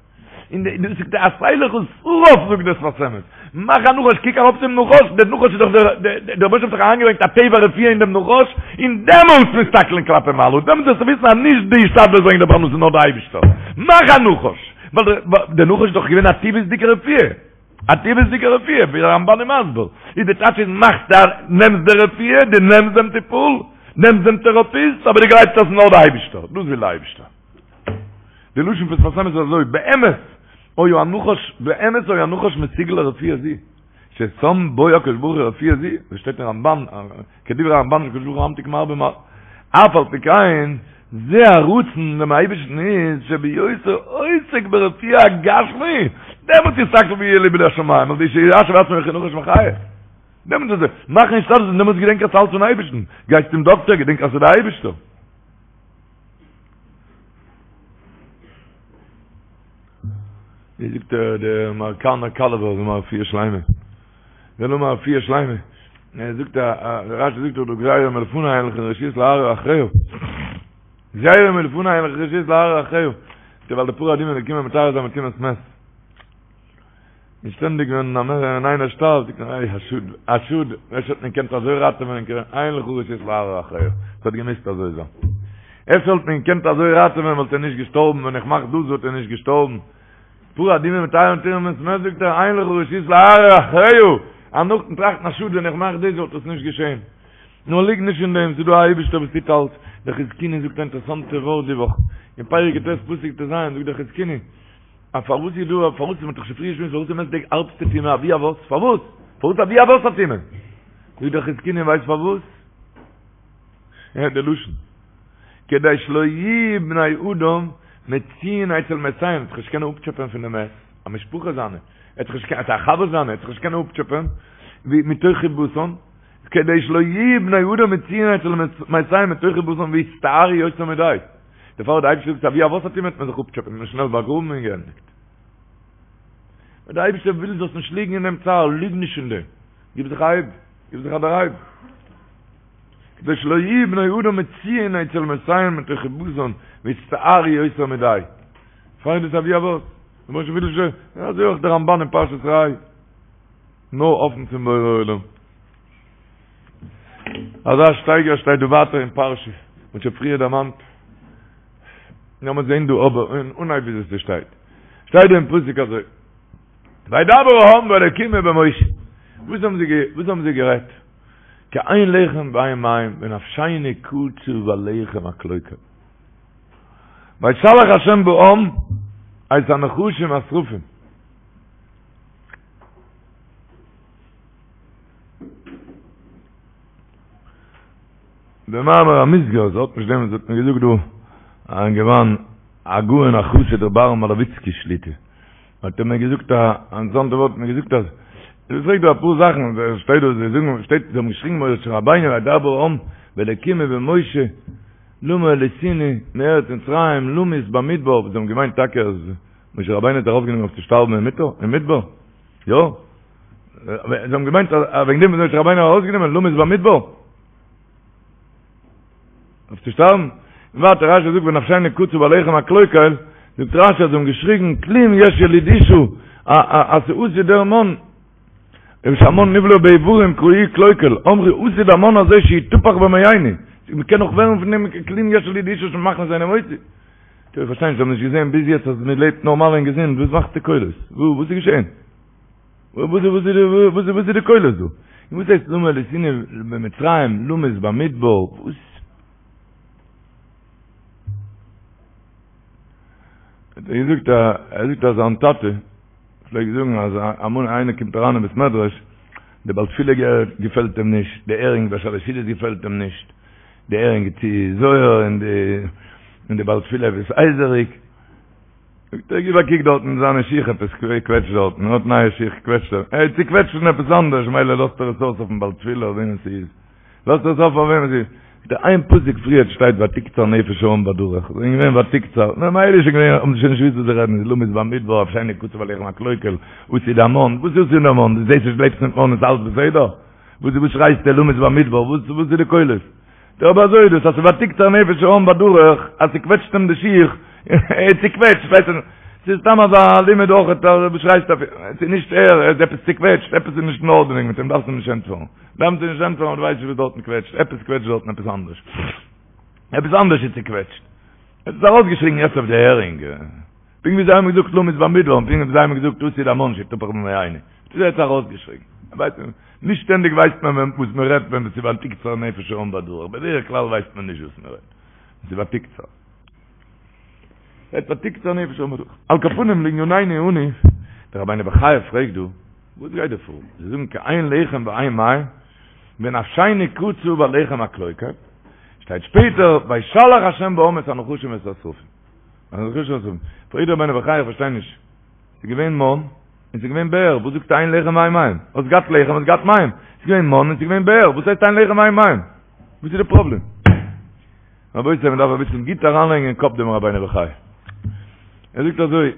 Speaker 3: און דאס זאגט ער עשה לך שרף זאגט דער שפת אמת. מאך א נחש, קוק ארויף צום נחש, דער נחש איז דאך דער, דער רבונו של עולם האט דאך אריינגעברענגט א טבע רפואה אין דעם נחש, און דעמאלטס מסתכלין כלפי מעלה, דעמאלטס זאלסטו וויסן אז נישט די השתדלות ברענגט די פרנסה נאר דער אייבערשטער. מאך א נחש, ווייל דער נחש איז דאך געווען א טבעית'דיגע רפואה. א טבעית'דיגע רפואה, ווי דער רמבן איז מסביר, איז די טייטש איז מאכסט א, נעמסט די רפואה, דו נעמסט דעם טיפול, נעמסט דעם טעראפיסט, אבער דו גלייבסט אז ס'איז נאר די אייבישטער, דאס וויל די אייבישטער. די לשון פון שפת אמת איז אזוי, באמת היה הנחש, באמת היה הנחש מסוגל לרפואה זו, ששם בו הקדוש ברוך הוא רפואה זו, ווי שטייט אין רמבן, כדברי הרמבן שהקדוש ברוך הוא ממתיק מר במר. אף על פי כן, זה הרצון דעם אייבערשטן איז שבהיותו עוסק ברפואה הגשמי, דעמאלט יסתכל ויהיה לבו לשמים, על ידי שישלה עצמו כנחש מחיה. דעמאלט איז ער, מאכן השתדלות און דעמאלט געדענק אז ס'אלץ פון אייבערשטן, גייסט צום דאקטער געדענק אז ס'איז דער אייבערשטער. ווי זאגט דער אמעריקאנער קאלעווער זאל האבן א רפואה שלימה. זאל האבן א רפואה שלימה. ער זאגט א רשי זאגט דאך דא גזירה מלפני אין לך רשות להרהר אחריה. גזירה מלפני אין לך רשות להרהר אחריה. ווייל די פרה אדומה איז געקומען מטהר זיין מטומאת מת. און שטענדיג ווען א מער ווען איינער שטארבט זאגט מען איי א שאד א שאד אפשר וואלט מען געקענט אזוי ראטעווען אין לך רשות להרהר אחריה. ס'האט געמוזט אזוי זיין. אפשר וואלט מען געקענט אזוי ראטעווען וואלט ער נישט געשטארבן ווען איך מאך דאס וואלט ער נישט געשטארבן. פרה אדומה מטהר מטומאת מת זאגט ער אין לך רשות להרהר אחריה, אז נאכדעם טראכטן א שאד ווען איך מאך דאס וואלט עס נישט געשען. נאר ליג נישט אין דעם, ס'איז דא א אייבישטער וואס טוט אלץ. דער חזקוני זאגט א אינטערעסאנטע ווארט די וואך, אין פרק יט פסוק טז זאגט דער חזקוני, אז פארוואס איז דא, פארוואס, מ'האט דאך שוין פריער געשמועסט פארוואס איז מת די הארבסטע טומאה אבי אבות, פארוואס? פארוואס אבי אבות הטומאה? זאגט דער חזקוני ווייסט פארוואס? הערט די לשון. כדי שלא יהיו בני אדם מצויין אצל מתיהם, זיך נישט קענען אפטשעפען פון די מת, א משפחה זיינע, ער האט זיך נישט געקענט, א חבר זיינע, ער האט זיך נישט קענען אפטשעפען, מתוך חיבתן, כדי שלא יהיו בני אדם מצויין אצל מתיהם מתוך חיבתן ויצטערו יותר מדי. דערפאר האט די אייבערשטער געזאגט אבי אבות הטומאה וועט מען זיך אפטשעפען און שנעל באגראבן און געענדיגט. ווען די אייבערשטער וויל זאלסט נישט ליגן אין דעם צער, ליג נישט אין דעם, גיב זיך א הייב, גיב זיך א דערהייב. כדי שלא יהיו בני אדם מצויין אצל מתיהם מתוך חיבתן ויצטערו יותר מדי. פאר דאס אבי אבות, למשל וויל ש, אזוי אויך דער רמבן אין פרשת ראה, נאר האפן צום בורא עולם. אזא שטייגער שטייט דא ווייטער אין פרשה, מ'האט שוין פריער דערמאנט. לאמיר זען דא אבער אין אנהייב ווי עס שטייט. שטייט דא אין פסוק אזוי. וידבר העם באלקים ובמשה. וואס האבן זיי וואס האבן זיי גערעדט? כי אין לחם ואין מים ונפשנו קצה בלחם הקלוקל. וישלח השם בעם את הנחשים והשרפים. במאמר המוסגר, עס האט נישט דעם וואס האט מיר געזאגט דא, א אינגערמאן, הגאון החסיד רבי אהרן מאלאוויצקי שליט"א, האט ער מיר געזאגט א אינטערעסאנטע ווארט, מיר געזאגט אז, ער פרעגט דא אפאר זאכן, עס שטייט דא, זיי זאגן, שטייט, זיי האבן געשריגן משה רבינו וידבר העם באלקים ובמשה, למה העליתנו מארץ מצרים למות במדבר, זיי האבן געמיינט טאקע אז משה רבינו האט ארויפגענומען אויף צו שטארבן אין מדבר, יא? זיי האבן געמיינט אז וועגן דעם וואס משה רבינו האט ארויסגענומען למות במדבר אויף צו שטארבן. און ווייטער רשי זאגט ונפשנו קצה בלחם הקלוקל, זאגט רשי אז זיי האבן געשריגן כלום יש ילוד אשה אז ס'עתיד דער מן, שהמן נבלע באיברים קראוהו קלוקל, אמרו עתיד המן הזה שיתפח במעינו, מ'קען נאך ווערן פון דעם כלום יש ילוד אשה שמכניס אינו מוציא. איך פארשטיי נישט, זיי האבן נישט געזען ביז יעצט אז מ'לעבט נארמאל און געזונט, וואס מאכסטו קולות? וואס איז געשען? וואס איז וואס איז די קולות דא? און וואס הייסט למה העליתנו ממצרים למות במדבר? וואס? האט ער געזאגט א ער זאגט אז זיין טאטע פלעגט זאגן אז אמאל איינער קומט אריין אין בית מדרש די בעל תפילה געפעלט אים נישט, די הערינג ביי שלש סעודות געפעלט אים נישט, די הערינג איז צו זויער און די און די בעל תפילה עפעס הייזעריג, זאגט ער גיב א קוק דארטן אין זיינע שיך עפעס קוועטשט דארטן, ער האט נייע שיך קוועטשט ער, ער איז צוקוועטשט פון עפעס אנדערש מילא לאזט ער עס אויס אויפן בעל תפילה אויף וועמען ס'איז, לאזט ער עס אויף אויף וועמען ס'איז, זאגט ער איין פסוק פריערט שטייט ותקצר נפש העם בדרך, זיי זענען געווען ותקצר, נו מילא איז שוין געווען האבן זיי שוין נישט געוואוסט וואס זיי רעדן, למות במדבר נפשנו קצה בלחם הקלוקל, עתיד המן, וואס איז עתיד המן, דו זעסט נישט לעבסט מיט מן איז אלץ בסדר? וואס וואס שרייסטו למות במדבר, וואס וואס איז די קולות? דער אבער אזוי איז דאס אז ס'ותקצר נפש העם בדרך אז ס'קוועטשט אים די שיך, ער איז צוקוועטשט, ווייסט איך, ס'איז סתם אזא לימוד אויך אז וואס שרייסטו אויף אים, ס'איז נישט ער, ער איז עפעס צוקוועטשט, עפעס איז נישט אין ארדענונג מיט אים, דארפסט אים נישט ענטפערן, דארפסט אים נישט ענטפערן, דו ווייסט נישט וואס דארטן קוועטשט, עפעס קוועטשט דארטן עפעס אנדערש, עפעס אנדערש איז צוקוועטשט, ער האט עס ארויסגעשריגן יעצט אויף די הערינג. פונקט ווי זיי האבן געזאגט למות במדבר און פונקט ווי זיי האבן געזאגט עתיד המן שיתפח במעינו. דאס האט ער ארויסגעשריגן. נישט שטענדיג ווייסט מען וואס מען רעדט ווען עס איז ותקצר נפש העם בדרך. בדרך כלל ווייסט מען נישט וואס מען רעדט. עס איז ותקצר. ותקצר נפש העם בדרך. על כל פנים לענינינו אנו, דער רבינו בחיי פרעגט דא, וואס גייט דא פאר? זיי זאגן כי אין לחם ואין מים, ונפשנו קצה בלחם הקלוקל. שטייט שפעטער, וישלח השם בעם את הנחשים ואת השרפים. פרעגט דער רבינו בחיי איך פארשטיי נישט. ס'איז געווען מן, און ס'איז געווען באר, וואס זאגסטו אין לחם ואין מים? האסט געהאט לחם, האסט געהאט מים. ס'איז געווען מן און ס'איז געווען באר, וואס הייסט אין לחם ואין מים? וואס איז די פראבלעם? רבותי, מען דארף אביסל גוט אריינלייגן אין קאפ דעם רבינו בחיי. ער זאגט אזוי,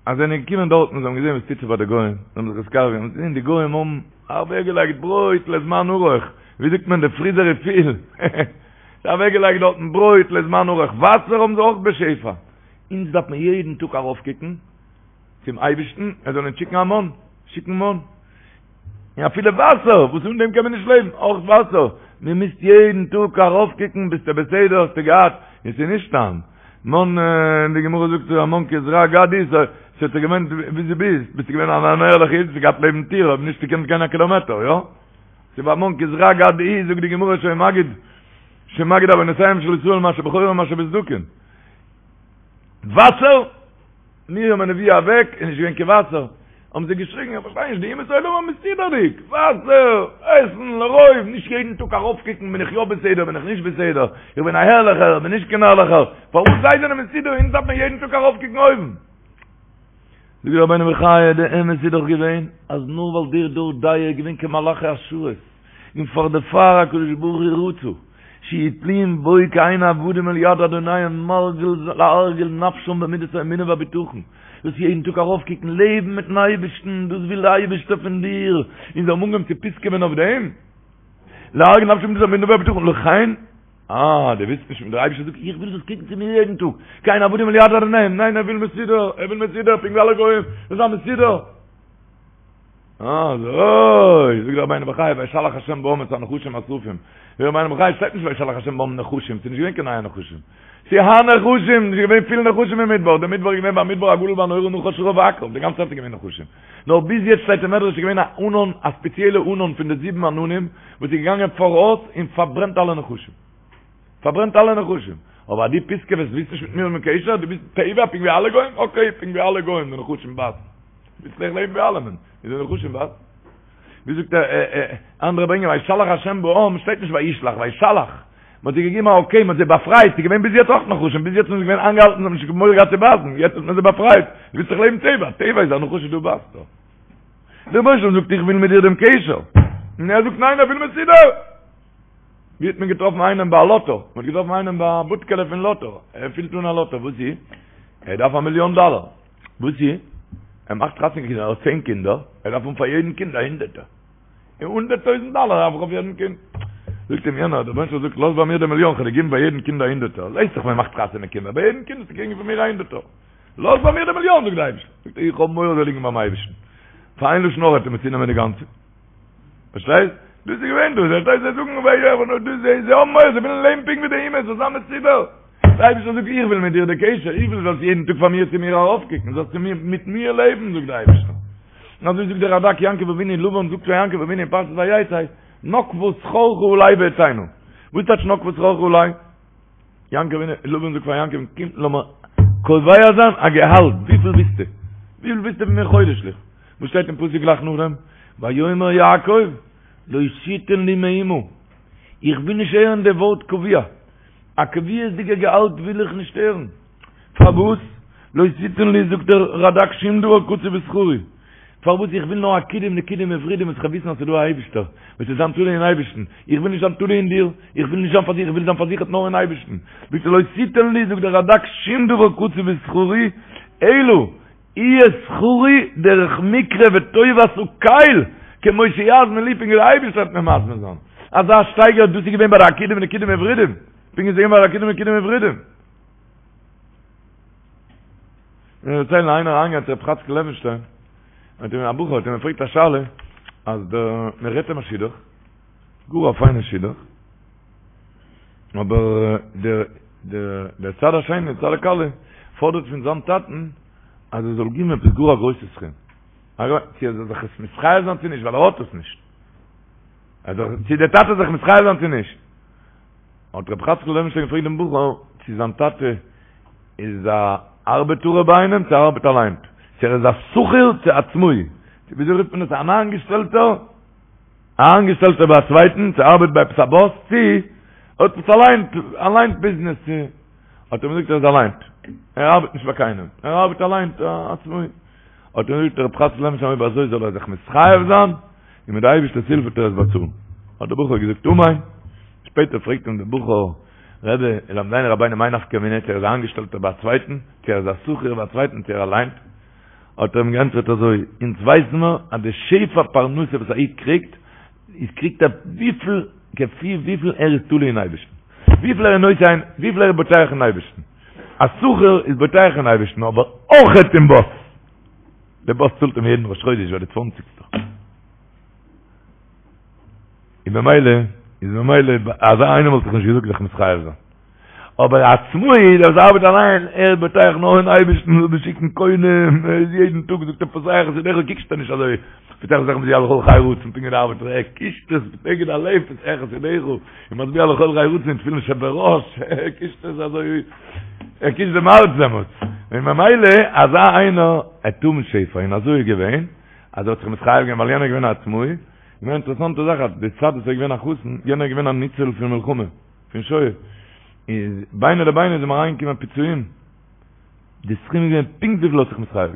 Speaker 3: אז זיי זענען געקומען דארטן, זיי האבן געזען וואס טוט זיך ביי די גוים, זיי האבן זיך נתקרב געווען, זיי זעען די גוים האבן אוועקגעלייגט ברויט לזמן ארוך, ווי זאגט מען, די פריזער איז פיל. זיי אוועקגעלייגט דארטן ברויט לזמן ארוך, וואסער האבן זיי אויך בשפע. אונז דארף מען יעדן טאג ארויפקוקן צום אייבערשטן ער זאל אונז שיקן א מן, שיקן מן. און אפילו וואסער, וואס אן דעם קען מען נישט לעבן, אויך וואסער. מען מוז יעדן טאג ארויפקוקן, ביסטו בסדר, האסטו געהאט, און ס'איז נישט סתם. מן, די גמרא זאגט המן כזרע גד הוא, ס'האט זיך געווענדט ווי דו ביסט, ביסטו געווען אן ערליכע איד, האסטו געהאט לעבן טיר, אויב נישט געקענט גיין א קילאמעטער, יא? ס'איז המן כזרע גד הוא, זאגט די גמרא שהיה מגיד, שמגיד עוונותיהם של ישראל מה שבחורין ומה שבסדקין. וואסער? מרים הנביאה אוועק, איז נישט געווען קיין וואסער. האבן זיי געשריגן, איך פארשטיי נישט, די אומות העולם האבן מסודר'דיג, וואסער, עסן, לרוב, נישט יעדן טאג ארויפקוקן בין איך יא בסדר, בין איך נישט בסדר, איך בין א הערליכער, בין נישט קיין הערליכער, פארוואס זיי זענען מסודר, אונז דארף מען יעדן טאג ארויפקוקן אויבן. זאגט רבינו בחיי, די אמת איז דאך געווען אז נאר ווייל דער דור דעה איז געווען כמלאכי השרת, און פאר דערפאר הקדוש ברוך הוא רצה שיהיו תלויים בו כעין עבדים אל יד אדוניהם מרגיל להרגיל נפשם במידת האמונה והבטחון, דאס יעדן טאג ארויפקוקן, לעבן מיטן אייבערשטן, דאס וויל דער אייבערשטער פון דיר, און זיי האבן אנגעהויבן צו פיסקעווען אויף דעם, להרגיל נפשם במידת האמונה והבטחון, לכן אה, דו ווילסט נישט, דער אייבערשטער זאגט, איך וויל זאלסט קוקן צו מיר יעדן טאג, כעין עבדים אל יד אדוניהם, ניין, ער וויל מסודר, ער וויל מסודר, פונקט ווי אלע גוים, זאל זיין מסודר. אזוי, זאגט דער רבינו בחיי, וישלח השם בעם את הנחשים השרפים. זאגט דער רבינו בחיי, שטייט נישט וישלח השם בעם נחשים, ס'איז נישט געווען קיין נייע נחשים. ס'איז הנחשים, ס'איז געווען פיל נחשים אין מדבר, דער מדבר איז געווען במדבר הגדול והנורא נחש שרף ועקרב, די גאנצע צייט איז געווען נחשים. נאר ביז יעצט שטייט אין מדרש איז געווען א ענן, א ספעציעלע ענן פון די זיבן עננים, וואס איז געגאנגען פאראויס און פארברענט אלע נחשים. פארברענט אלע נחשים. אבער אז דו פיסקעוועסט ווילסט נישט מיט מיר האבן קשר, דו ביסט טבע פונקט ווי אלע גוים, אקעי, פונקט ווי אלע גוים, די נחשים בייסן. ווילסט אויך לעבן ווי אלעמען, איז די נחשים בייסן. ווי זאגט ער, אנדערע ברענגען וישלח השם בעם, שטייט נישט וישלח, וישלח. מען האט זיי געגעבן א אקעי, מען האט זיי באפרייט, ס'איז געווען ביז יעצט אויך נחשים, ביז יעצט זענען זיי געווען איינגעהאלטן, זיי האבן נישט מורא געהאט צו בייסן, יעצט האט מען זיי באפרייט, דו ווילסט דאך לעבן טבע, טבע איז א נחש איז דא בייסט דא. דער רבונו של עולם זאגט איך וויל מיט דיר דעם קשר, און ער זאגט ניין ער וויל מסודר. ווי האט מען געטראפן איינעם ביי א לאטא? מען האט געטראפן איינעם ביי א בודקעלע פון לאטא, ער פילט אן א לאטא, וואס איז? ער דארף א מיליאן דאלער, וואס איז? ער מאכט חתונה קינדער, ער האט צען קינדער, ער דארף האבן פאר יעדן קינד א הונדערטער, און הונדערט טויזנט דאלער דארף איך אויף יעדן קינד. זאגט אים יענער, דער רבונו של עולם זאגט, לאז ביי מיר די מיליאן, כ'וועל דיר געבן ביי יעדן קינד א הונדערטער, ווייסט דאך מען מאכט חתונה קינדער, ביי יעדן קינד וועסטו קריגן פון מיר א הונדערטער. לאז ביי מיר די מיליאן, זאגט דער אייבערשטער. זאגט ער, איך האב מורא זאל ליגן ביים אייבערשטן. פאר איין לשון הרע וועט ער מיר צונעמען די גאנצע. פארשטייסט? דאס איז געווען דאס, פארשטייסט? זיי זאגן וויי וויי אבער דאס זיי זיי האבן מורא, זיי ווילן לעבן פונקט ווי די אומות, זאל זיין מסודר. דער אייבערשטער זאגט, איך וויל מיט דיר די קשר, איך וויל זאלסט יעדן טאג פאר מיר צו מיר ארויפקוקן, זאלסט צו מיר, מיט מיר לעבן, זאגט דער אייבערשטער. און אזוי זאגט דער רדק יעקב אבינו, לבן זאגט פאר יעקב אבינו אין פרשת ויצא, נקבה שכרך עלי ואתנה. וואס טייטש נקבה שכרך עלי? יעקב אבינו, לבן זאגט פאר יעקב, קום לאמיר קובע זיין א געהאלט, וויפיל ווילסטו? וויפיל ווילסטו פון מיר חודש'ליך? וואס שטייט אין פסוק גלייך נאכדעם? ויאמר יעקב, לא תתן לי מאומה, איך וויל נישט הערן די ווארט קבוע, א קביעות'דיגע געהאלט וויל איך נישט הערן, פארוואס? לא תתן לי זאגט דער רדק שום דבר קצוב בשכרי, פארוואס איך וויל נאר עקודים נקודים ווורודים וואס איך וועל וויסן אז ס'איז דא א אייבישטער, וועט עס זיין תלוי אין אייבישטן, איך וויל נישט זיין תלוי אין דיר, איך וויל נישט זיין פארזיכערט, איך וויל זיין פארזיכערט נאר אין אייבישטן, זאגט ער לא תתן לי זאגט דער רדק שום דבר קצוב בשכרי, אלא יהיה שכרי דרך מקרה וטובת הקל, כמו שיזמין לי פונקט ווי דער אייבישטער וועט מיר מזמין זיין, אזא שטייגער דאס איז געווען ביי די עקודים נקודים ווורודים, פונקט ווי ס'איז געווען ביי די עקודים נקודים ווורודים. מיר דערציילן איינער אריינגעגאנגען צו רב חאצקל לעווינשטיין, האט אים א בחור האט אים געפרעגט א שאלה, אז דער מען רעדט אים א שידוך, גאר א פיינע שידוך, אבער דער דער דער צד השני, צד הכלה, פאדערט פון זיין טאטן אז ער זאל געבן עפעס גאר א גרויסע סכום, צו ער זאל זיך עס מתחייב זיין צו נישט, ווייל ער האט עס נישט, צו דער טאטע זאל זיך מתחייב זיין צו נישט. האט רבי חאצקל לעווינשטיין געפרעגט דעם בחור צו זיין טאטע איז א ארבעטארער ביי איינעם צו ער ארבעט אליין, צו ער איז א שכיר צו עצמאי, צו וויאזוי רופט מען עס אן איינגעשטעלטער, א איינגעשטעלטער ביי א צווייטן, צו ער ארבעט ביי עפעס א באס, צו ער האט עפעס אליין, אליין ביזנעס, צו האט ער אים געזאגט ער איז אליין, ער ארבעט נישט ביי קיינעם, ער ארבעט אליין, א עצמאי. האט אים געזאגט רבי חאצקל לעווינשטיין אויב אזוי זאל ער זיך מתחייב זיין, און מיט די אייבערשטער'ס הילף וועט ער עס באצאלן. האט דער בחור געזאגט אמן. שפעטער פרעגט אים דער בחור, רבי, למדנו רבינו מאי נפקא מינה צו ער איז א איינגעשטעלטער ביי א צווייטן, צו ער איז א שכיר ביי א צווייטן, צו ער אליין? האט ער אים געענטפערט אזוי, אונז ווייסן מיר אז די שפע פרנסה וואס א איד קריגט, איז קריגט ער וויפיל, כפי וויפיל ער איז תלוי אין אייבערשטן, וויפיל ער איז נושא עין, וויפיל ער איז בוטח אין אייבערשטן. א שכיר איז בוטח אין אייבערשטן אבער אויכעט אין באס. דער באס צאלט אים יעדן ראש חודש ביי די צוואנציגסטע. און במילא, איז במילא, אזא איינער וואלט איך נישט געזאגט זיך מתחייב זיין. אבער א עצמאי, דער וואס ארבעט אליין, ער איז בוטח נאר אין אייבערשטן, זאל דיר שיקן קונים, ער איז יעדן טאג זאגט ער פותח את ידך, קוקסט ער נישט אזוי, פותח את ידך משביע לכל חי רצון, פונקט ווי דער ארבעטער, ער קישט עס נגד הלב, פותח את ידך, און משביע לכל חי רצון, תפילין שבראש, ער קישט עס אזוי, ער קישט דעם הארץ דעמאלטס, און ממילא אזא איינער וועט האבן שפע, און אזוי איז געווען, אז ער האט זיך מתחייב געווען ווייל יענער איז געווען א עצמאי, געווען אינטערעסאנטע זאך אז די צד וואס ער איז געווען א חתן, יענער איז געווען א ניצול פון מלחמה, פון שואה, איז ביני לביני איז אים אריינגעקומען פיצויים, די סכום איז געווען פונקט וויפיל ער האט זיך מתחייב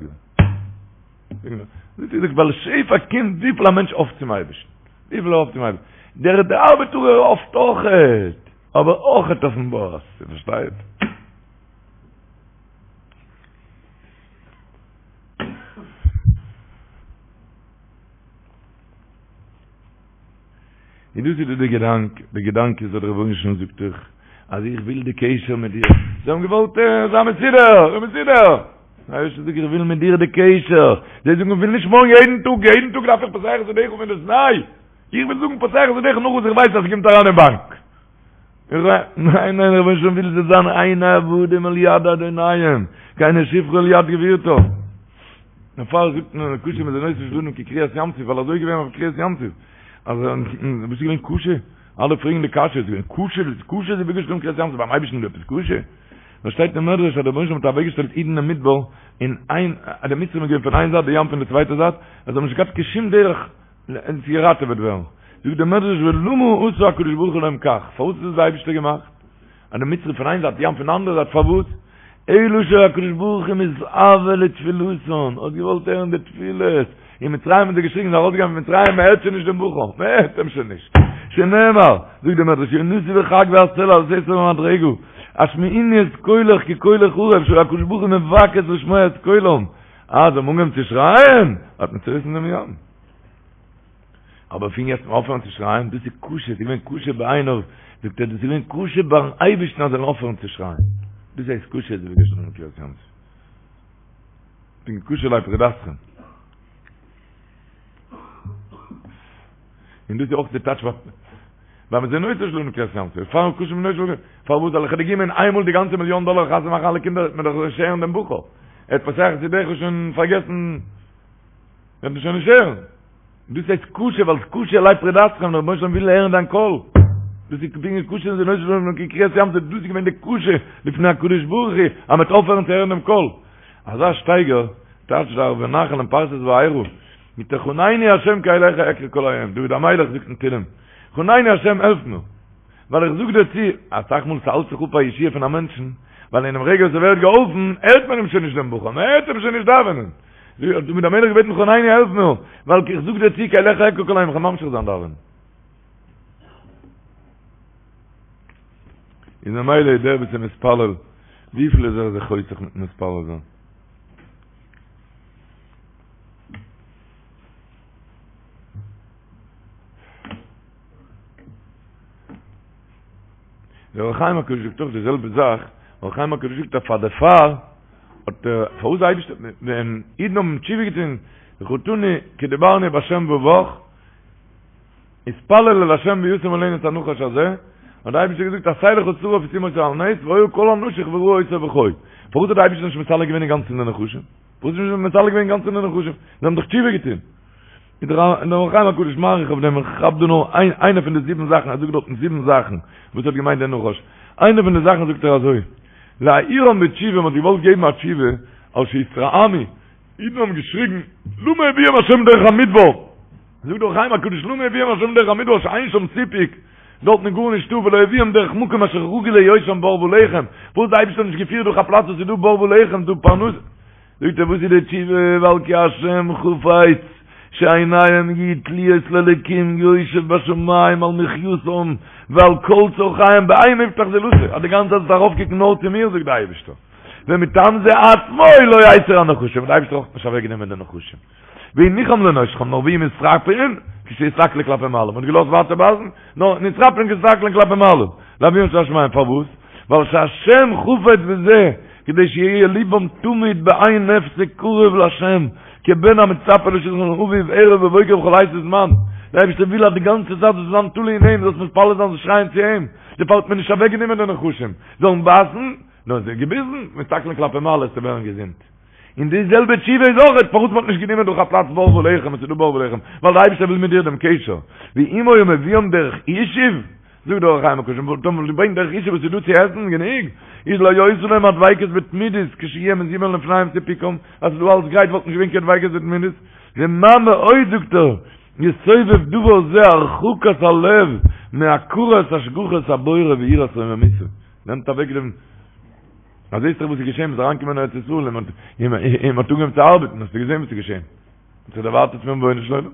Speaker 3: געווען. דאס איז ווייל שפע קומט וויפיל א מענטש האפט צום אייבערשטן, וויפיל ער האפט צום אייבערשטן, דער דער ארבעטארער האפט אויכעט, אבער אויכעט אויפן באס, איר פארשטייט? און דאס איז דא די געדאנק, די געדאנק איז אז דער רבונו של עולם זאגט דיך אז איך וויל די קשר מיט דיר, זיי האבן געוואלט זיין מסודר, מסודר! דער אייבערשטער זאגט איך וויל מיט דיר די קשר, זיי זאגן איך וויל נישט מארגן יעדן טאג, יעדן טאג דארף איך פותח את ידך פון דאס ניי, איך וויל זאגן פותח את ידך נאך וואס איך ווייס אז ס'קומט אריין אין באנק. ניין ניין רבונו של עולם וויל זיי זיין הן עבדים אל יד אדוניהם, כעיני שפחה אל יד גבירתה. דערפאר זאגט מען קשה מזונותיו של אדם כקריעת ים סוף, ווייל אזוי איז געווען אויף קריעת ים סוף. אז וואס איז געווען קשה? אלע פרעגן די קשיא, איז געווען קשה, קשה זיווגו של אדם כקריעת ים סוף, ביים אייבערשטן איז דא עפעס קשה? נאר שטייט אין מדרש אז דער רבונו של עולם האט אוועקגעשטעלט אידן אין מדבר, אין איין, אז די מצרים איז געווען פון איין זייט, די ים פון די צווייטע זייט, אז זיי האבן נישט געהאט קיין שום דרך צו געראטעוועט ווערן. זאגט דער מדרש ולמה עשה הקדוש ברוך הוא להם כך, פארוואס האט עס דער אייבערשטער געמאכט? אז די מצרים פון איין זייט, ים פון די אנדערע זייט, פארוואס? אלא שהקדוש ברוך הוא מתאוה לתפילתן, האט געוואלט הערן די תפילות, אין מצרים האבן זיי געשריגן, זיי ארויסגעגאנגען פון מצרים, מען הערט שוין נישט דעם בחור, מען הערט אים שוין נישט, שנאמר, זאגט דער מדרש, יונתי בחגוי הסלע על סתר במדרגה, השמיעיני את קולך כי קולך ערב, שהקדוש ברוך הוא מבקש לשמוע את קולם, אז זיי האבן אנגעהויבן צו שרייען, האט מען צוריסן דעם ים. אבער פון יעצט אויפהערן צו שרייען, דאס איז קשה, ס'איז געווען קשה בעיניו, זאגט ער, דאס איז געווען קשה ביים אייבערשטן אז זיי זאלן אויפהערן צו שרייען. דאס הייסט קשה זיווגו של אדם כקריעת ים סוף. פונקט קשה עלי פרידתכם. און דאס איז אויך די טייטש ביי מזונותיו של אדם כקריעת ים סוף. פאר קשה מזונותיו של אדם, פארוואס זאל איך דיר געבן איינמאל די גאנצע מיליאן דאלער חתונה מאכן אלע קינדער, וועט מען דאך נישט הערן דעם בחור. ער האט פותח את ידך שוין פארגעסן, וועט מען שוין נישט הערן. דאס הייסט קשה, ווייל קשה עלי פרידתכם, דער רבונו של עולם וויל הערן דיין קול. דאס איז פונקט קשה מזונותיו של אדם כקריעת ים סוף, דאס איז געווען די קשה לפני הקדוש ברוך הוא, אז מ'וועט אויפהערן צו הערן דעם קול. אזא שטייגער, טייטשט דער ערבי נחל אין פרשת וארא, מיט חנני השם כי אליך אקרא כל היום, דוד המלך זאגט אין תהילים, חנני השם העלף מיר, ווייל איך זאג דיר צו, אסאך מאל ס'האלט זיך אפ א ישועה פון א מענטשן, ווייל אינעם רגע וואס ער ווערט געהאלפן, הערט מען אים שוין נישט דעם בחור, מ'הערט אים שוין נישט דאווענען. האט דוד המלך געבעטן חנני העלף מיר, ווייל איך זאג דיר צו כי אליך אקרא כל היום, איך וועל ממשיך זיין דאווענען. איז ממילא דער וואס איז מתפלל, וויפיל איז ער זיך חוסך מיטן מתפלל זיין? דער אור החיים הקדוש זאגט אויך די זעלבע זאך, אור החיים הקדוש זאגט אז פאר דערפאר האט ער, פארוואס די אייבערשטער, ווען אידן האבן תשובה געטון, וחטאנו כי דיברנו בהשם ובך, התפלל אל השם וישם מעלינו את הנחש הזה, האט דער אייבערשטער געזאגט עשה לך שרף ושים אותו על נס, והיה כל הנשוך וראה אותו וחי. פארוואס האט דער אייבערשטער נישט מסלק געווען אינגאנצן די נחשים? פארוואס איז נישט מסלק געווען אינגאנצן די נחשים? זיי האבן דאך תשובה געטון. איז דער אור החיים הקדוש מאריך אויף דעם, איך כאפ דא נאר איין איינע פון די זיבן זאכן, ער זאגט דארטן זיבן זאכן וואס האט געמיינט דער נחש, איינע פון די זאכן זאגט ער אזוי, להעירם בתשובה, מען האט געוואלט געבן א תשובה, על שהתרעמו, אידן האבן געשריגן, למה הביאם השם דרך המדבר, זאגט דער אור החיים הקדוש, למה הביאם השם דרך המדבר שאין שם סיפוק, דארטן איז גארנישטא, ולא הביאם דרך מקום אשר רגיל להיות שם בר ולחם, פארוואס האט דער אייבערשטער נישט געפירט דורך א פלאץ וואס איז דא בר ולחם, דא פרנסה. זאגט ער וואס איז די תשובה ווייל כי השם חפץ שעיניהם יהיו תלויות לאלקים יושב בשמים על מחייתם ועל כל צרכיהם באין מבטח זולתו אז די גאנצע צייט זאלסטו ארויפקוקן נאר צו מיר זאגט די אייבערשטער ומטעם זה עצמו לא הסיר הנחשים די אייבערשטער האט נישט אוועקגענומען די נחשים והניחם לנושכם נאר ויהיו מתרפאין כשיסתכלו כלפי מעלה מ'האט געלאזט ווייטער בייסן נאר נתרפאין כשיסתכלו כלפי מעלה לאביהם שבשמים פארוואס ווייל שהשם חפץ בזה כדי שיהיה ליבם תמיד באין הפסק קרוב להשם כבן המצפה לשלחן אביו ערב ובוקר בכל עת וזמן דער אייבערשטער וויל אז די גאנצע צייט זאלסט זיין תלוי אין אים זאלסט מתפלל זיין זאלסט שרייען צו אים דערפאר האט מען נישט אוועקגענומען די נחשים זאלן בייסן נאר זיי געביסן מסתכלין כלפי מעלה צו ווערן געזונט און די זעלבע תשובה איז אויך פארוואס מ'האט נישט גענומען דורך א פלאץ בר ולחם, עס איז דא בר ולחם, ווייל דער אייבערשטער וויל מיט דיר דעם קשר, ואם היה מביאם דרך ישוב, זאגט דער אור החיים הקדוש, וואלט מען געברענגט דרך ישוב וואס איז דא צו עסן גענוג, איז לא היתה להם הדביקות בתמידות כשיהיה מזומן לפניהם סיפוקם, אז ס'איז דא אלס גרייט וואלט נישט געווען קיין דביקות בתמידות, ומה מאוד זאגט ער, יסובב דבר זה הרחקת הלב מהכרת השגחת הבורא ויראת רוממותו, נעמט אוועק דעם. אז זעסט דאך וואס איז געשען, מ'איז אריינגעקומען אין ארץ ישראל און מ'האט און מ'האט אנגעהויבן צו ארבעטן, האסטו געזען וואס איז געשען? מ'האט זיך דערווייטערט פון רבונו של עולם.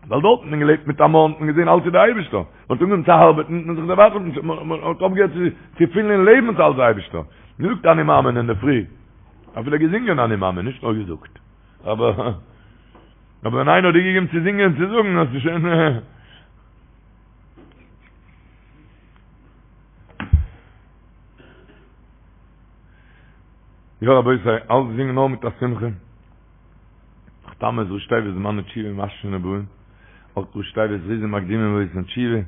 Speaker 3: ווייל דארט האט מען געלעבט מיט א מן, האט מען געזען אלץ איז דער אייבערשטער. מ'האט אנגעהויבן צו ארבעטן, האט מען זיך דערווייטערט, מ'האט אויפגעהערט צו פילן אין לעבן ס'איז אלץ דער אייבערשטער. מ'זאגט אני מאמין אינדערפרי, אפילו געזינגען אני מאמין, נישט נאר געזאגט. אבער אבער ווען איינער האט דיר געגעבן צו זינגען און צו זאגן, האסטו שוין. יא רבותי, אלצדינג נאר מיט א שמחה. תמוז ראשי תיבות זמני תשובה משכין ובאין, אויך ראשי תיבות זריזין מקדימין ועושין תשובה,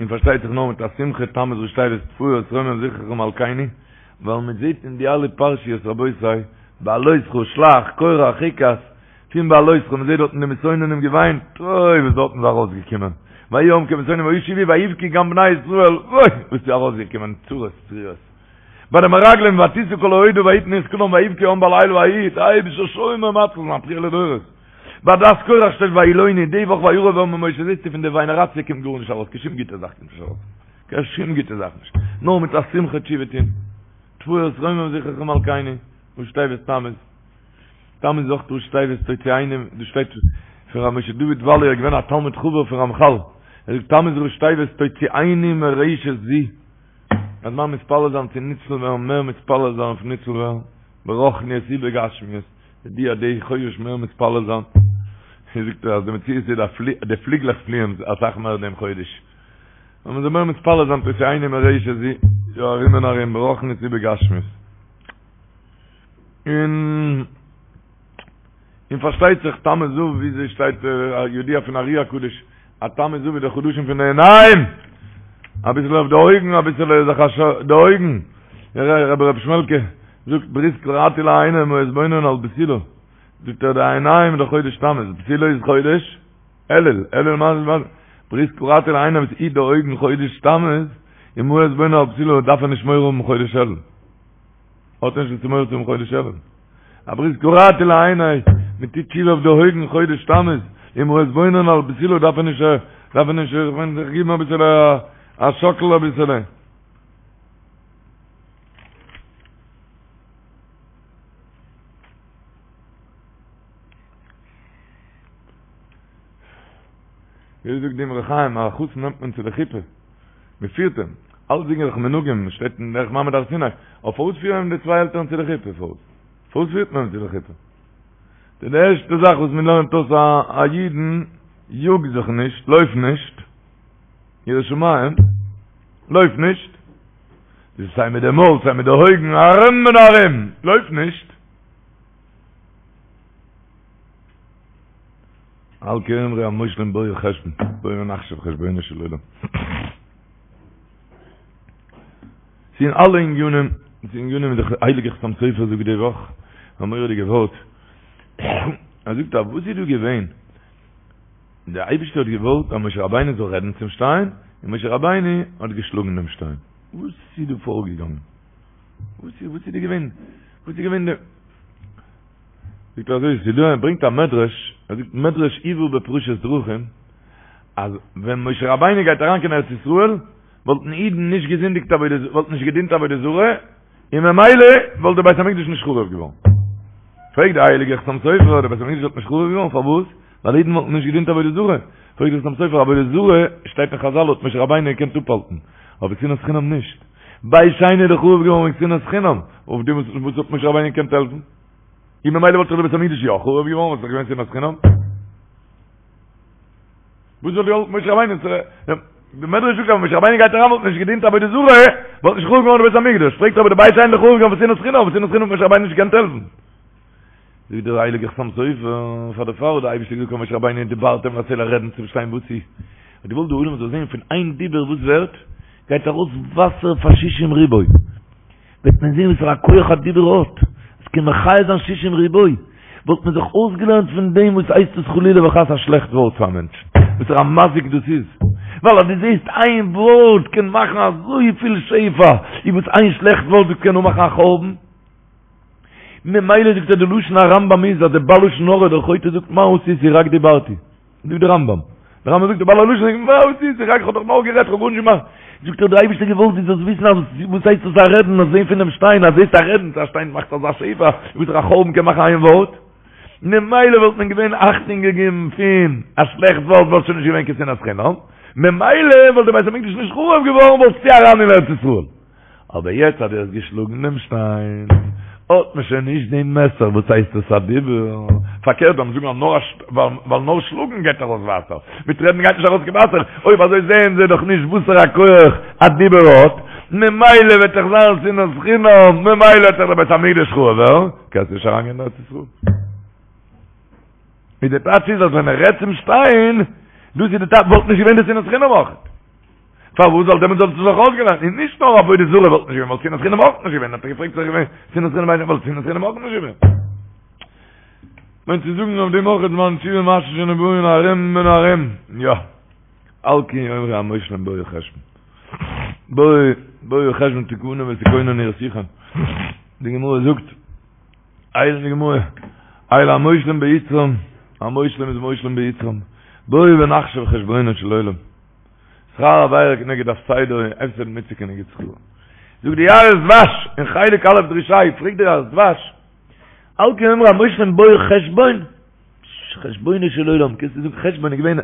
Speaker 3: און פארשטייט זיך נאר מיט א שמחה, תמוז ראשי תיבות תפארת רומם זכרך מלכינו, ווייל מען זעט אין די אלע פרשיות רבותי, בהעלותך, שלח, קורח, חוקת, פון בהעלותך, מען זעט דארטן די מתאוננים געוויינט, אוי וואס דארטן איז ארויסגעקומען, ויהי העם כמתאוננים וישובו ויבכו גם בני ישראל, אוי וואס איז ארויסגעקומען, צרות צרורות. ביי די מרגלים ותשא כל העדה ויתנו את קולם ויבכו העם בלילה ההוא, דער אייבישטער שומר ומציל זיין בכיה לדורות. ביי עדת קורח שטייט וילונו, די וואך וירב העם עם משה זעסטו פון די וויינעראציע קומט גארנישט ארויס, קיין שום גוטע זאך קומט נישט ארויס, קיין שום גוטע זאך נישט, נאר מיט א שמחה תשובה טון, תפארת רומם זכרך מלכינו, ראשי תיבות תמוז. תמוז איז אויך ראשי תיבות תוציאנו, דא שטייט פון ר' משה דוד וואלי ער איז געווען א תלמיד חבר פון רמחל, ער זאגט תמוז ראשי תיבות תוציאנו מרשת זו. אז מען מתפלל זיין צו ניצל ווערן מער מתפלל זיין אויף ניצל ווערן ברוחניות ובגשמיות די א די חודש מער מתפלל זיין זאגט ער אז די מציאות איז די פליגלעך פליען אסאך מער דעם חודש און מען זאל מער מתפלל זיין תוציאנו מרשת זו יא ארום און ארום ברוחניות ובגשמיות און און פארשטייט זיך תמוז אב וויאזוי שטייט ידוע פון ארי הקדוש אז תמוז אב איז די חדשים פון די עיניים אביסל אויף די אויגן אביסל זיך א די אויגן רבי רבי שמעלקע זאגט ברית כרתי לעיני מה אתבונן על בתולה זאגט ער די עיניים די חודש תמוז בתולה איז חודש אלול אלול מה זה ברית כרתי לעיני וואס היט די אויגן חודש תמוז און מה אתבונן על בתולה דארף ער נישט מורא האבן חודש אלול האט נישט וואס צו מורא צו האבן חודש אלול. א ברית כרתי לעיני, מען טוט תשובה אויף די אויגן חודש תמוז, און מה אתבונן על בתולה דארף ער נישט, דארף ער נישט, איך מיין זיך גיבן אביסעלע א שאקל אביסעלע. ווי זאגט די אמרי חיים, א חתן נעמט מען צו די חופה. מען פירט אים, אלצדינג איז דאך מנהגים, שטייט אין דרך מעמד הר סיני, אבער פארוואס פירן אים די צוויי עלטערן צו די חופה, פארוואס? פארוואס פירט מען אים צו די חופה? די ערשטע זאך וואס מען לערנט אויס א אידן, יאג זיך נישט, לויף נישט, ירא שמים, לויף נישט, סיי מיט די מויל, סיי מיט די אויגן, ארום און ארום, לויף נישט. על כן יאמרו המושלים בואו חשבון, בואו ונחשב חשבונו של עולם. ס'איז אין אלע ענינים, ס'איז ענינים ווי דער הייליגער חתם סופר זאגט די וואך, א מורא'דיגע ווארט, ער זאגט אז וואס איז דא געווען? דער אייבערשטער האט געוואלט אז משה רבינו זאל רעדן צום שטיין, און משה רבינו האט געשלאגן דעם שטיין. וואס איז דא פארגעגאנגען? וואס איז וואס איז דא געווען? וואס איז געווען די זאגט ער אזוי, ס'איז דא, ער ברענגט א מדרש, ער זאגט מדרש הובא בפרשת דרכים, אז ווען משה רבינו גייט אריין קיין ארץ ישראל, וואלטן אידן נישט געזינדיגט עבודה, וואלטן נישט געדינט עבודה זרה, און ממילא וואלט דער בית המקדש נישט חרוב געווארן. פרעגט דער הייליגער חתם סופר, דער בית המקדש וואלט נישט חרוב געווארן, פארוואס? ווייל אידן וואלטן נישט געדינט עבודה זרה. פרעגט דער חתם סופר, עבודה זרה, שטייט אין חזל האט משה רבינו געקענט אפהאלטן, אבער שנאת חינם נישט. בית שני איז דאך חרוב געווארן וועגן שנאת חינם, אויף דעם וואס האט משה רבינו געקענט העלפן? און ממילא וואלט דאך די בית המקדש יא חרוב געווארן, וואלט דאך געווען שנאת חינם. וואס וואלט געהאלפן משה רבינו? די מדרש זאגט אז משה רבינו גייט אריין וואלט נישט געדינט עבודה זרה, וואלט נישט חרוב געווארן די בית המקדש. פרעגט אבער די בית שני איז דאך חרוב געווארן פון שנאת חינם, פון שנאת חינם האט משה רבינו נישט געקענט העלפן. זאגט דער הייליגער חתם סופר, פאר דערפאר האט דער אייבערשטער געזאגט פאר משה רבינו ודברתם אל הסלע רעדן צום שטיין וואס איז? האט געוואלט די עולם זאל זען פון איין דיבור וואס ווערט, גייט ארויס וואסער פאר שישים ריבוא. וועט מען זען וואסערע א כח א דיבור האט, עס קען מחיה זיין שישים ריבוא, וואלט מען זיך אויסגעלערנט פון דעם וואס הייסט עס חלילה וחס א שלעכט ווארט פאר א מענטש, וואסערע א מזיק דאס איז, ווייל אז דו זעסט איין ווארט קען מאכן אזויפיל שפע, איז וואס איין שלעכט ווארט דאס קען אנמאכן א חורבן. ממילא זאגט ער די לשון הרמב"ם איז אז די בעל לשון הרע דער חוטא זאגט מה עשיתי רק דיברתי. זאגט דער רמב"ם. דער רמב"ם זאגט די בעל הלשון זאגט מה עשיתי רק איך האב דאך נאר גערעדט איך האב גארנישט געמאכט. זאגט ער דער אייבערשטער געוואלט דו זאלסט וויסן אז וואס הייסט דאס א רעדן אז זען פונעם שטיין אז זעסט א רעדן צו א שטיין מאכט אזא שפע וואס א חורבן קען מאכן איין ווארט. ממילא וואלט מען געווען אכטונג געגעבן פון א שלעכט ווארט וואלט שוין נישט געווען קיין שנאת חינם. ממילא וואלט דער בית המקדש נישט חרוב געווארן וואלסטו אריין אין ארץ ישראל. אבער יעצט אז דו האסט געשלאגן דעם שטיין, האט מען שוין נישט דעם מעסער, וואס הייסט עס א דיבור? פארקערט זאל מען זאגן אז נאר ווייל נאר שלאגן גייט ארויס וואסער, מיט רעדן גייט נישט ארויס קיין וואסער, אויב אזוי זעען זיי דאך נישט וואסערע א כח א דיבור האט, ממילא וועט דאך זיין שנאת חינם, ממילא וועט דאך דער בית המקדש חרוב ווערן, קענסט נישט אריינגיין אין ארץ ישראל. ווי די טייטש איז אז ווען ער רעדט צום שטיין, דאס איז די טייטש, וואלט נישט געווען די שנאת חינם אויך. פארוואס זאל דעמאלטס זאלסטו זיך אויסגעלערנט און נישט נאר עבודה זרה וואלט נישט געווען וואלט שנאת חינם אויך נישט געווען האט ער געפרעגט זיך געווען שנאת חינם איינער וואלט שנאת חינם אויך נישט געווען מיינט צו זאגן אויף דעם אויך זמן תשובה מעשה שנבראים ארום און ארום יא על כן יאמרו המושלים בואו חשבון בואו בואו חשבון תכונה ותכונן עיר סיחון די גמרא זאגט הייליגע גמרא, אלו המושלים ביצרם, המושלים איז מושלים ביצרם, בואו ונחשב חשבונו של עולם. שכר עבירה כנגד הפסדה און הפסד מצוה כנגד שכרה. זאגט די יערות דבש אין חלק א' דרוש ה', פרעגט די יערות דבש, על כן יאמרו המושלים בואו חשבון, חשבונו של עולם, קענסטו זאגן חשבון איז געווען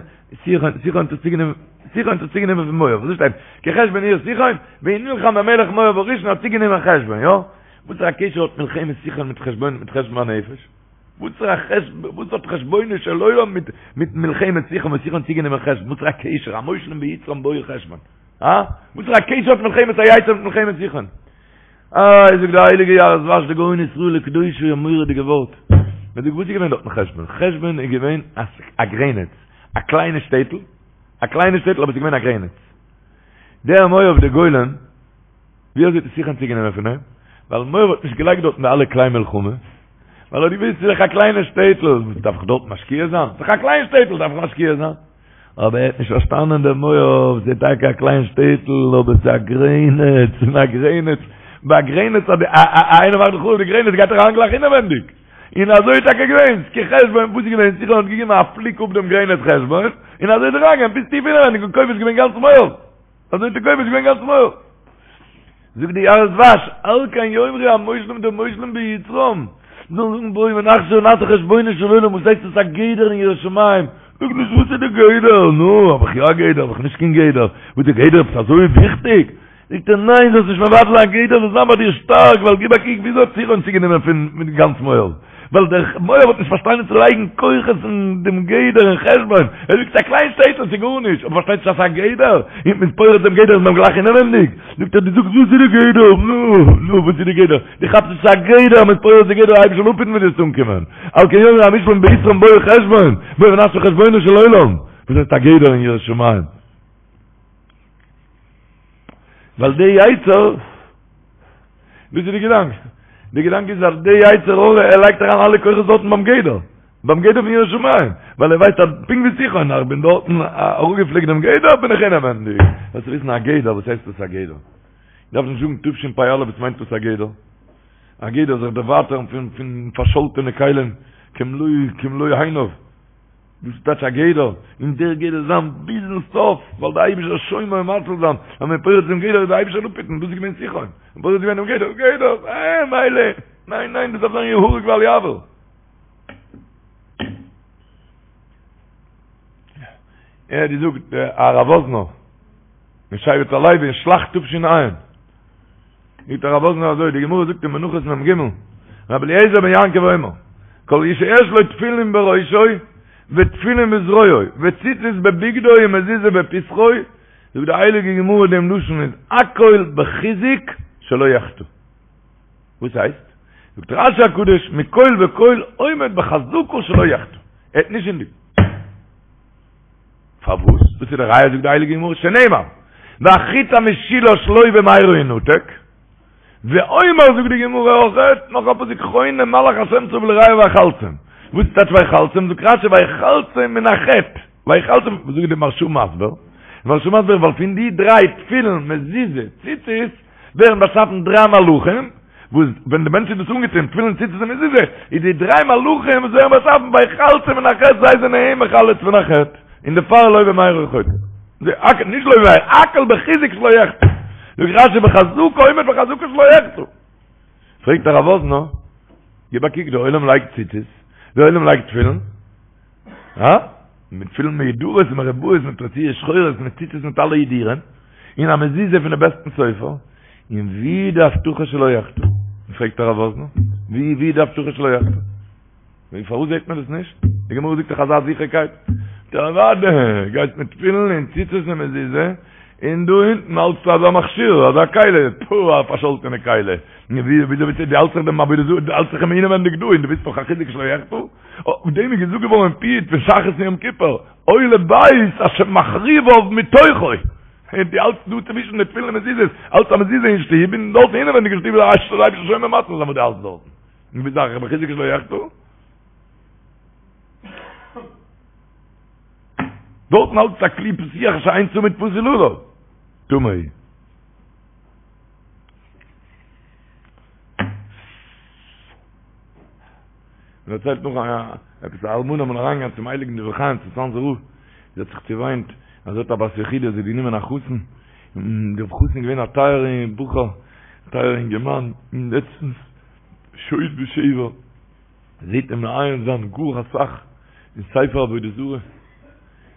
Speaker 3: סיחון, סיחון האט עס צוגענומען, סיחון האט עס צוגענומען פון מואב, וואס שטייט? כי חשבון עיר סיחון, ונלחם במלך מואב הראשון האט צוגענומען חשבון, יא? וואס פאר א קשר האט מלחמת סיחון מיט חשבון מיט חשבון הנפש? וואס פאר א חשבון, וואס האט חשבונו של עולם מיט מיט מלחמת סיחון וואס סיחון האט צוגענומען חשבון? וואס פאר א קשר? המושלים ביצרם בואו חשבון. הא? וואס פאר א קשר האט מלחמת היצר מיט מלחמת סיחון? איי זאגט די הייליגע יערות דבש די גאון ישראל וקדושו א מורא'דיגע ווארט. מען זאגט וואס איז געווען דארטן חשבון? חשבון איז געווען א גרעניץ, א קליינע שטעטל, א קליינע שטעטל אבער עס איז געווען א גרעניץ. דער מואב דער גולם, ווי אזוי האט עס סיחון צוגענומען פון אים? ווייל מואב האט נישט געלייגט דארטן די אלע כלי מלחמה, ווייל ער האט געוואוסט ס'איז דאך א קליינע שטעטל, וואס דארף איך דארט משקיע זיין? ס'איז דאך א קליין שטעטל, דארף איך משקיע זיין? אבער ער האט נישט פארשטאנען דער מואב, ס'איז טאקע א קליין שטעטל, אבער ס'איז א גרעניץ, און א גרעניץ, ביי א גרעניץ אז איינער מאכט חרוב די גרעניץ גייט ער אריין גלייך אינעווענדיג. און אזוי איז טאקע געווען, כי חשבון, וואס איז געווען, סיחון האט געגעבן א פליק אפ דעם גרעניץ חשבון, און אזוי איז ער אריינגעגאנגען ביז טיף אינעווענדיג און כובש געווען גאנץ מואב. אזוי האט ער כובש געווען גאנץ מואב. זאגט די יערות דבש, על כן יאמרו המושלים די מושלים ביצרם, זאלן זאגן בואו ונחשב ונעשה חשבונו של עולם, וואס הייסט עס א גדר אין יראת שמים? זאג נישט וואס איז די גדר, נו, האב איך יא א גדר, האב איך נישט קיין גדר, וואס די גדר עפעס אזוי וויכטיג? זאגט ער ניין זאלסט נישט מבטל זיין גדר זאל זיין ביי דיר שטארק, ווייל גיב א קוק וויאזוי האט סיחון צוגענומען פון גאנץ מואב, ווייל דער מואב האט נישט פארשטאנען צו לייגן כוחות אין דעם גדר אין חשבון, ער זאגט ס'איז א קליין שטעטל ס'איז גארנישט, אבער פארשטייט נישט אז ס'איז א גדר, און מ'איז פורץ דעם גדר איז מען גלייך אינעווענדיג, זאגט ער דו זאגסט וואס איז די גדר, נו, נו וואס איז די גדר, דו כאפסט נישט ס'איז א גדר, מ'איז פורץ די גדר אייבערשטער זאל אפהיטן ווי דו וועסט אנקומען, על כן יאמרו המושלים ביצרם בואו חשבון, בואו ונעשה חשבונו של עולם, וואס הייסט א גדר אין יראת שמים? ווייל די יצר, וואס איז די געדאנק? די געדאנק איז אז די יצר הרע ער לייגט אריין אלע כוחות דארטן ביים גדר, ביים גדר פון יראת שמים, ווייל ער ווייסט אז פונקט ווי סיחון, איך בין דארטן אראפגעפליקט דעם גדר בין איך אינעווענדיג. זאלסט וויסן א גדר, וואס הייסט דאס א גדר? איך דארף נישט זאגן תשפ"א וואס מיינט דאס א גדר? א גדר זיך דערווייטערן פון פון פארשאלטענע כלים כמלוא כמלוא עיניו. דאס איז טייטש א גדר, און דער גדר זיין ביזן סוף, ווייל דער אייבישטער שומר ומציל זיין, אז מען פורץ דעם גדר איז דער אייבישטער אפהיטן, דאס איז געווען סיחון, מען פורץ געווען דעם גדר, גדר, אה, מילא, ניין ניין, דאס דארף זיין יהרג ואל יעבור. ער האט געזאגט הרב וואזנער, אין שבט הלוי אין שלח תש"ע, זאגט הרב וואזנער אזוי, די גמרא זאגט אין מנחות מ"ג, רבי אליעזר בן יעקב אומר, כל שיש לו תפילין בראשו ותפילין בזרועו וציצית בבגדו ומזוזה בפתחו, זאגט די הייליגע גמרא דעם לשון איז הכל בחיזוק שלא יחטא. וואס הייסט? זאגט רשי הקדוש, מכל וכל עומד בחזקה שלא יחטא. ער וועט נישט זינדיגן. פארוואס? דאס איז די ראיה זאגט די הייליגע גמרא שנאמר והחוט המשולש לא במהרה ינתק, ואומר זאגט די גמרא אויכעט נאך א פסוק חונה מלאך השם סביב ליראיו ויחלצם, וואס איז טייטש ויחלצם? זאגט רשי ויחלצם מן החטא, ויחלצם, וואס זאגט די מהרשא מסביר? די מהרשא מסביר ווייל פון די דריי תפילין מזוזה ציצית ווערן באשאפן דריי מלאכים, וואס ווען די מענטש איז דאס אנגעטון, תפילין ציצית און מזוזה, איז די דריי מלאכים וואס ווערן באשאפן ויחלצם מן החטא זיי זענען אים מחלץ פון א חטא, און דערפאר לא במהרה חוטא. נישט לא במהרה, הכל בחיזוק שלא יחטא. זאגט רשי בחזקה עומד בחזקה שלא יחטא. פרעגט הרב וואזנער, גיב א קוק, דער עולם לייגט ציצית, דער עולם לייגט תפילין, הא? מיט תפילין מהודרות ומרובעות מיט רצועות שחורות מיט ציצית מיט אלע הידורים, און א מזוזה פון די בעסטן סופר, און ווי די הבטחה שלא יחטא? פרעגט הרב וואזנער, ווי ווי די הבטחה שלא יחטא? ווי פארוואס זעט מען דאס נישט? די גמרא זאגט דאך אזא זיכערקייט. אוודאי, גייסט מיט תפילין און ציצית און מזוזה, און דא אונטן האלטסטו אזא מכשיר, אזא כלי, פו, א פארשאלטענע כלי. ווי וויאזוי ביסטו, דו האלטסט זיך דעם עבודה זרה, דו האלטסט זיך אים אינעווענדיג דא, און דו ביסט נאך א חוזק שלא יחטא? אויף דעם איז געזאגט געווארן אין פיוט פון שחרית און יום כיפור, אוי לבית אשר מחריביו מתוכו. דו האלטסט דא צווישן די תפילין און מזוזות, האלטסט א מזוזה אין שטוב, און דארט אינעווענדיג אין שטוב איז א אשתו לייב שומר מצות וואס דו האלטסט דארטן. און ביסט דאך מחוזק שלא יחטא. דארטן האלטסטו א כלי פתוח שאין צמיד פתיל עליו. טמא. מען דערציילט נאך א עפעס א אלמנה אמאל אריינגעגאנגען צום הייליגן דברי חיים צום צאנזער רב, זי האט זיך צעוויינט אז זי האט א בת יחידה, זי האט גענומען א חתן, און דער חתן איז געווען א טייערע בחור, א טייערע אינגערמאן, און לעצטנס שוד ושבר, זעט אים מעיין זיין גאר אסאך אין ספר עבודה זרה,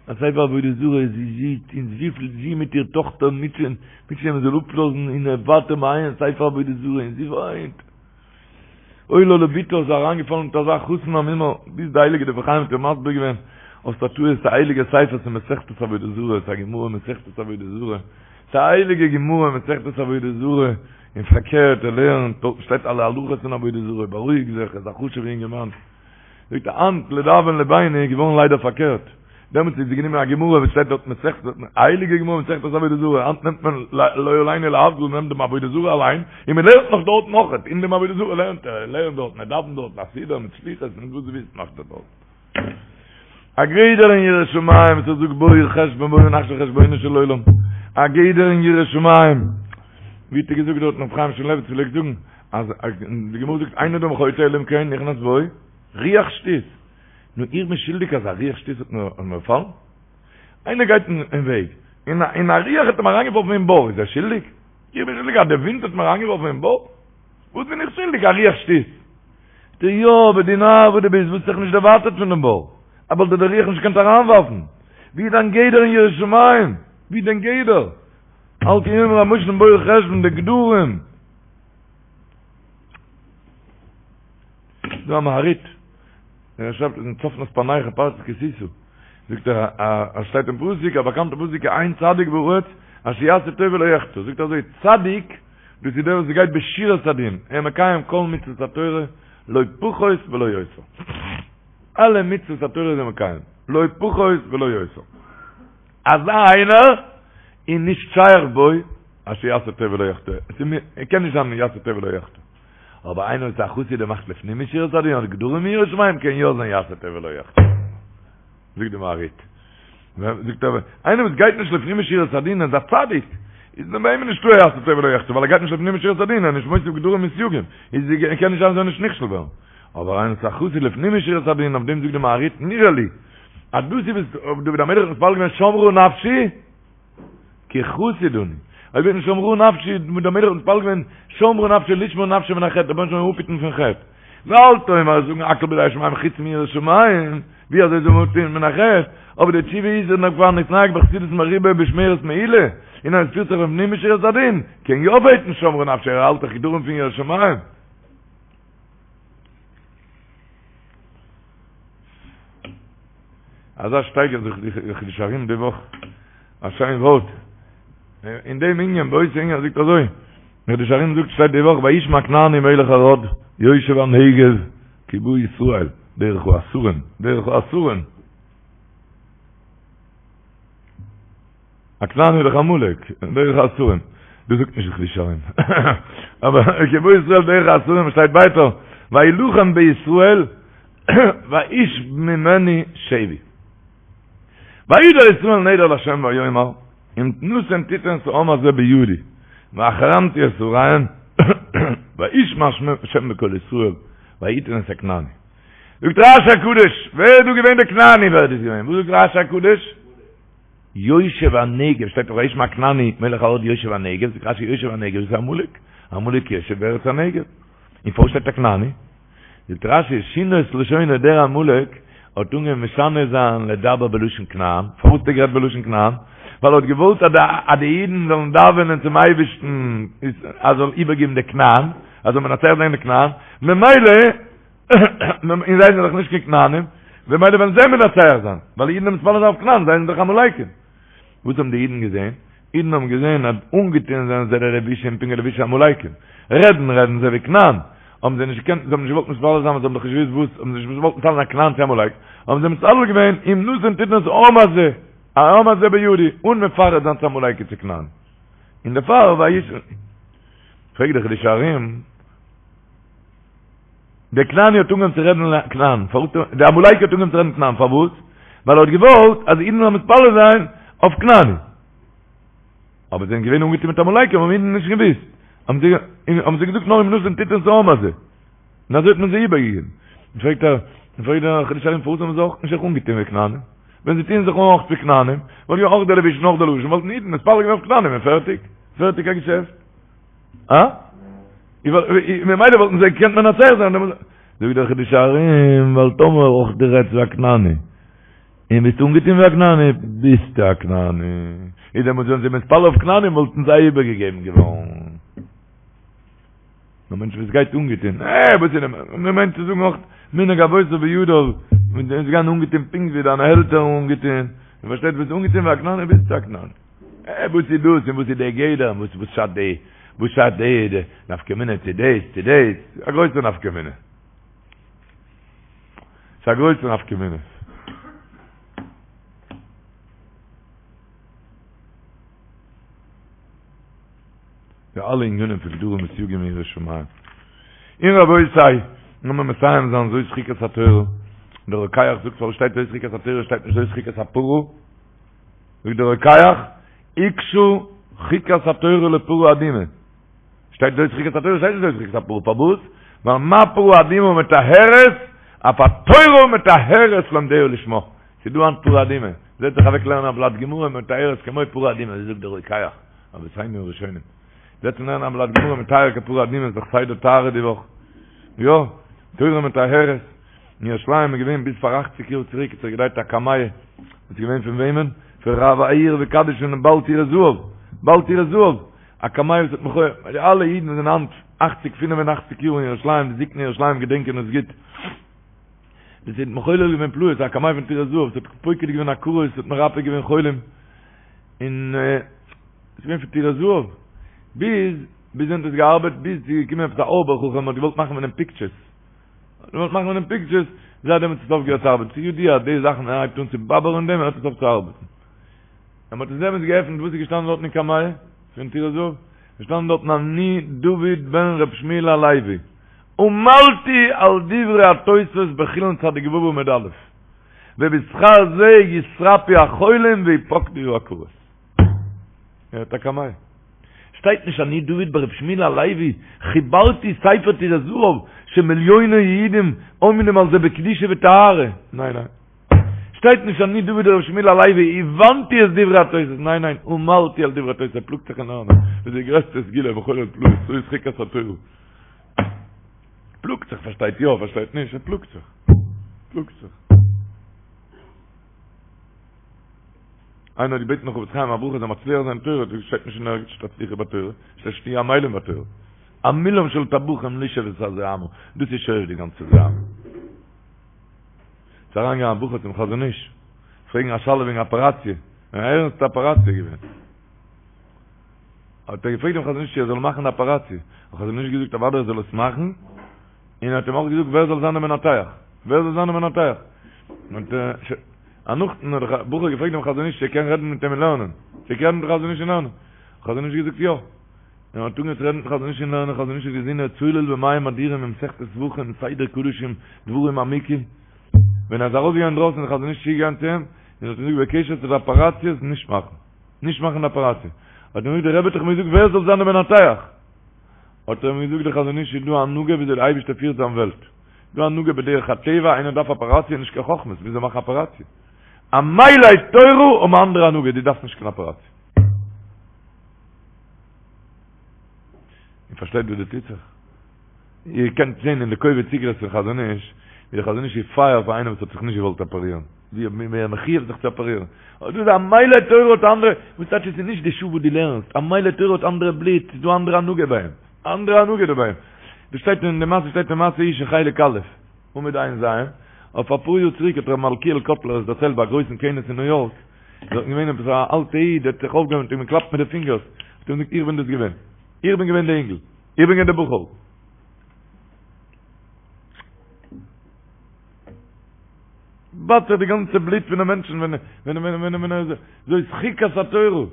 Speaker 3: א ספר עבודה זרה, זי זעט און וויפיל זי מיט איר טאכטער מוטשען, מוטשען מען זאל אפלאזן, און ער ווייטער מעיין ספר עבודה זרה, און זי וויינט. אוי לה לבתה איז אריינגעפאלן מיט אזא חתן א מומר, ביז די הייליגע דברי חיים האט איר מסביר געווען האסט א טעות ס'איז א הייליגע ספר ס'איז מסכת עבודה זרה ס'איז א גמרא מסכת עבודה זרה ס'איז א הייליגע גמרא מסכת עבודה זרה און פארקערט ער לערנט דארטן שטייט אלע הלכות פון עבודה זרה בארואיג זיך ער איז א חשוב'ע אינגערמאן. זאגט ער היינט לדאבון לבינו איז געווארן ליידער פארקערט, דעמאלטס האט זי גענומען א גמרא וואס שטייט דארט מסכת, א הייליגע גמרא מסכת עבודה זרה, היינט נעמט מען לא עלינו להבדיל מען נעמט דעם עבודה זרה אליין, און מען לערנט נאך דארט נאכעט, אין דעם עבודה זרה לערנט ער, ער לערנט דארטן, ער דאווענט דארטן א סידור מיט סליחות און וואס דו ווילסט מאכט ער דארט. א גדר אין יראת שמים וואס ער זאגט בואו חשבון בואו נחשב חשבונו של עולם, א גדר אין יראת שמים, ווי האט ער געזאגט דארטן ר' חיים שמואלעוויץ פלעגט זאגן, אז די גמרא זאגט אין אדם חוטא אלא אם כן נכנס בו רוח שטות, נו איך בין שולדיג אז א רוח שטות האט מיר באפאלן? איינער גייט אין וועג און א רוח האט אים אריינגעווארפן אין בור, איז ער שולדיג? איך בין שולדיג אז די ווינט האט מיר אריינגעווארפן אין בור? וואס בין איך שולדיג א רוח שטות? זאגט ער יא אבער דו נאר וואס דו ביסט וואלסט זיך נישט דערווייטערט פון דעם בור, וואלט דיר די רוח נישט געקענט אריינווארפן, ווי איז דיין גדר אין יראת שמים? ווי איז דיין גדר? על כן יאמרו המושלים בואו חשבון די גדרים. דא א מהרי"ט, ער שרייבט אין צפנת פענח אין פרשת כי תשא, זאגט ער א שטייט אין פסוק א באקאנטע פסוק אין צדיק בארץ אשר יעשה טוב ולא יחטא, זאגט ער אזוי צדיק דאס איז דער וואס גייט בשורת הדין, ער מקיים כל מצוות התורה לא פחות ולא יותר, אלע מצוות התורה איז ער מקיים, לא פחות ולא יותר, אזא איינער איז נישט שייך בו אשר יעשה טוב ולא יחטא, עס קען נישט זיין יעשה טוב ולא יחטא. אבער איינער וואס איז א חסיד און מאכט לפנים משורת הדין האט גדרים אין יראת שמים קען יא זיין יעשה טוב ולא יחטא. זאגט די מהרי"ט. זאגט ער, איינער וואס גייט נישט לפנים משורת הדין איז א צדיק, איז ביי אים נישטא יעשה טוב ולא יחטא, ווייל ער גייט נישט לפנים משורת הדין, ער איז נישט מוסיף גדרים וסייגים, איז קען נישט זיין ער זאל נישט נכשל ווערן. אבער איינער וואס איז א חסיד לפנים משורת הדין, אויף דעם זאגט די מהרי"ט נראה לי, אז דאס איז וואס דוד המלך האט מתפלל געווען שמרה נפשי, כי חסיד אני. אויב וועט נישט שמרה נפשי, דוד המלך האט מתפלל געווען, שמרה נפשי לשמור נפשי מן החטא, רבונו של עולם אפהיטן פון חטא. ואל תאמר זאגן הכל בידי שמים חוץ מיראת שמים, ווי אזוי זאל מען אפהיטן מן החטא? אבער די תשובה איז אז כבר נתנהג בחסידות מרובה בשמירת מעילה, און אז עס פירט זיך לפנים משורת הדין, קען יא בעטן שמרה נפשי, ער האלט דאך גדרים פון יראת שמים. אזא שטייגער זאגט די חידושי הרי"ם די וואך, א שיין ווארט, אין דעם ענין, באותו ענין זאגט אזוי, די חידושי הרי"ם זאגט שטייט די וואך וישמע הכנעני מלך ערד יושב הנגב כי בא ישראל דרך האסורים, דרך האסורים. הכנעני איז דאך עמלק, דרך האסורים. דאס זאגט נישט די חידושי הרי"ם. אבער כי בא ישראל דרך האסורים שטייט ווייטער, וילחם בישראל וישב ממנו שבי. וידר ישראל נדר לה' ויאמר, אם נתן תתן את העם הזה בידי, והחרמתי את עריהם, וישמע השם בקול ישראל, ויתן את הכנעני. זאגט רש"י הקדוש, ווער איז דא געווען דער כנעני? ווער איז דאס געווען? וואס זאגט רש"י הקדוש? יושב הנגב, שטייט דאך וישמע הכנעני מלך ערד יושב הנגב, זאגט רש"י יושב הנגב איז עמלק, עמלק יושב בארץ הנגב, און פארוואס שטייט הכנעני? זאגט רש"י שינה את לשונו דער עמלק האט אנגעהויבן משנה זיין לדבר בלשון כנען, פארוואס האט ער גערעדט בלשון כנען? ווייל ער האט געוואלט אז די אידן זאלן דאווענען צום אייבערשטן אז ער זאל איבערגעבן די כנען, אז זאל מנצח זיין די כנען, ממילא און זיי זענען דאך נישט קיין כנענים, במילא וועלן זיי מנצח זיין, ווייל אידן האבן מתפלל זיין אויף כנען, זיי זענען דאך עמלקים. וואס האבן די אידן געזען? אידן האבן געזען אז אנגעטון זענען זיי די לבושים פונקט ווי לבושי עמלקים, רעדן רעדן זיי ווי כנען, האבן זיי נישט געקענט, זיי האבן נישט געוואלט מתפלל זיין ווייל זיי האבן דאך נישט געוואוסט וואס, האבן זיי נישט געוואלט מתפלל זיין כנען צו עמלק, האבן זיי מתפלל געווען אם נתון תתן את העם הזה, העם הזה בידי, אן מפרט זיין צו עמלקי צו כנען. און דערפאר וישמע. פרעגט דער חידושי הרי"ם, דער כנעני האט אנגעהויבן צו רעדן כנען, פארוואס האט דער עמלקי האט אנגעהויבן צו רעדן כנען, פארוואס? ווייל ער האט געוואלט אז אידן זאלן מתפלל זיין אויף כנעני. אבער זיי זענען געווען אנגעטון מיט עמלקים האבן אידן נישט געוואוסט. האבן זיי האבן זיי געזאגט נאר אם נתון תתן את העם הזה. און אזוי האט מען זיי איבערגעגעבן. פרעגט ער, פרעגט דער חידושי הרי"ם פארוואס האבן זיי אויך נישט זיך אנגעטון ווי כנענים? ווען זיי טוען זיך אן אויך ווי כנענים, וואלט געווען אויך דער לבוש און אויך דער לשון, וואלטן אידן מתפלל געווען אויף כנענים און פערטיג. פערטיג א געשעפט. אה? ממילא וואלטן זיי געקענט מנצח זיין. זאגט דער חידושי הרי"ם, ווייל טאמער אויך דו רעדסט ווי א כנעני, און ביסט אנגעטון ווי א כנעני, ביסטו א כנעני. איז דעמאלטס ווען זיי מתפלל אויף כנענים וואלטן זיי איבערגעגעבן געווארן. א מענטש וואס גייט אנגעטון, אה, וואס איז דעם, מען מיינט צו זאגן אויך מנהג אבותיו בידו, מיט דעם גיין אנגעטון פונקט ווי דיינע עלטערן אנגעטון, און פארשטייט ביסט אנגעטון ווי א כנעני ביסטו א כנעני. אה, וואס איז דאס און וואס איז דער גדר און וואס וואס שאדט די, וואס שאדט די, די נפקא מינה צו דאס צו דאס, א גרויסע נפקא מינה. ס'איז א גרויסע נפקא מינה. די אלע ענינים פון גדרים וסייגים אין יראת שמים. און רבותי, לאמיר מסיים זיין זאת חוקת התורה. דער רוקח זאגט פארוואס שטייט זאת חוקת התורה שטייט נישט זאת חוקת הפרה? זאגט דער רוקח, הוקשה חוקת התורה לפרה אדומה. שטייט זאת חוקת התורה שטייט נישט זאת חוקת הפרה, פארוואס? ווייל מה פרה אדומה מטהרת, אף התורה מטהרת לומדיה לשמה. ס'איז דא היינט פרה אדומה, זעץ זיך אוועק לערנען א בלאט גמרא מטהרת כמו פרה אדומה, אזוי זאגט דער רוקח, רבותינו הראשונים. זעצן לערנען א בלאט גמרא מטהר כפרה אדומה איז דאך סדר טהרה די וואך. יא, תורה מטהרת. אין ירושלים איז געווען ביז פאר אכציג יאר צוריק האט זיך געדרייט א קמיע, איז געווען פון וועמען? פון רב העיר וקדיש פונעם בעל טורי זהב, בעל טורי זהב, א קמיע וואס האט מחולל, די אלע אידן וואס זענען היינט אכציג פינף און אכציג יאר אין ירושלים, די זקני ירושלים געדענקען עס גוט, דאס האט מחולל געווען פלאות, א קמיע פון טורי זהב, עס האט פוקד געווען עקרות, עס האט מרפא געווען חולים, און עס איז געווען פון טורי זהב, ביז, ביז ווען האט עס געארבעט, ביז ס'איז געקומען עפעס א אויבער חכם האט געוואלט מאכן פון דעם פיקטשערס, געוואלט מאכן פון דעם פיקטשערס, זייט דעמאלטס האט עס אויפגעהערט צו ארבעטן, ס'איז ידוע אז די זאכן ווען ער הייבט אן צו באבערן אין דעם הערט עס אויף צו ארבעטן. ווען מ'האט עס דעמאלטס געעפנט וואס איז געשטאנען דארטן אין קמיע פון טורי זהב? איז געשטאנען דארטן אני דוד בן ר' שמואל הלוי עמלתי על דברי התוספות בחולין צדיק ו' עמוד א' ובשכר זה יתרפאו החולים ויפקדו העקרות. ער האט א קמיע. שטייט נישט אני דוד ברב שמואל הלוי חיברתי ספר טורי זהב שמיליוני יהודים עומדים על זה בקדושה וטהרה. ניין ניין. שטייט נישט אני דוד ברב שמואל הלוי הבנתי את דברי התוס'. ניין ניין. עמלתי על דברי התוס'. ער פלאגט זיך אין לערנען. דאס איז די גרעסטע סגולה מחולל פלאות. זאת חוקת התורה. פלאגט זיך פארשטייט יא פארשטייט נישט. ער פלאגט זיך. פלאגט זיך. איינער האט געבעטן חפץ חיים א ברכה זאל מצליח זיין אין תורה, האט ער געזאגט שטייט נישט אין ערגעץ שתצליחו בתורה, שטייט שתהיו עמלים בתורה. עמילם של טבחים לשאוב את הזוהמא, דאס איז שואב די גאנצע זוהמא. ס'איז אריינגעגאנגען א בחור צום חזון איש, פרעגן א שאלה וועגן אפעראציע, אן ערנסטע אפעראציע געווען. האט ער געפרעגט דעם חזון איש צו ער זאל מאכן די אפעראציע, האט חזון איש געזאגט אוודאי ער זאל עס מאכן, און ער האט אים אויך געזאגט ווער זאל זיין דער מנתח, ווער זאל זיין דער מנתח. און נאכדעם האט דער בחור געפרעגט דעם חזון איש צו ער קען רעדן מיט אים אין לערנען, צו ער קען רעדן מיט'ן חזון איש אין לערנען, חזון איש געזאגט יא, און ער האט אנגעהויבן צו רעדן מיט'ן חזון איש אין לערנען, חזון איש האט געזען ער צולל במים אדירים אין מסכת זבחים, סדר קדשים, דברים עמוקים, ווען ער איז ארויסגעגאנגען אינדרויסן איז דער חזון איש צוגעגאנגען צו אים, און האט אים געזאגט בקשר צו די אפעראציעס נישט מאכן, נישט מאכן די אפעראציע, האט אים געזאגט דער רבי האט דאך מיר געזאגט ווער זאל זיין דער מנתח, האט ער אים געזאגט דער חזון איש איז דא א הנהגה וויאזוי דער אייבערשטער פירט זיין וועלט. דא הנהגה בדרך הטבע, איינער דארף אפעראציע נישט קיין חכמות, וויאזוי מאכן אפעראציע? עמלי תורה האבן א אנדערע הנהגה, דו דארפסט נישט קיין אפעראציע. איר פארשטייט וואס דא טוט זיך? איר קענט זען אין די קובץ איגרות פון חזון איש, ווי דער חזון איש איז פייער פאר איינעם וואס האט זיך נישט געוואלט אפערירן, ווי ער מחויב זיך צו אפערירן. אבער דאס איז עמלי תורה האט אנדערע, וואס טייטש עס איז נישט די שעה וואס דו לערנסט, עמלי תורה האט אנדערע בלוט, ס'איז דא אנדערע הנהגה ביי אים. אנדערע הנהגה דא ביי אים. דאס שטייט אין די מעשה שטייט אין מעשה איש אין חלק א', עמוד ע"ז, אויף אפאר יאר צוריק האט ר' מלכיאל קאטלער עס דערציילט ביי א גרויסן כינוס אין ניו יארק. דארטן געווען עפעס א אלטע איד האט זיך אויפגעהויבן האט אים געקלאפט מיט די פינגערס, האט אים געזאגט איך בין דאס געווען, איך בין געווען די אינגל, איך בין געווען די בחור. באדט זיך די גאנצע בלוט פון די מענטשן ווען ווען ווען ווען ווען ער זאת חוקת התורה.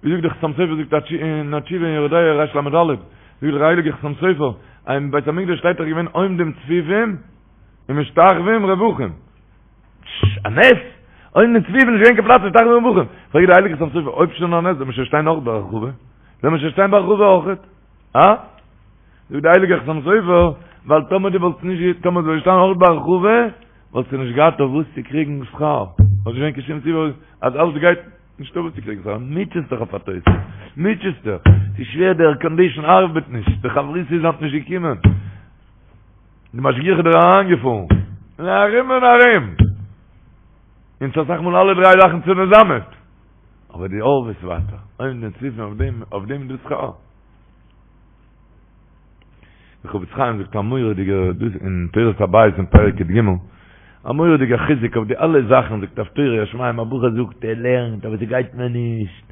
Speaker 3: ווי זאגט דער חתם סופר זאגט אין א תשובה אין יורה דעה ריש ל"ד, זאגט דער הייליגער חתם סופר, אז אין בית המקדש שטייט דאך געווען עומדים צפופים ומשתחווים רווחים. א נס! עומדים צפופים נישט געווען קיין פלאץ משתחווים רווחים. פרעגט דער הייליגער חתם סופר, אויב שוין א נס זאל מען שוין שטיין אויך ברחבה? זאל מען שוין שטיין ברחבה אויכעט? הא? זאגט דער הייליגער חתם סופר, ווייל טאמער דו וואלסט נישט, טאמער זאל שטיין אויך ברחבה, וואלסטו נישט געהאט אויף וואס צו קריגן שכר. וואלט נישט געווען קיין שום סיבה אז אלעס גייט, נישטא וואס צו קריגן שכר. מוטשעסט דיך אויף א תוס'. מוטשעסט דיך. ס'איז שווער, די ערקאנדישן ארבעט נישט, די חברותא איז היינט נישט געקומען. די משגיח איז דיר אריינגעפארן. און ארום און ארום. און ס'איז אסאך מאל אלע דריי זאכן צוזאמען. אבער דו הארעוועסט ווייטער. עומדים צפופים אויף דעם, אויף דעם איז דא שכר. דער חפץ חיים זאגט א מורא'דיגע דאס אין תורת הבית אין פרק י"ג, א מורא'דיגע חיזוק אויף די אלע זאכן, זאגט אויף תורה יראת שמים, א בחור זאגט ער לערנט אבער ס'גייט מיר נישט,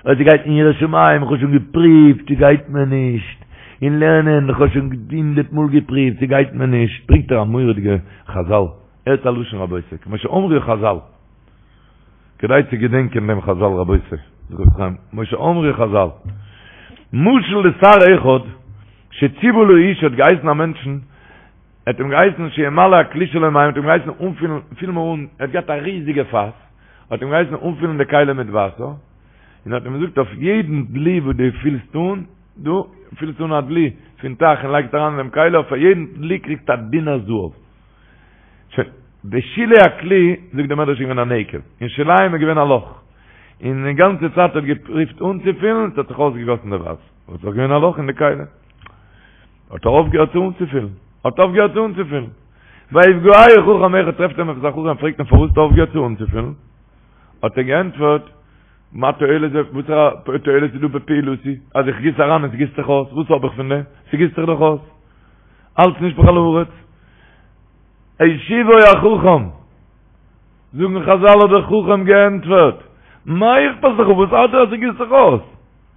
Speaker 3: אבער ס'גייט אין יראת שמים, איך האב שוין געפריווט ס'גייט מיר נישט, אין לערנען איך האב שוין הונדערט מאל געפריווט ס'גייט מיר נישט, ברענגט ער א מורא'דיגע חזל, הערט א לשון רבותי, כמו שאמרו חזל. כדאי צו געדענקען דעם חזל רבותי, כמו שאמרו חזל, משל לשר אחד שציוה לאיש האט געהייסן א מענטשן, ער האט אים געהייסן שימלא הכלי שלו מים, האט אים געהייסן אנפילן, פיל מיר אן, ער האט געהאט א ריזיגע פאס, האט אים געהייסן אנפילן די כלי מיט וואסער, און האט אים געזאגט אויף יעדן דלי וואס דו פילסט אן, דו פילסט אן א דלי פון טייך און לייגסט אריין אין דעם כלי, אויף א יעדן דלי קריגסטו א דינר זהב. שוין, בשולי הכלי, זאגט דער מדרש איז געווען א נקב, אין שוליים איז געווען א לאך, און די גאנצע צייט האט געפריווט אנצופילן, עס האט זיך אויסגעגאסן די וואסער, עס איז דאך געווען א לאך אין די כלי, האט ער אויפגעהערט צו אנצופילן, האט אויפגעהערט צו אנצופילן. ויפגעהו חכם אחד טרעפט אים עפעס א חכם פרעגט אים פארוואס האסטו אויפגעהערט צו אנצופילן, האט ער געענטפערט, מה תועלת זה, וואסערע תועלת איז דא בפעילותי, אז איך גיס אריין און ס'גיסט זיך אויס, וואס האב איך פון דעם, ס'גיסט זיך דאך אויס, אלץ נשפך על הארץ. השיבו החכם, זאגן חזל האט דער חכם געענטפערט, מה אכפת לך, וואס ארט דיר אז ס'גיסט זיך אויס?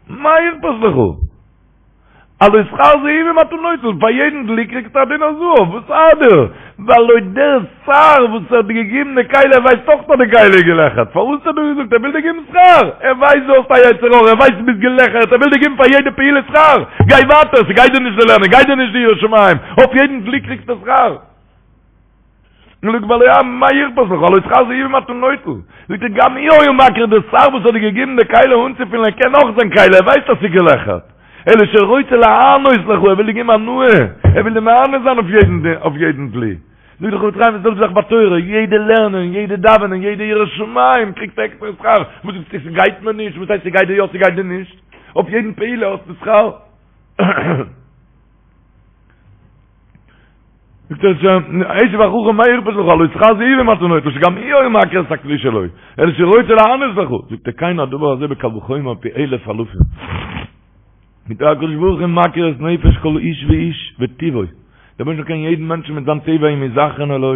Speaker 3: מה אכפת לך? הלא שכר זהובים אתה נוטל, פאר יעדן דלי קריגסטו א דינר זהב, וואס ארט דיר? והלא דער שר וואס האט דיר געגעבן די כלי ער ווייסט אויך אז די כלי איז געלעכערט, פארוואס האט ער דיר געזאגט ער וויל דיר געבן שכר? ער ווייסט דו האסט א יצר הרע, ער ווייסט דו ביסט געלעכערט, ער וויל דיר געבן פאר יעדע פעולה שכר, גיי ווייטער, ס'גייט דיר נישט די לערנען, גייט דיר נישט די יראת שמים, אויף יעדן דלי קריגסטו שכר. נו זאגט והלא מה אכפת לך, הלא שכר זהובים אתה נוטל, זאגט ער גם הוא היה מכיר דער שר וואס האט דיר געגעבן די כלי אנצופילן ער קען אויך זיין כלי ער ווייסט אז ס'איז געלעכערט, אלא שרוצה להנות לך ער וויל דיר געבן הנאה, ער וויל דיר מהנה זיין אויף יעדן אויף יעדן דלי. זאגט דער חפץ חיים די זעלבע זאך ביי תורה, יעדע לערנען, יעדע דאווענען, יעדע יראת שמים קריגסטו עקסטערע שכר, וואס זאגסטו ס'גייט מיר נישט, וואס הייסט ס'גייט דיר יא ס'גייט דיר נישט, אויף יעדן פעולה האסטו שכר. זאגט ער שוין, השיב החכם מה אכפת לך, הלא שכר זהובים אתה נוטל, שגם הוא היה מכיר את הכלי שלו, אלא שרוצה להנות לך. זאגט ער, כן הדבר הזה בקל וחומר פי אלף אלפים. מיט הקדוש ברוך הוא מכיר את נפש כל איש ואיש וטבעו. דער אייבערשטער קען יעדן מענטשן מיט זיין טבע אם הוא זכרן או לא,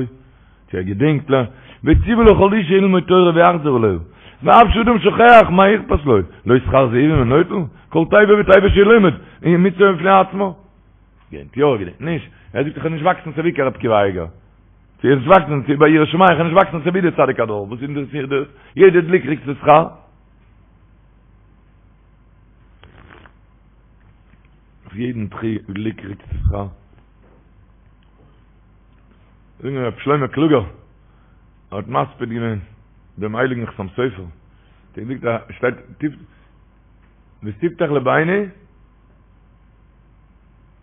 Speaker 3: צו ער געדענקט לה, וציוה לכל איש שילמוד תורה ויחזור עליה. ואף שאדם שוכח מה אכפת לו, לא שכר זהובים הוא נוטל, כל תיבה ותיבה שילמד, היא מצוה בפני עצמה. געדענקט יא, געדענקט נישט. ער זאגט איך וועל נישט וואקסן אזוי ווי ר' עקיבא אייגער. צו איך וואקסן צו ביי יראת שמים, איך וועל נישט וואקסן אזוי ווי דער צדיק הדור. וואס אינטערעסירט דאס? יעדע דלי קריגט שכר. אויף יעדן דלי קריגט שכר. זאגן רב שלמה קלוגער האט מספיד געווען דעם הייליגן חתם סופר. דער זאגט א שטייט טיף ותפתח לבנו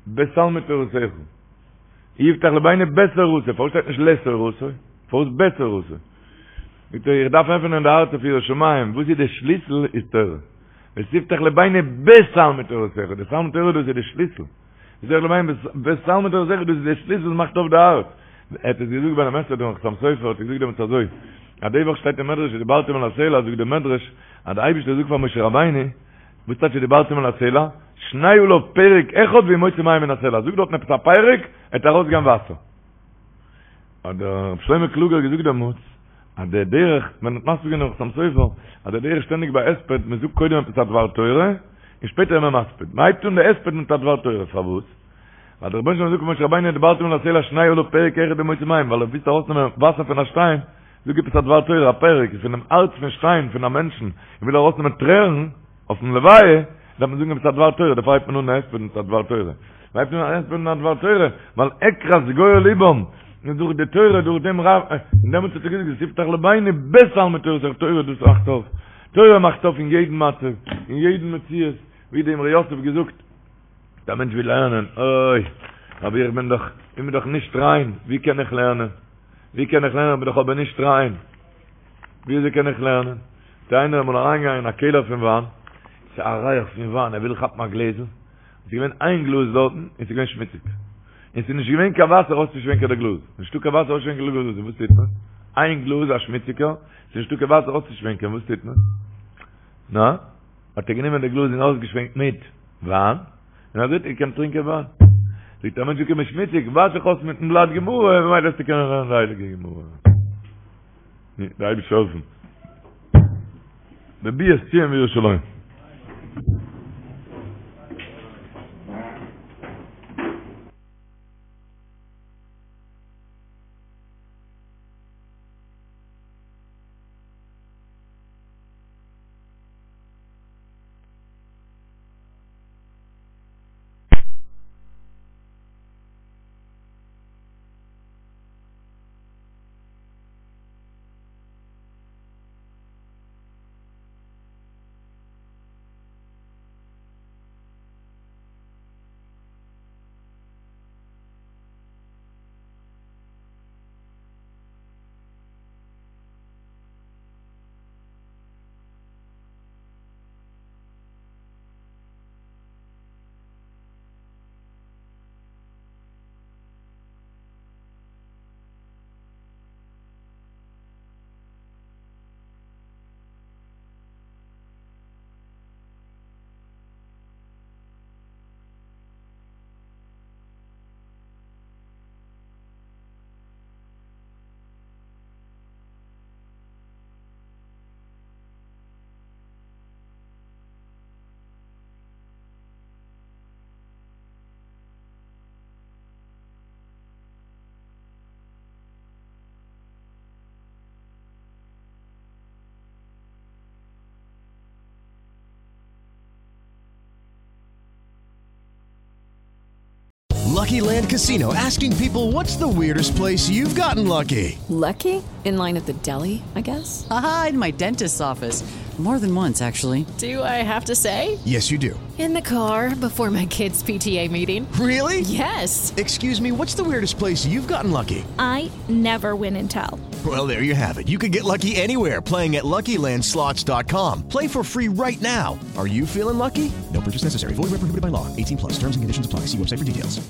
Speaker 3: בתלמוד תורתך. יפתח לבנו בתורתו, פארוואס שטייט נישט לתורתו? פארוואס בתורתו? זאגט ער, איך דארף עפענען די הארץ אויף יראת שמים, וואס איז די שליסל? איז תורה. ותפתח לבנו בתלמוד תורתך, די תלמוד תורה דאס איז די שליסל. ותפתח לבנו בתלמוד תורתך, דאס איז די שליסל וואס מאכט אויף די הארץ. ער האט עס געזאגט ביי דעם הספד פון חתם סופר, האט ער געזאגט דעמאלטס אזוי, אז די וואך שטייט אין מדרש ודברתם אל הסלע, זאגט דער מדרש, אז די אייבערשטער זאגט פאר משה רבינו, וואס טייטש ודברתם אל הסלע? שנה עליו פרק אחד והוא מוציא מים מן הסלע, זאג דארטן עפעס א פרק, עט ארויסגיין וואסער. האט דער רב שלמה קלוגער געזאגט דעמאלטס, אז דער דרך, מען האט מסביר געווען דעם חתם סופר, אז דער דרך שטענדיג ביי הספד, מען זאגט קודם עפעס א דבר תורה, און שפעטער איז מען מספיד. מען הייבט אן די הספד מיט א דבר תורה, פארוואס? ווייל דער רבונו של עולם זאגט למשה רבינו ודברת אל הסלע שנה עליו פרק אחד ומוציא מים, ווייל אויב ווילסטו ארויסנעמען וואסער פון א שטיין, זאג עפעס א דבר תורה, א פרק, פונעם הארץ פון שטיין פון א מענטשן, איך וויל ארויסנעמען טרערן, אויפן לוויה, דארף מען זאגן עפעס א דבר תורה, דערפאר הייבט מען אן א הספד מיט א דבר תורה. מען הייבט אן א הספד מיט א דבר תורה, ווייל עקרת גואל לבם, און דורך די תורה, דורך דעם רב, און דעמאלטס האט ער געזאגט ותפתח לבנו בתלמוד תורתך, תורה דאס מאכט אויף, תורה מאכט אויף אין יעדן מצב, אין יעדן מציאות, ווי דער אמרי יוסף געזאגט, דער מענטש וויל לערנען, אוי, אבער איך בין דאך, איך בין דאך נישט ריין, ווי קען איך לערנען? ווי קען איך לערנען, איך בין דאך אבער נישט ריין. ווי אזוי קען איך לערנען? איז איינער אמאל אריינגעגאנגען אין א קעלער פון וויין, ס'איז א ריח פון וויין, ער וויל כאפן א גלעזל, ס'איז געווען איין גלאז דארטן, און ס'איז געווען שמוציג, און ס'איז נישט געווען קיין וואסער אויסצושווענקען די גלאז, נישטא קיין וואסער אויסצושווענקען די גלאז, וואס טוט מען? איין גלאז א שמוציגער, ס'איז נישטא קיין וואסער אויסצושווענקען, וואס טוט מען? נא? האט ער גענומען די גלאז און אויסגעשווענקט מיט וויין, און אזוי האט ער געקענט טרינקען וויין. זאגט א מענטש איז געקומען שמוציג, וואש זיך אויס מיטן בלאט גמרא, ממילא וועסטו קענען לערנען די הייליגע גמרא. דער אייבערשטער זאל העלפן. בביאת ציון וירושלים.
Speaker 4: Lucky Land Casino asking people what's the weirdest place you've gotten lucky?
Speaker 5: Lucky? In line at the deli, I guess?
Speaker 6: Aha, in my dentist's office. More than once, actually.
Speaker 5: Do I have to say?
Speaker 4: Yes, you do.
Speaker 5: In the car before my kids' PTA meeting.
Speaker 4: Really?
Speaker 5: Yes.
Speaker 4: Excuse me, what's the weirdest place you've gotten lucky?
Speaker 7: I never win and tell.
Speaker 4: Well, there you have it. You can get lucky anywhere playing at LuckyLandSlots.com. Play for free right now. Are you feeling lucky? No purchase necessary. Void where prohibited by law. 18 plus. Terms and conditions apply. See website for details.